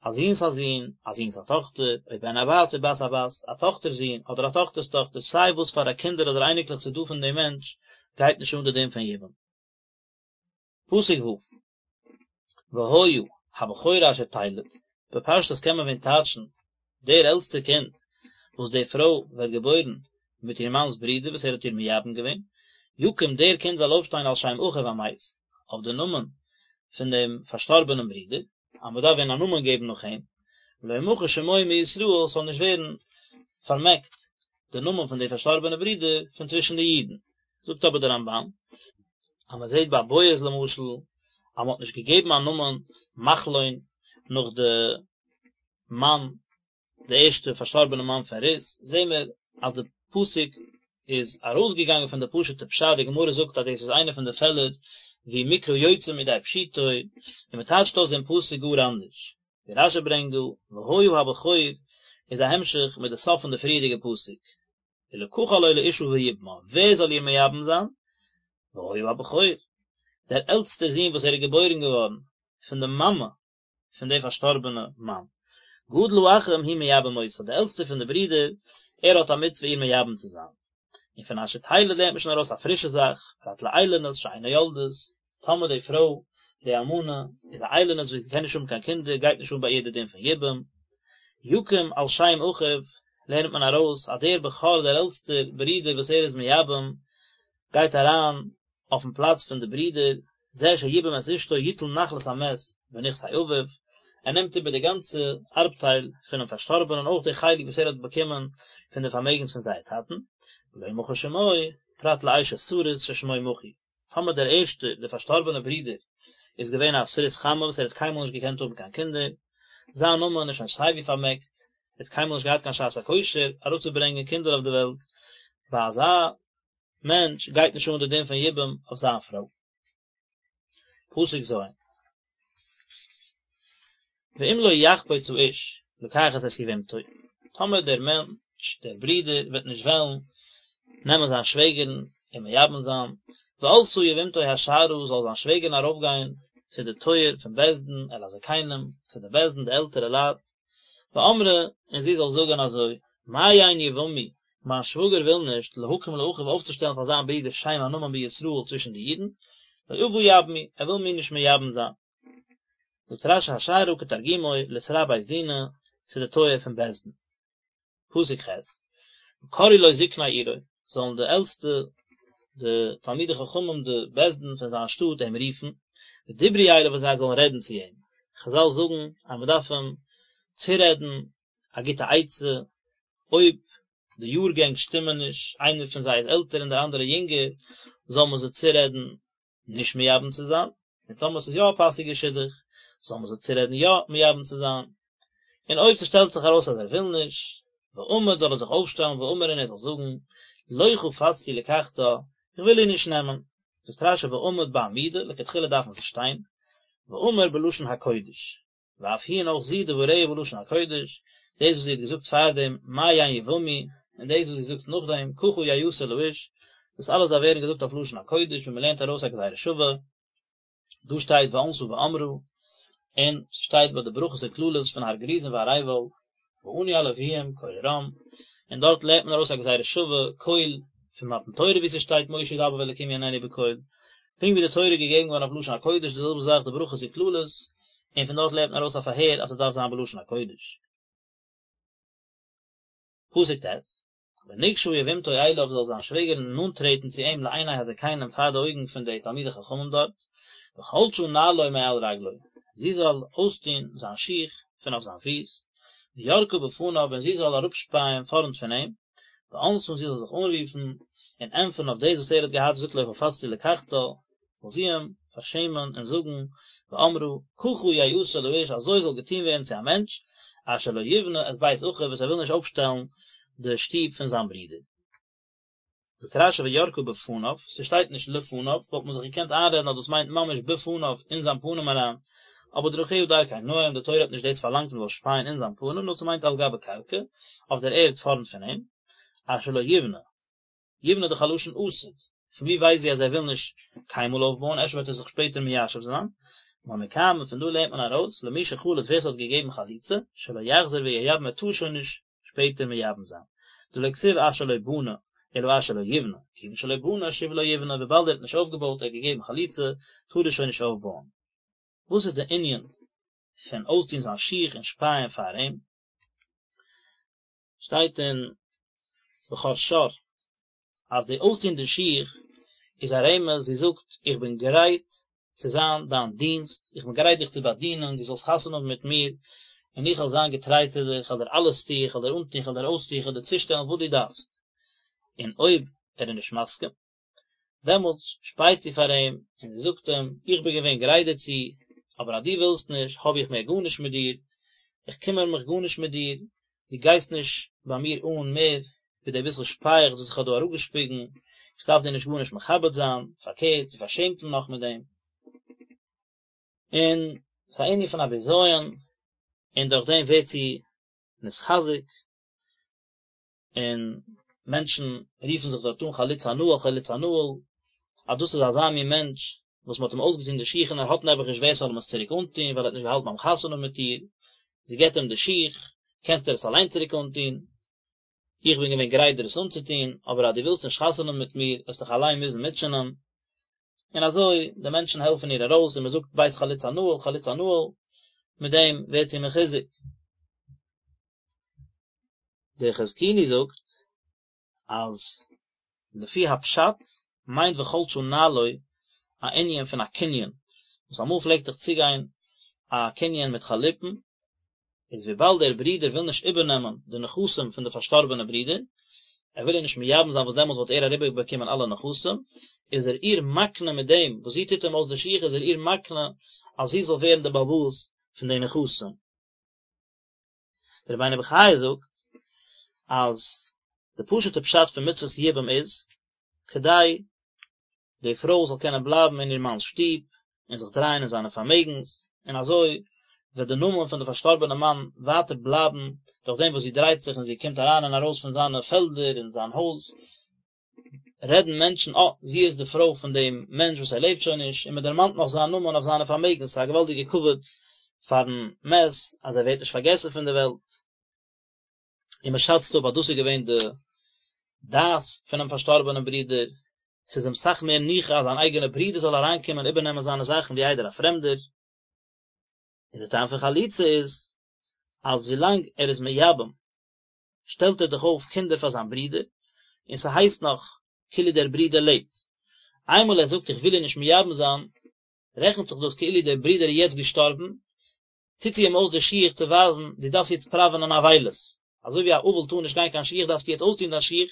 א זון'ס א זון, א זון'ס א טאכטער, או בן הבת או בת הבת, א טאכטער'ס זון אדער א טאכטער'ס טאכטער, סיי וואס פאר א קינדער אדער אייניקלעך ס'איז דא פון דעם מענטש, גייט נישט אן די דין פון יבום. פסוק ו', והיה הבכור אשר תלד, בפשטות קען מען ווען טייטשן, דער עלטסטער קינד וואס די פרוי וועט געבוירן מיט איר מאנ'ס ברודער וואס ער האט איר מייבם געווען, יקום דער קינד זאל אויפשטיין על שם אחיו המת, אויף די נאמען פון דעם פארשטארבענעם ברודער, אז מען דארף ווען א נאמען געבן נאך אים, ולא ימחה שמו מישראל, ס'זאל נישט ווערן פארמעקט די נאמען פון די פארשטארבענע ברודער פון צווישן די אידן. זאגט אבער דער רמב"ן, אז מען זעט ביי בועז למשל, אז מען האט נישט געגעבן א נאמען מחלון נאך די מאן, די ערשטע פארשטארבענע מאן פון רות, זעהן מיר אז די פסוק איז ארויסגעגאנגען פון די פשוט'ע פשט, די גמרא זאגט אז דאס איז איינע פון די פעלער ווי מקרא יוצא מידי פשוטו, און מען טייטשט אויס דעם פסוק גאר אנדערש, ווי רש"י ברענגט דא, והיה הבכור איז א המשך מיט די סוף פון די פריערדיגע פסוק, ולקחה לו לאשה ויבמה, ווער זאל איר מייבם זיין? והיה הבכור, דער עלטסטער זון וואס ער איז געבוירן געווארן פון די מאמע פון די פארשטארבענע מאן. גדול האחים הוא מייבם אותה, די עלטסטע פון די ברידער, ער האט א מצוה איר מייבם צו זיין. און פון אשר תלד לערנט מען שוין ארויס א פרישע זאך, פרט לאילונית שאינה יולדת, טאמער די פרוי, די אלמנה, איז א איילונית וואס קען נישט האבן קיין קינדער, גייט נישט אן ביי איר די דין פון יבום. יקום על שם אחיו, לערנט מען ארויס אז דער בכור דער עלטסטער ברודער וואס ער איז מייבם, גייט אריין אויפן פלאץ פון די ברידער. זה שיבם את אשתו יטול נחלת המת בנכסי אביו, ער נעמט איבער די גאנצע ארבטייל פונעם פארשטארבענען אויך די חלק וואס ער האט באקומען פון די פארמעגנס פון זייער טאטן, ולא מחה שמו, פרט לאשת סריס ששמו מחוי. טאמער דער ערשטער, דער פארשטארבענער ברודער, איז געווען א סריס חמה וואס ער האט קיינמאל נישט געקענט האבן קיין קינדער, זיין נאמען איז שוין סייווי פארמעקט, ער האט קיינמאל נישט געהאט קיין שעת הכושר אראפצוברענגען קינדער אויף די וועלט, ביי אזא מענטש גייט נישט אן די דין פון יבום אויף זיין פרוי. פסוק ז'. ואם לא יחפוץ האיש לקחת את יבמתו, טאמער דער מענטש, דער ברודער, וועט נישט וועלן נעמען זיין שוועגערן און מייבם זיין, ועלתה יבמתו השערה, זאל זיין שוועגערן ארויפגיין צו די טויער פון בית דין, אל הזקנים, צו די בית דין, די עלטערע לייט, ואמרה, און זי זאל זאגן אזוי, מאן יבמי, מיין שוואגער וויל נישט, להקים לאחיו אויפצושטעלן פאר זיין ברודער שם א נאמען בישראל צווישן די אידן, לא אבה יבמי, ער וויל מיר נישט מייבם זיין. זאגט רש"י השערה כתרגומו לתרע בית דינא, צו די טויער פון בית דין. פסוק ח', וקראו לו זקני עירו, זאלן די עלטסטע, די תלמידי חכמים, די בית דין פון זיין שטאט אים רופן, ודברו אליו און זיי זאלן רעדן צו אים. חז"ל זאגן אז מען דארף אים צורעדן א גוטע עצה, אויב די יארגענג שטימען נישט, איינער פון זיי איז עלטער און דער אנדערער יונגער, זאל מען זיי צורעדן נישט מייבם צו זיין, און טאמער ס'איז יא א פאסיגע שידוך, זאל מען זיי צורעדן יא מייבם צו זיין, און אויב ס'שטעלט זיך ארויס אז ער וויל נישט, ועמד זאל ער זיך אויפשטעלן ואמר און ער זאל זאגן, לא חפצתי לקחתה, איך וויל איר נישט נעמען, זאגט רש"י ועמד בעמידה, לכתחילה דארף מען זיך שטיין, ואמר בלשון הקודש. ואף היא און אויך זי דבריה בלשון הקודש, דאס וואס זי האט געזאגט פארדעם מאן יבמי, און דאס וואס זי זאגט נאכדעם ככה יעשה לאיש, דאס אלעס דארף ווערן געזאגט אויף לשון הקודש ווי מען לערנט ארויס א גזירה שווה, דא שטייט וענתה ואמרה, און ס'שטייט ביי די ברכות און קללות פון הר גריזים והר עיבל, וענו הלוים קול רם, און דארט לערנט מען ארויס א גזירה שווה, קול, פון מתן תורה ווי ס'שטייט משה ידבר והאלקים יעננו בקול, פונקט ווי די תורה איז געגעבן געווארן אויף לשון הקודש די זעלבע זאך די ברכות און קללות, און פון דארט לערנט מען ארויס א פארהער אז ס'דארף זיין בלשון הקודש. פסוק ט', ונגשה יבמתו אליו זאל זיין שוועגערין נאנט טרעטן צו אים לעיני הזקנים פאר די אויגן פון די תלמידי חכמים דארט, וחלשה נעלו מעל רגלו, זי זאל אויסטון זיין שיך פון אויף זיין פיס, וירקה בפניו און זי זאל אראפשפייען פארנט פון אים, וענתה און זי זאל זיך אנרופן און ענטפערן אויף דאס וואס ער האט געהאט געזאגט לא חפצתי לקחתה, זאל זי אים פארשעמען און זאגן, ואמרה, ככה יעשה לאיש, אזוי זאל געטון ווערן צו א מענטש, אשר לא יבנה את בית אחיו, וואס ער וויל נישט אויפשטעלן די שטוב פון זיין ברודער. זאגט רש"י וירקה בפניו, ס'שטייט נישט לפניו, וואלט מען זיך געקענט איינרעדן אז דאס מיינט ממש בפניו, אין זיין פנים אריין, אבער דרכיה דרכי נועם, די תורה האט נישט דאס פארלאנגט מ'זאל שפייען אין זיין פנים, נאר ס'מיינט על גבי קרקע, אויף דער ערד פארנט פון אים, אשר לא יבנה. יבנה איז דאך א לשון עתיד, פון ווי ווייסט זי אז ער וויל נישט קיינמאל אויפבויען, אפשר וועט ער זיך שפעטער מיישב זיין, מכאן און פון דא לערנט מען ארויס, למי שחלץ ווער ס'האט געגעבן חליצה, שלא יחזור וייבם ער טאר שוין נישט שפעטער מייבם זיין, דלא כתיב אשר לא בנה, אלא אשר לא יבנה, כיוון שלא בנה שוב לא יבנה, וויבאלד ער האט נישט אויפגעבויט ער האט געגעבן חליצה, טאר ער שוין נישט אויפבויען. וואס איז די ענין פון אויסטון זיין שיך און שפייען פאר אים? שטייט אין בכור שור אז די אויסטון די שיך איז א רמז, זי זאגט איך בין גרייט צו זיין דיין דינסט, איך בין גרייט דיך צו באדינען, דו זאלסט חתונה האבן מיט מיר, און איך וועל זיין געטריי צו דיר, איך וועל דיר אלעס טון, איך וועל דיר אנטון, איך וועל דיר אויסטון, איך וועל דיר צושטעלן וואס דו דארפסט. און אויב ער איז נישט מסכים, דעמאלטס שפייט זי פאר אים און זי זאגט אים, איך בין געווען גרייט דערצו, אבער אז דו ווילסט נישט, האב איך מער גארנישט מיט דיר, איך קימער מיך גארנישט מיט דיר, דו גייסט נישט ביי מיר אן מער ווי די ביסל שפייעכץ וואס איך האב דא אראפגעשפיגן, איך דארף דיר נישט גארנישט מכבד זיין, פארקערט, זי פארשעמט אים נאך מיט דעם. און ס'איז א ענין פון א בזיון, און דורך דעם ווערט זי נתחזק. און מענטשן רופן זיך דארט אן חלוץ הנעל חלוץ הנעל, אז דאס איז אזא מין מענטש וואס מען האט אים אויסגעטון די שיך און ער האט נעבעך נישט ווער ס'זאל אים עס צוריק אנטון ווייל ער האט נישט געהאלטן ביים חתונה מיט איר, זי געבט אים די שיך, קענסט דיר עס אליין צוריק אנטון, איך בין געווען גרייט דיר עס אנצוטון, אבער אז דו ווילסט נישט חתונה מיט מיר וועסט דיך אליין מוזן מוטשענען, און אזוי די מענטשן העלפן איר ארויס און מען זאגט בית חלוץ הנעל חלוץ הנעל, מיט דעם ווערט זי מחוזק. דער חזקוני זאגט אז לפי הפשט מיינט וחלשה נעלו. א ענין פון א קנין, וואס אמאל פלעגט דאך צוגיין א קנין מיט חליפין, איז וויבאלד דער ברודער וויל נישט איבערנעמען די נכסים פון די פארשטארבענע ברודער, ער וויל איר נישט מייבם זיין וואס דעמאלטס וואלט ער אריבערבאקומען אלע נכסים, איז ער איר מקנה מיט דעם וואס זי טוט אים אויס די שיך איז ער איר מקנה אז זי זאל ווערן די בעל הבית פון די נכסים. דער רבינו בחיי זאגט אז די פשוט'ע פשט פון מצוות יבום איז כדי די פרוי זאל קענען בלייבן אין איר מאנ'ס שטוב און זיך דרייען אין זיינע פארמעגנס, און אזוי וועט די נאמען פון די פארשטארבענע מאן ווייטער בלייבן דורך דעם וואס זי דרייט זיך און זי קומט אריין און ארויס פון זיינע פעלדער און זיין הויז, רעדן מענטשן, אה, זי איז די פרוי פון דעם מענטש וואס ער לעבט שוין נישט, און מען דערמאנט נאך זיין נאמען אויף זיינע פארמעגנס, ס'איז א געוואלדיגע כבוד פארן מת אז ער ווערט נישט פארגעסן פון די וועלט. און מען שאצט אפ אז דאס איז געווען די דעת פונעם פארשטארבענעם ברודער, ס'איז אים סאך מער ניחא אז זיין אייגענער ברודער זאל אריינקומען איבערנעמען זיינע זאכן ווי איידער א פרעמדער. און די טעם פון חליצה איז אז ווילאנג ער איז מייבם שטעלט ער דאך אויף קינדער פאר זיין ברודער, און ס'הייסט נאך כאילו דער ברודער לעבט. איינמאל ער זאגט איך וויל איר נישט מייבם זיין, רעכנט זיך דאס כאילו דער ברודער איז יעצט געשטארבן, טוט זי אים אויס די שיך צו ווייזן דו דארפסט יעצט פראווענען אבילות, אזוי ווי א אבל טאר נישט גיין קיין שיך דארפסטו יעצט אויסטון דיין שיך,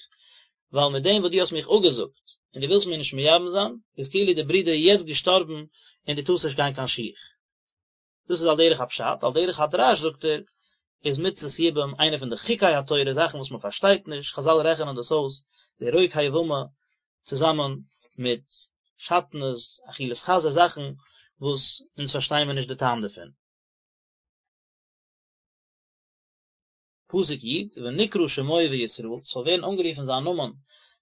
ווייל מיט דעם וואס דו האסט מיך אפגעזאגט און דו ווילסט מיר נישט מייבם זיין, איז כאילו דער ברודער איז יעצט געשטארבן און דו טארסט נישט גיין קיין שיך. דאס איז על דרך הפשט, על דרך הדרש זאגט ער, איז מצות יבום איינע פון די חוקי התורה, זאכן וואס מען פארשטייט נישט, חזל רעכענען דאס אויס, די רוק היבמה צוזאמען מיט שעטנז, אכילת חזיר, זאכן וואס אונז פארשטייען מיר נישט די טעם דערפון. פסוק י', ונקרא שמו בישראל, ס'זאל ווערן אנגערופן זיין נאמען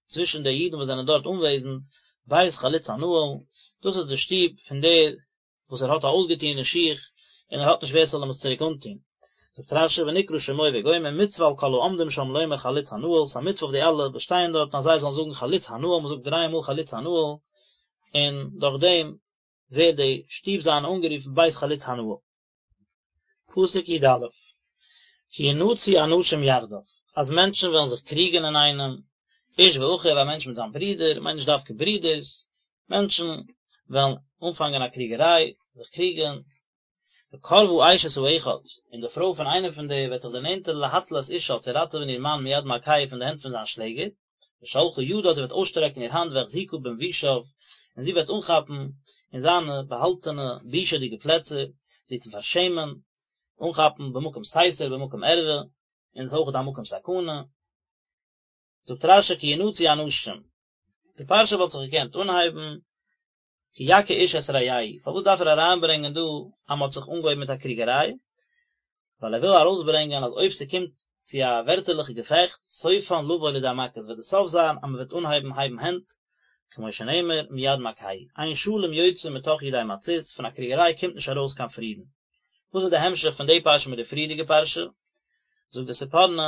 צווישן די אידן וואס זענען דארט אנוועזנד, בית חלוץ הנעל, דאס איז די שטוב פון דער וואס ער האט א אויסגעטוענע שיך, און ער האט נישט ווער ס'זאל אים עס צוריק אנטון. זאגט רש"י ונקרא שמו וגומר מצוה על כל העומדים שם לומר חלוץ הנעל, ס'איז א מצוה אויף די אלע וואס שטייען דארטן אז זיי זאלן זאגן חלוץ הנעל, מ'זאגט דריי מאל חלוץ הנעל, און דורך דעם ווערט די שטוב זיינע אנגערופן בית חלוץ הנעל. פסוק י"א, כי ינצו אנשים יחדיו, אז מענטשן וועלן זיך קריגן אינאיינעם, איש ואחיו, א מענטש מיט זיין ברודער, מיינט נישט דווקא ברודערס, מענטשן וועלן אנפאנגען א קריגעריי, זיך קריגן, וקרבה אשת האחד, און די פרוי פון איינעם פון די וועט זיך דערנענטערן להציל את אישה צו ראטעווען איר מאן מיד מכהו פון די הענט פון זיין שלעגער, ושלחה ידה זי וועט אויסשטרעקן איר האנט והחזיקה במבושיו, און זי וועט אנכאפן אין זיינע באהאלטענע בושה'דיגע פלעצער, זי וועט אים פארשעמען, אנכאפן במקום סתר במקום ערווה, און עס איז אויך א מקום סכנה. זאגט רש"י כי ינצו אנשים, די פרשה וואלט זיך געקענט אנהייבן כי יכה איש את רעהו, פארוואס דארף ער אריינברענגען דא אז מען האט זיך אנגעהויבן מיט א קריגעריי? ווייל ער וויל ארויסברענגען אז אויב ס'קומט צו א ווערטערליכע געפעכט, סופן לבוא לידי מכות, וועט די סוף זיין אז מען וועט אנהייבן הייבן הענט, כמו שנאמר מיד מכהו, אין שלום יוצא מתוך ידי מצות, פון א קריגעריי קומט נישט ארויס קיין פרידן. וואס איז די המשך פון די פרשה מיט די פריערדיגע פרשה? זאגט די ספורנו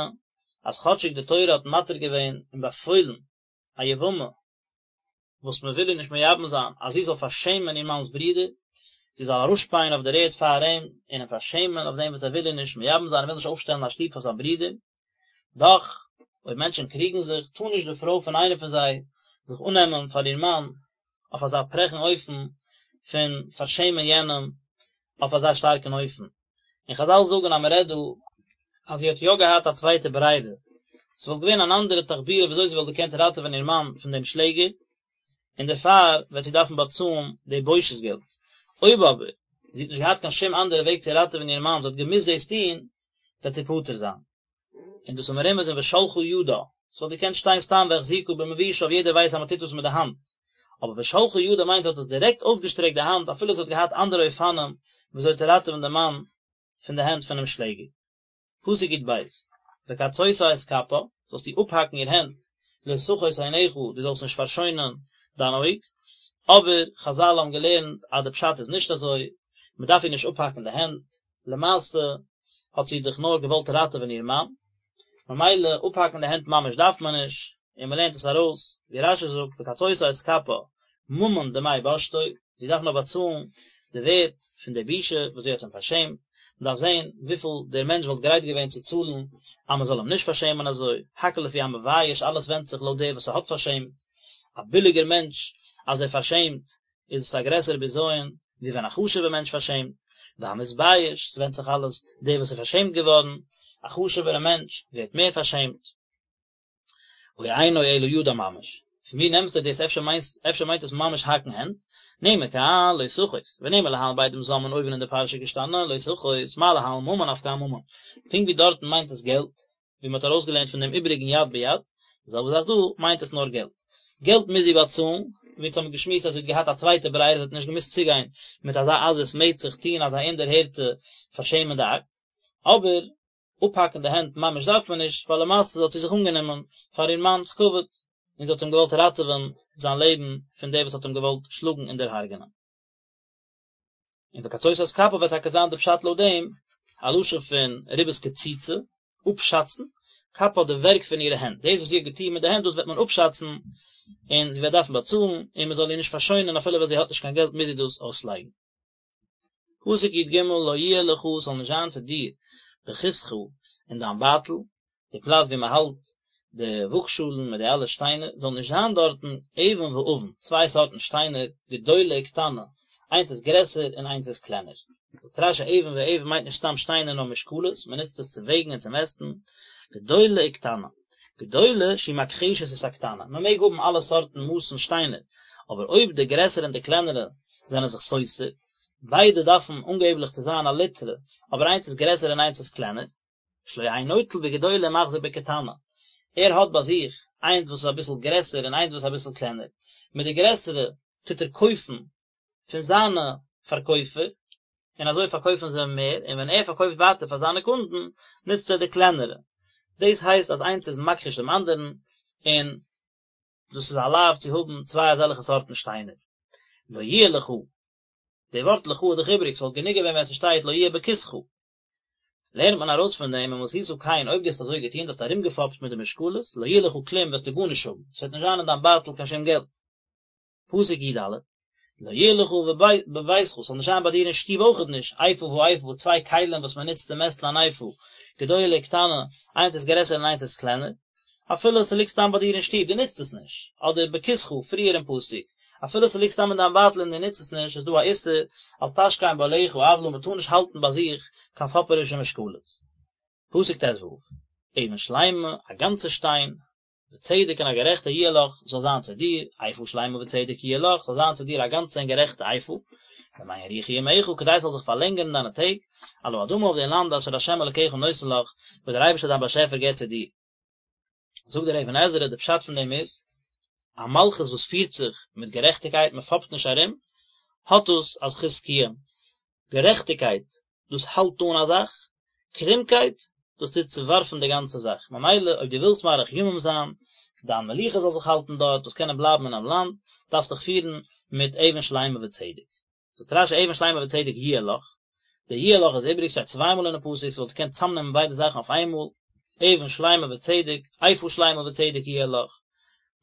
אז כאטשיג די תורה האט מתיר געווען און באפוילן א יבמה וואס מען וויל איר נישט מייבם זיין אז זי זאל פארשעמען איר מאנ'ס ברודער, זי זאל אראפשפייען אויף דער ערד פאר אים און אים פארשעמען אויף דעם וואס ער וויל איר נישט מייבם זיין, ער וויל נישט אויפשטעלן א שטוב פאר זיין ברודער. דאך, אויב מענטשן קריגן זיך, טאר נישט די פרוי פון איינער פון זיי זיך אננעמען פאר איר מאן אויף אזא פרעכן אופן פון פארשעמען יענעם אויף אזא שטארקן אופן. און חזל זאגן אז מען רעדט דא אז זי האט יא געהאט א צווייטע ברירה, ס'וואלט געווען אן אנדערע תחבולה ווי אזוי זי וואלט געקענט ראטעווען איר מאן פון דעם שלעגער, און דערפאר וועט זי דארפן באצאלן די בושת געלט. אויב אבער זי האט נישט געהאט קיין שום אנדערע וועג צו ראטעווען איר מאן, זי האט געמוזט דאס טון, וועט זי פטור זיין. און דאס איז מרומז אין ושלחה ידה, ס'וואלט געקענט שטיין סתם והחזיקה במבושיו יעדער ווייסט אז מ'טוט דאס מיט די האנט, אבער ושלחה ידה מיינט זי האט עס דירעקט אויסגעשטרעקט די האנט אפילו זי האט געהאט אנדערע אופנים וויאזוי צו ראטעווען די מאן פון די הענט פונעם שלעגער. פסוק י"ב, וקצותה את כפה, זאלסטו אפהאקן איר הענט, לא תחוס עינך, דו זאלסט נישט פארשוינען דיין אויג, אבער חזל האבן געלערנט אז די פשט איז נישט אזוי, מ'דארף איר נישט אפהאקן די הענט, למעשה האט זי דאך נאר געוואלט ראטעווען איר מאן, ממילא אפהאקן די הענט ממש דארף מען נישט, און מען לערנט עס ארויס, ווי רש"י זאגט וקצותה את כפה ממון דמי בושתו, זי דארף נאר באצאלן די ווערט פון די בושה וואס זי האט אים פארשעמט, מען דארף זען וויפיל דער מענטש וואלט גרייט געווען צו צאלן אז מען זאל אים נישט פארשעמען אזוי, הכל לפי המבייש, אלעס ווענדט זיך לויט דער וואס ס'האט פארשעמט, א ביליגער מענטש אז ער פארשעמט. איז עס א גרעסערע בזיון ווי ווען א חשוב'ע מענטש פארשעמט, והמתבייש, ס'ווענדט זיך אלעס דער וואס איז פארשעמט געווארן, א חשוב'ערע מענטש ווערט מער פארשעמט. או אינו אלא ידה ממש. פון ווי נעמסטו דאס אפשר מיינסט אפשר מיינט עס ממש האקן הענט? נאמר כאן לא תחוס, ונאמר להלן בעדים זוממין אויבן אין די פרשה געשטאנען לא תחוס, מה להלן ממון אף כאן ממון. פונקט ווי דארטן מיינט עס געלט, ווי מען האט ארויסגעלערנט פון דעם איבעריגן יד ביד, די זעלבע זאך דא, מיינט עס נאר געלט. געלט מוז זי באצאלן, ווי אונז האבן געשמועסט אז זי האט געהאט א צווייטע ברירה זי האט נישט געמוזט צוגיין מיט אזא עזות מצח טוהן אזא אומדערהערטע פארשעמענדע אקט, אבער אפהאקן די הענט ממש דארף מען נישט, ווייל למעשה האט זי זיך אנגענומען פאר איר מאנ'ס כבוד, און זי האט אים געוואלט ראטעווען זיין לעבן פון דער וואס האט אים געוואלט שלאגן און דערהרג'ענען. און וקצות את כפה וועט טאקע זיין די פשט לויט דעם, א לשון פון ריבית קציצה, אפשאצן, כפה די ווערק פון אירע הענט, דאס וואס זי האט געטון מיט די הענט דאס וועט מען אפשאצן, און זי וועט דארפן באצאלן, און מען זאל איר נישט פארשוינען אפילו ווען זי האט נישט קיין געלט מוז זי דאס אויסלייגן. פסוק י ג לא יהיה לך ס'זאל נישט זיין צו דיר בכיסך אין דיין בייטל, די פלאץ ווי מען האלט די וואגשאלן מיט די אלע שטיינער, זאל נישט זיין דארטן אבן ואבן, צוויי סארטן שטיינער, גדולה וקטנה, איינס איז גרעסער און איינס איז קלענער. זאגט רש י אבן ואבן מיינט נישט סתם שטיינער נאר משקלות, מען נוצט עס צו וועגן און צו מעסטן, גדולה וקטנה, גדולה שהיא מכחשת את הקטנה, מען מעג האבן אלע סארטן מאסן שטיינער, אבער אויב די גרעסערע און די קלענערע זענען זיך סותר, ביידע דארפן אנגעבליך צו זיין א ליטרא, אבער איינס איז גרעסער און איינס איז קלענער, שלא יהא נוטל בגדולה ומחזיר בקטנה, ער האט ביי זיך איינס וואס איז אביסל גרעסער און איינס וואס איז אביסל קלענער, מיט די גרעסערע טוט ער קויפן פון זיינע פארקויפער, און אזוי פארקויפן זיי מער, און ווען ער פארקויפט ווייטער פאר זיינע קונדן, נוצט ער די קלענערע. דאס הייסט אז איינס איז מכחיש דעם אנדערן, און דאס איז א לאו צו האבן צוויי אזעלכע סארטן שטיינער. לא יהיה לך, די ווארט לך איז דאך איבריג, ס'וואלט גענוג געווען ווען ס'שטייט לא יהיה בכיסך. לערנט מען ארויס פון דעם, אם עשית כן, אויב דו האסט אזוי געטון, דו האסט ארומגעפאפט מיט די משקלות, לא יהיה לך כלום, וועסטו גארנישט האבן, ס'וועט נישט זיין אין דיין בייטל קיין שום געלט. פסוק י ד, לא יהיה לך בביתך, ס'זאל נישט זיין ביי דיר אין שטוב אויכעט נישט, איפה ואיפה, צוויי כלים וואס מען נוצט צו מעסטן אן איפה, גדולה וקטנה, איינס איז גרעסער און איינס איז קלענער, אפילו ס'ליגט סתם ביי דיר אין שטוב, דו נוצט עס נישט, אדער בכיסך, פריער אין פסוק, אפילו ס'ליגט סתם אין דיין בייטל און דו נוצט עס נישט, איז דא א איסור, אל תשכן בעליך עוולה, מ'טאר נישט האלטן ביי זיך קיין פאפערישע משקלות. פסוק ט ו, אבן שלימה, א גאנצע שטיין, וצדק און א גערעכטע יהיה לך, זאל זיין צו דיר, איפה שלימה וצדק יהיה לך, זאל זיין צו דיר א גאנצע און גערעכטע איפה, למען יאריכו ימיך, כדי ס'זאל זיך פארלענגערן דיינע טעג, על האדמה אויף דעם לאנד אשר ה' אלקיך נותן לך, וואס דער אייבערשטער דיין באשעפער געבט צו דיר. זאגט דער אבן עזרא, די פשט פון דעם איז, א מלכות וואס פירט זיך מיט גערעכטיגקייט, מען פאפט נישט ארום, האט דאס א זכות קיום. גערעכטיגקייט, דאס האלט אן א זאך, קרומקייט, דאס טוט צעווארפן די גאנצע זאך, ממילא אויב דו ווילסט מאריך ימים זיין, דיין מלוכה זאל זיך האלטן דארט, זאלסט קענען בלייבן אינעם לאנד, דארפסט דיך פירן מיט אבן שלימה וצדק. זאגט רש י אבן שלימה וצדק יהיה לך, די יהיה לך איז איבריג, שטייט צוויי מאל אינעם פסוק, ס'וואלט געקענט צאמנעמען ביידע זאכן אויף איינמאל, אבן שלימה וצדק, איפה שלימה וצדק יהיה לך,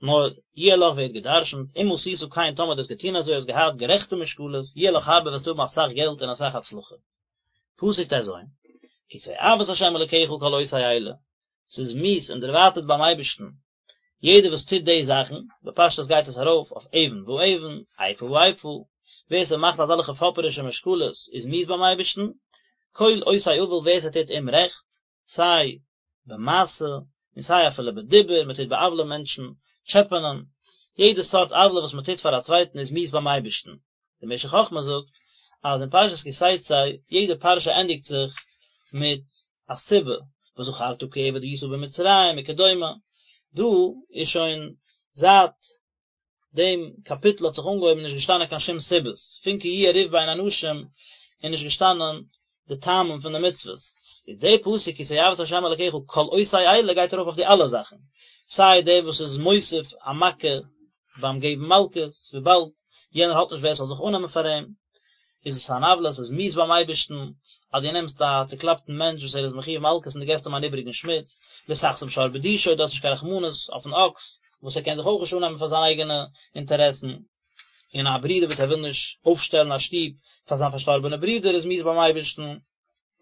נאר יהיה לך ווערט גע'דרש'נט, אם עשית כן טאמער דו האסט געטון אזוי האסט געהאט גערעכטע משקלות, יהיה לך הרבה וועסטו האבן אסאך געלט און אסאך הצלחה. פסוק ט ז, כי תועבת ה' אלקיך כל עושה אלה, ס'איז מיאוס און דערווייטערט ביים אייבערשטן יעדער וואס טוט די זאכן, בפשטות גייט עס ארויף אויף אבן ואבן, איפה ואיפה, ווער ס'מאכט אזעלכע פאפערישע משקלות איז מיאוס ביים אייבערשטן, כל עושה עול ווער ס'טוט אומרעכט, סיי במעשה און סיי אפילו בדיבור, מען טוט בא'עוול'ען מענטשן, טשעפענען, יעדע סארט עוולה וואס מען טוט פאר א צווייטן איז מיאוס ביים אייבערשטן. דער משך חכמה זאגט אז אין פרשת כי תצא יעדע פרשה ענדיגט זיך מיט א סיבה, וזכרת כי עבד היית במצרים וכדומה, דא איז שוין זייט דעם קאפיטל האט זיך אנגעהויבן נישט געשטאנען קיין שום סיבות, פון כי יהיה ריב בין אנשים איז נישט געשטאנען די טעמים פון די מצוות, איז דער פסוק כי תועבת ה' אלקיך כל עושה אלה גייט ארויף אויף די אלע זאכן, סיי דער וואס איז מוסיף א מכה ביים געבן מלקות, וויבאלד יענער האט נישט ווער ס'זאל זיך אננעמען פאר אים, איז עס אן עוולה, עס איז מיאוס ביים אייבערשטן, אז דו נעמסט א צוקלאפטן מענטש וואס ער איז מחויב מלקות און דו געסט אים אן איבעריגן שמיץ, לא תחסום שור בדישו, דו האסט נישט קיין רחמנות אויפן אקס, וואס ער קען זיך אויך נישט אננעמען פאר זיינע אייגענע אינטערעסן, און א ברודער וואס ער וויל נישט אויפשטעלן א שטוב פאר זיין פארשטארבענע ברודער איז מיאוס ביים אייבערשטן,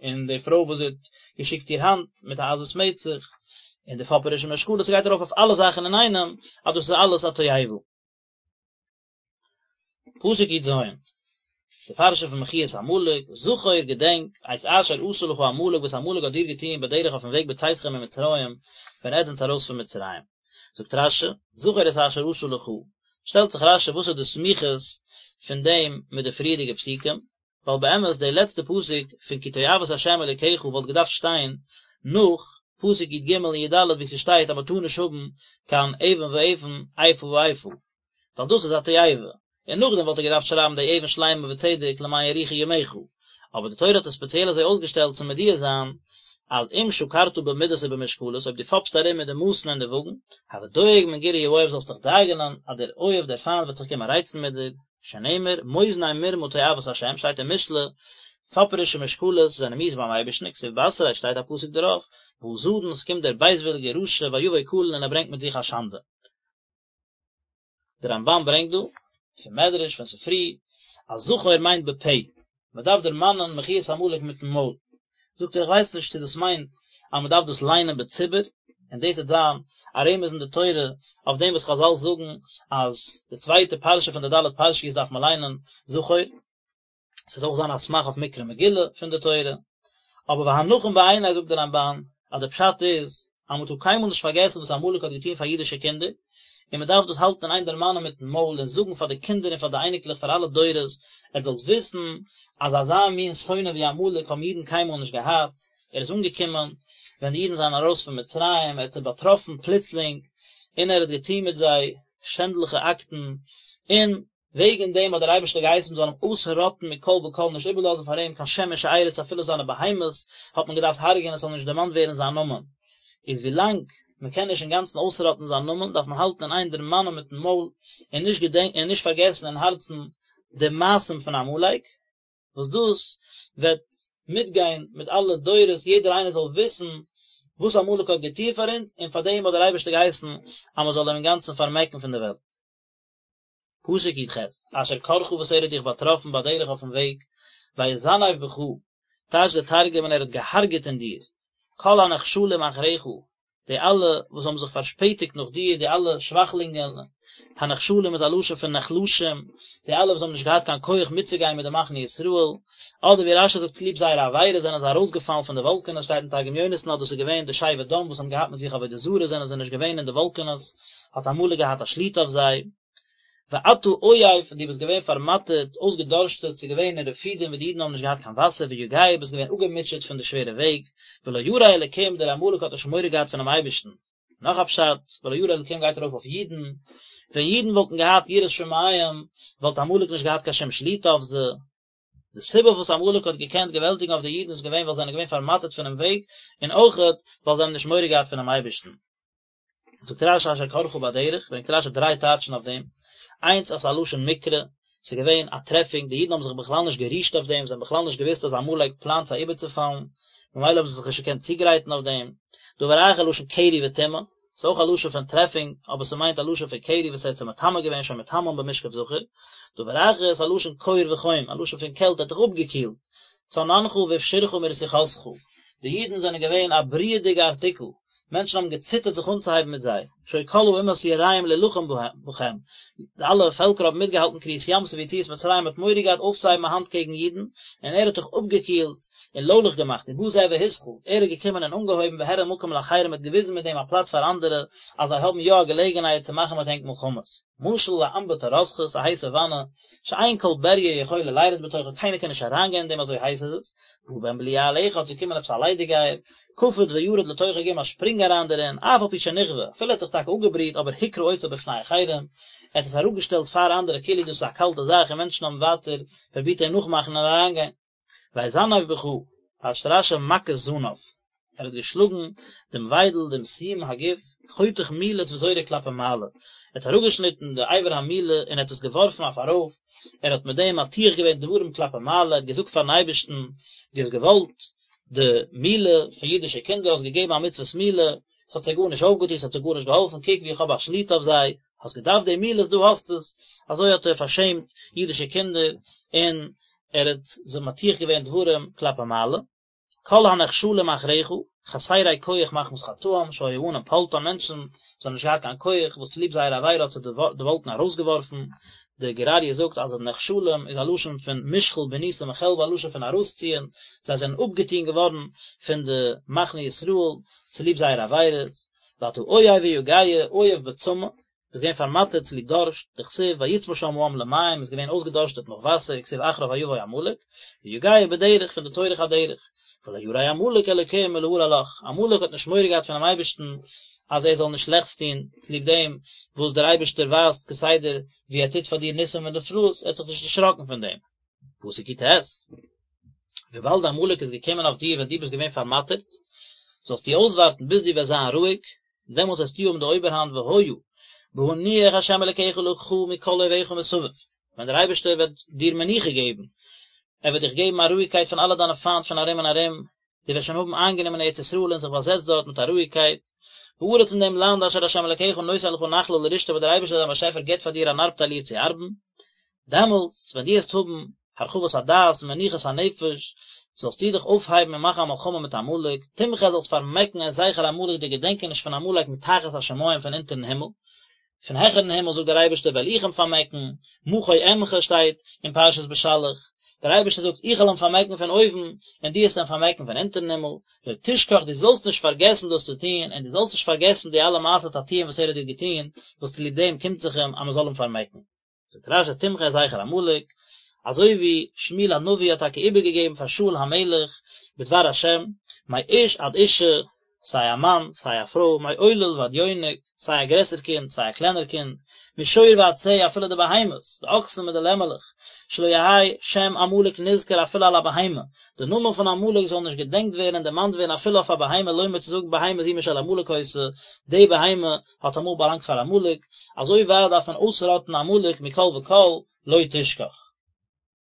און די פרוי וואס זי האט געשיקט איר האנט מיט א עזות מצח, און די פאפערישע משקלות, ס'גייט ארויף אויף אלע זאכן אינאיינעם, אז דאס איז אלעס א תועבה. פסוק י"ז, די פרשה פון מחיית עמלק, זכור געדענק, את אשר עשה לך עמלק וואס עמלק האט דיר געטון בדרך אויפן וועג בצאתכם ממצרים, ווען עטס זענטס ארויס פון מצרים. זאגט רש"י, זכור את אשר עשה לך, שטעלט זיך רש"י וואס איז די סמיכות פון דעם מיט די פריערדיגע פסוקים, ווייל באמת די לעצטע פסוק פון כי תועבת ה' אלוקיך וואלט געדארפט שטיין נאך פסוק י"ג און י"ד וואו ס'שטייט אז מ'טאר נישט האבן קיין אבן ואבן איפה ואיפה, ווייל דאס איז א תועבה, און נאכדעם וואלט ער געדארפט שרייבן די אבן שלימה וצדק למען יאריכו ימיך, אבער די תורה האט עס ספעציעל אזוי אויסגעשטעלט צו מודיע זיין אז אם שקרת במידות ובמשקלות אויב דו פאפסט ארום מיט די מאסן און די וואגן, הוי דואג מן גירוי האויב זאלסט דיך דאגה'נען אז דער אויב דער פיינט וועט זיך קומען רייצן מיט דיר, שנאמר, מאזני מרמה תועבת השם, שטייט אין משלי, פאפערישע משקלות זענען מיאוס ביים אייבערשטן, וכתיב בתריה, שטייט א פסוק דערויף, בא זדון, עס קומט דער בייזוויליגער רשע, ויבא קלון און ער ברענגט מיט זיך א שאנדע. דער רמב"ן ברענגט דא, פון מדרש, פון ספרי, אז זכור מיינט בפה, מען דארף דערמאנען מחיית עמלק מיטן מויל. זאגט ער איך ווייס נישט צו דאס מיינט אז מען דארף דאס ליינען בציבור, און דאס וועט זיין א רמז אין די תורה אויף דעם וואס חז"ל זאגן אז די צווייטע פרשה פון די ד' פרשיות דארף מען ליינען זכור, עס וועט אויך זיין א סמך אויף מקרא מגילה פון די תורה, אבער והנכון בעיני זאגט דער רמב"ן אז דער פשט איז אז מען טאר קיינמאל נישט פארגעסן וואס עמלק האט געטון פאר אידישע קינדער, און מען דארף דאס האלטן אין איין דערמאנען מיטן מויל און זאגן פאר די קינדער און פאר די אייניקלעך פאר אלע דורות, עטס זאלטס וויסן אז אזא מין שונא ווי עמלק האבן אידן קיינמאל נישט געהאט, ער איז אנגעקומען ווען די אידן זענען ארויס פון מצרים, ער האט זיי באטראפן פלוצלינג, און ער האט געטון מיט זיי שענדליכע אקטן, און וועגן דעם האט דער אייבערשטער געהייסן מען זאל אים אויסראטן מכל וכל נישט איבערלאזן פאר אים קיין שם ושארית אפילו זיינע בהמות האט מען געדארפט הרג'ענען עס זאל נישט דערמאנט ווערן זיין נאמען, איז ווילאנג מען קען נישט אינגאנצן אויסראטן זיין נאמען דארף מען האלטן אין איין דערמאנען מיטן מויל און נישט געדענקען און נישט פארגעסן אין הארצן די מעשים פון עמלק. וואס דאס וועט מיטגיין מיט אלע דורות יעדער איינער זאל וויסן וואס עמלק האט געטון פאר אונז און פאר דעם האט דער אייבערשטער געהייסן אז מען זאל אים אינגאנצן פארמעקן פון די וועלט. פסוק י"ח, אשר קרך וואס ער האט דיך באטראפן בדרך אויפן וועג, ויזנב בך, טייטשט דער תרגום און ער האט געהארגעט אין דיר, כל הנחשלים אחריך, די אלע וואס האבן זיך פארשפעטיגט נאך דיר, די אלע שוואכלינגען, הנחשלים איז א לשון פון נחלשים, די אלע וואס האבן נישט געהאט קיין כח מיטצוגיין מיט די מחנה ישראל, אדער ווי רש"י זאגט צוליב זייערע עבירות זענען זיי ארויסגעפאלן פון די וואלקענעס, שטייט אין תרגום יונתן אז דאס איז געווען די שבט דן וואס האבן געהאט מיט זיך עבודה זרה זענען זיי נישט געווען אין די וואלקענעס, האט עמלק געהאט א שליטה אויף זיי. ואתה עיף, און דו ביסט געווען פארמאטערט, אויסגעדארשטעט, ס'איז געווען אין רפידים וואו די אידן האבן נישט געהאט קיין וואסער, ויגע, ביסט געווען אפגעמוטשעט פון די שווערע וועג, ולא ירא אלקים, דער עמלק האט נישט מורא געהאט פונעם אייבערשטן. נאך א פשט, ולא ירא אלקים גייט ארויף אויף אידן, ווען אידן וואלטן געהאט יראת שמים, וואלט עמלק נישט געהאט קיין שום שליטה אויף זיי. די סיבה וואס עמלק האט געקענט געוועלטיגן אויף די אידן איז געווען ווייל זיי זענען געווען פארמאטערט פונעם וועג, און אויכעט ווייל זיי האבן נישט מורא געהאט פונעם אייבערשטן. זאגט רש"י אשר קרך בדרך, ברענגט רש"י דריי טייטשן אויף דעם, איינס אז ס'איז א לשון מקרה, ס'איז געווען א טרעפינג, די אידן האבן זיך בכלל נישט גערישט אויף דעם, זיי האבן בכלל נישט געוואוסט אז עמלק פלאנט זיי איבערצופאלן, ממילא האבן זיי זיך נישט געקענט צוגרייטן אויף דעם. דבר אחר לשון קרי וטומאה, ס'איז אויך א לשון פון טרעפינג, אבער ס'מיינט א לשון פון קרי וואס ער האט זיי מטמא געווען שהיה מטמאן במשכב זכר. דבר אחר איז א לשון קור וחום, א לשון פון קעלט, ער האט דיך אפגעקילט. צננך והפשירך מרתיחתך, די אידן זענען געווען א בריעדיגע ארטיקל, מענטשן האבן געציטערט זיך אנצוהייבן מיט זיי, שהיו כל האומות יראים להלחם בכם, די אלע פעלקער האבן מיטגעהאלטן קריעת ים סוף ויציאת מצרים, מ'האט מורא געהאט אויפצוהייבן א האנט קעגן אידן, און ער האט דיך אפגעקילט און לוילעך געמאכט, ובא זה והתחיל, ער איז געקומען און אנגעהויבן והראה מקום לאחרים, האט געוויזן מיט דעם א פלאץ פאר אנדערע, אז זיי האבן יא א געלעגנהייט צו מאכן מיט ענק מלחמות. משל לאמבטי רותחת, א הייסע וואנע, שאין כל בריה יכולה לירד בתוכה, קיינער קען נישט אריינגיין אין דעם אזוי הייס איז עס, בא בן בליעל אחד, ס'איז געקומען עפעס א ליידיגייער, קפץ וירד לתוכה געגעבן א שפרינג אריין דערין, אף על פי שנכווה, אפילו ער האט זיך טאקע אפגעבריהט אבער הקרה אותה בפני אחרים, ער האט עס אראפגעשטעלט פאר אנדערע כאילו דאס איז א קאלטע זאך און מענטשן האבן ווייטער פרובירט אים נאכמאכן און אריינגיין. ויזנב בך, טייטשט רש"י מכת זנב, ער האט געשלאגן דעם וויידל, דעם סיום הגוף, חותך מילות וזורק כלפי מעלה, ער האט אראפגעשניטן די אבר המילה און ער האט עס געווארפן אויף ארויף, ער האט מיט דעם מטיח געווען דברים כלפי מעלה, ער האט געזאגט פארן אייבערשטן, דו האסט געוואלט די מילה פון אידישע קינדער, האסט געגעבן א מצוות מילה, עס האט זיי גארנישט אויפגעטון, עס האט זיי גארנישט געהאלפן, קוק ווי איך האב א שליטה אויף זיי, האסט געדארפט די מילות, דא האסטו עס, אזוי האט ער פארשעמט אידישע קינדער, און ער האט זיי מטיח געווען דברים כלפי מעלה, כל הנחשלים אחריך, חסרי כח מחמת חטאם, שהיה הענן פולטן, מענטשן וואס האבן נישט געהאט קיין כח, וואס צוליב זייער עבירה האט זיי די וואלקן ארויסגעווארפן. די גור אריה זאגט אז נחשלים איז א לשון פון מושחל בניסים מחלבו א לשון פון ארויסציען, זיי זענען אפגעטון געווארן פון די מחנה ישראל צוליב זייערע עבירות, ואתה עיף ויגע, עיף בצמא, ביסט געווען פארמאטערט צוליב דארשט, דכתיב ויצמא שם העם למים איז געווען אויסגעדארשטעט נאך וואסער, וכתיב אחריו ויבא עמלק, ויגע בדרך פון די טורח הדרך, ולא ירא עמלק אלקים מלהרע לך, עמלק האט נישט מורא געהאט פונעם אייבערשטן אז ער זאל נישט שלעכטס טון, צוליב דעם וואס דער אייבערשטער ווייזט כסדר ווי ער טוט פאר דיר ניסים ונפלאות, ער האט זיך נישט דערשראקן פון דעם. פסוק יט, וויבאלד עמלק איז געקומען אויף דיר ווען דו ביסט געווען פארמאטערט, זאלסטו אויסווארטן ביז דו וועסט זיין רואיג, דעמאלטס וועסטו האבן די אויבערהאנט והיה בהניח ה' אלקיך לך מכל אויביך מסביב, ווען דער אייבערשטער וועט דיר מנוחה געבן, ער וועט דיך געבן א רואיגקייט פון אלע דיינע פיינט פון ארום און ארום, דו וועסט שוין האבן איינגענומען ארץ ישראל און זיך באזעצט דארט מיט א רואיגקייט, בארץ אין דעם לאנד אשר ה' אלקיך נותן לך נחלה לרשתה וואס דער אייבערשטער דיין באשעפער גיבט פאר דיר אן ארבטייל איר צו ארבן, דעמאלטס ווען דו וועסט האבן הרחבת הדעת און מנוחת הנפש, זאלסטו דיך אויפהייבן און מאכן א מלחמה מיט עמלק, תמחה זאלסט פארמעקן את זכר עמלק די געדענקעניש פון עמלק מתחת השמים פון אונטערן הימל, פון העכערן הימל זאגט דער אייבערשטער וועל איך אים פארמעקן, מחה אמחה שטייט אין פרשת בשלח, דער אייבערשטער זאגט איך וועל אים פארמעקן פון אויבן, און דו וועסט אים פארמעקן פון אונטערן הימל, לא תשכח דו זאלסט נישט פארגעסן דאס צו טון, און דו זאלסט נישט פארגעסן די אלע מעשי תעתועים וואס ער האט דיר געטון, וואס צוליב דעם קומט זיך אים אז מען זאל אים פארמעקן. זאגט רש"י תמחה את זכר עמלק, אזוי ווי שמואל הנביא האט טאקע איבערגעגעבן פאר שאול המלך בדבר השם, מאיש עד אישה, סיי א מאן סיי א פרוי, מעולל ועד יונק, סיי א גרעסער קינד סיי א קלענער קינד, משור ועד שה, אפילו די בהמות, די אקסן מיט די לעמעלעך, שלא יהא שם עמלק נזכר אפילו על הבהמה, די נאמען פון עמלק זאל נישט געדענקט ווערן און דערמאנט ווערן אפילו אויף א בהמה לומר צו זאגן בהמה זו משל עמלק היתה, די בהמה האט אמאל באלאנגט פאר עמלק, אזוי ווייט דארף מען אויסראטן עמלק מכל וכל, לא תשכח.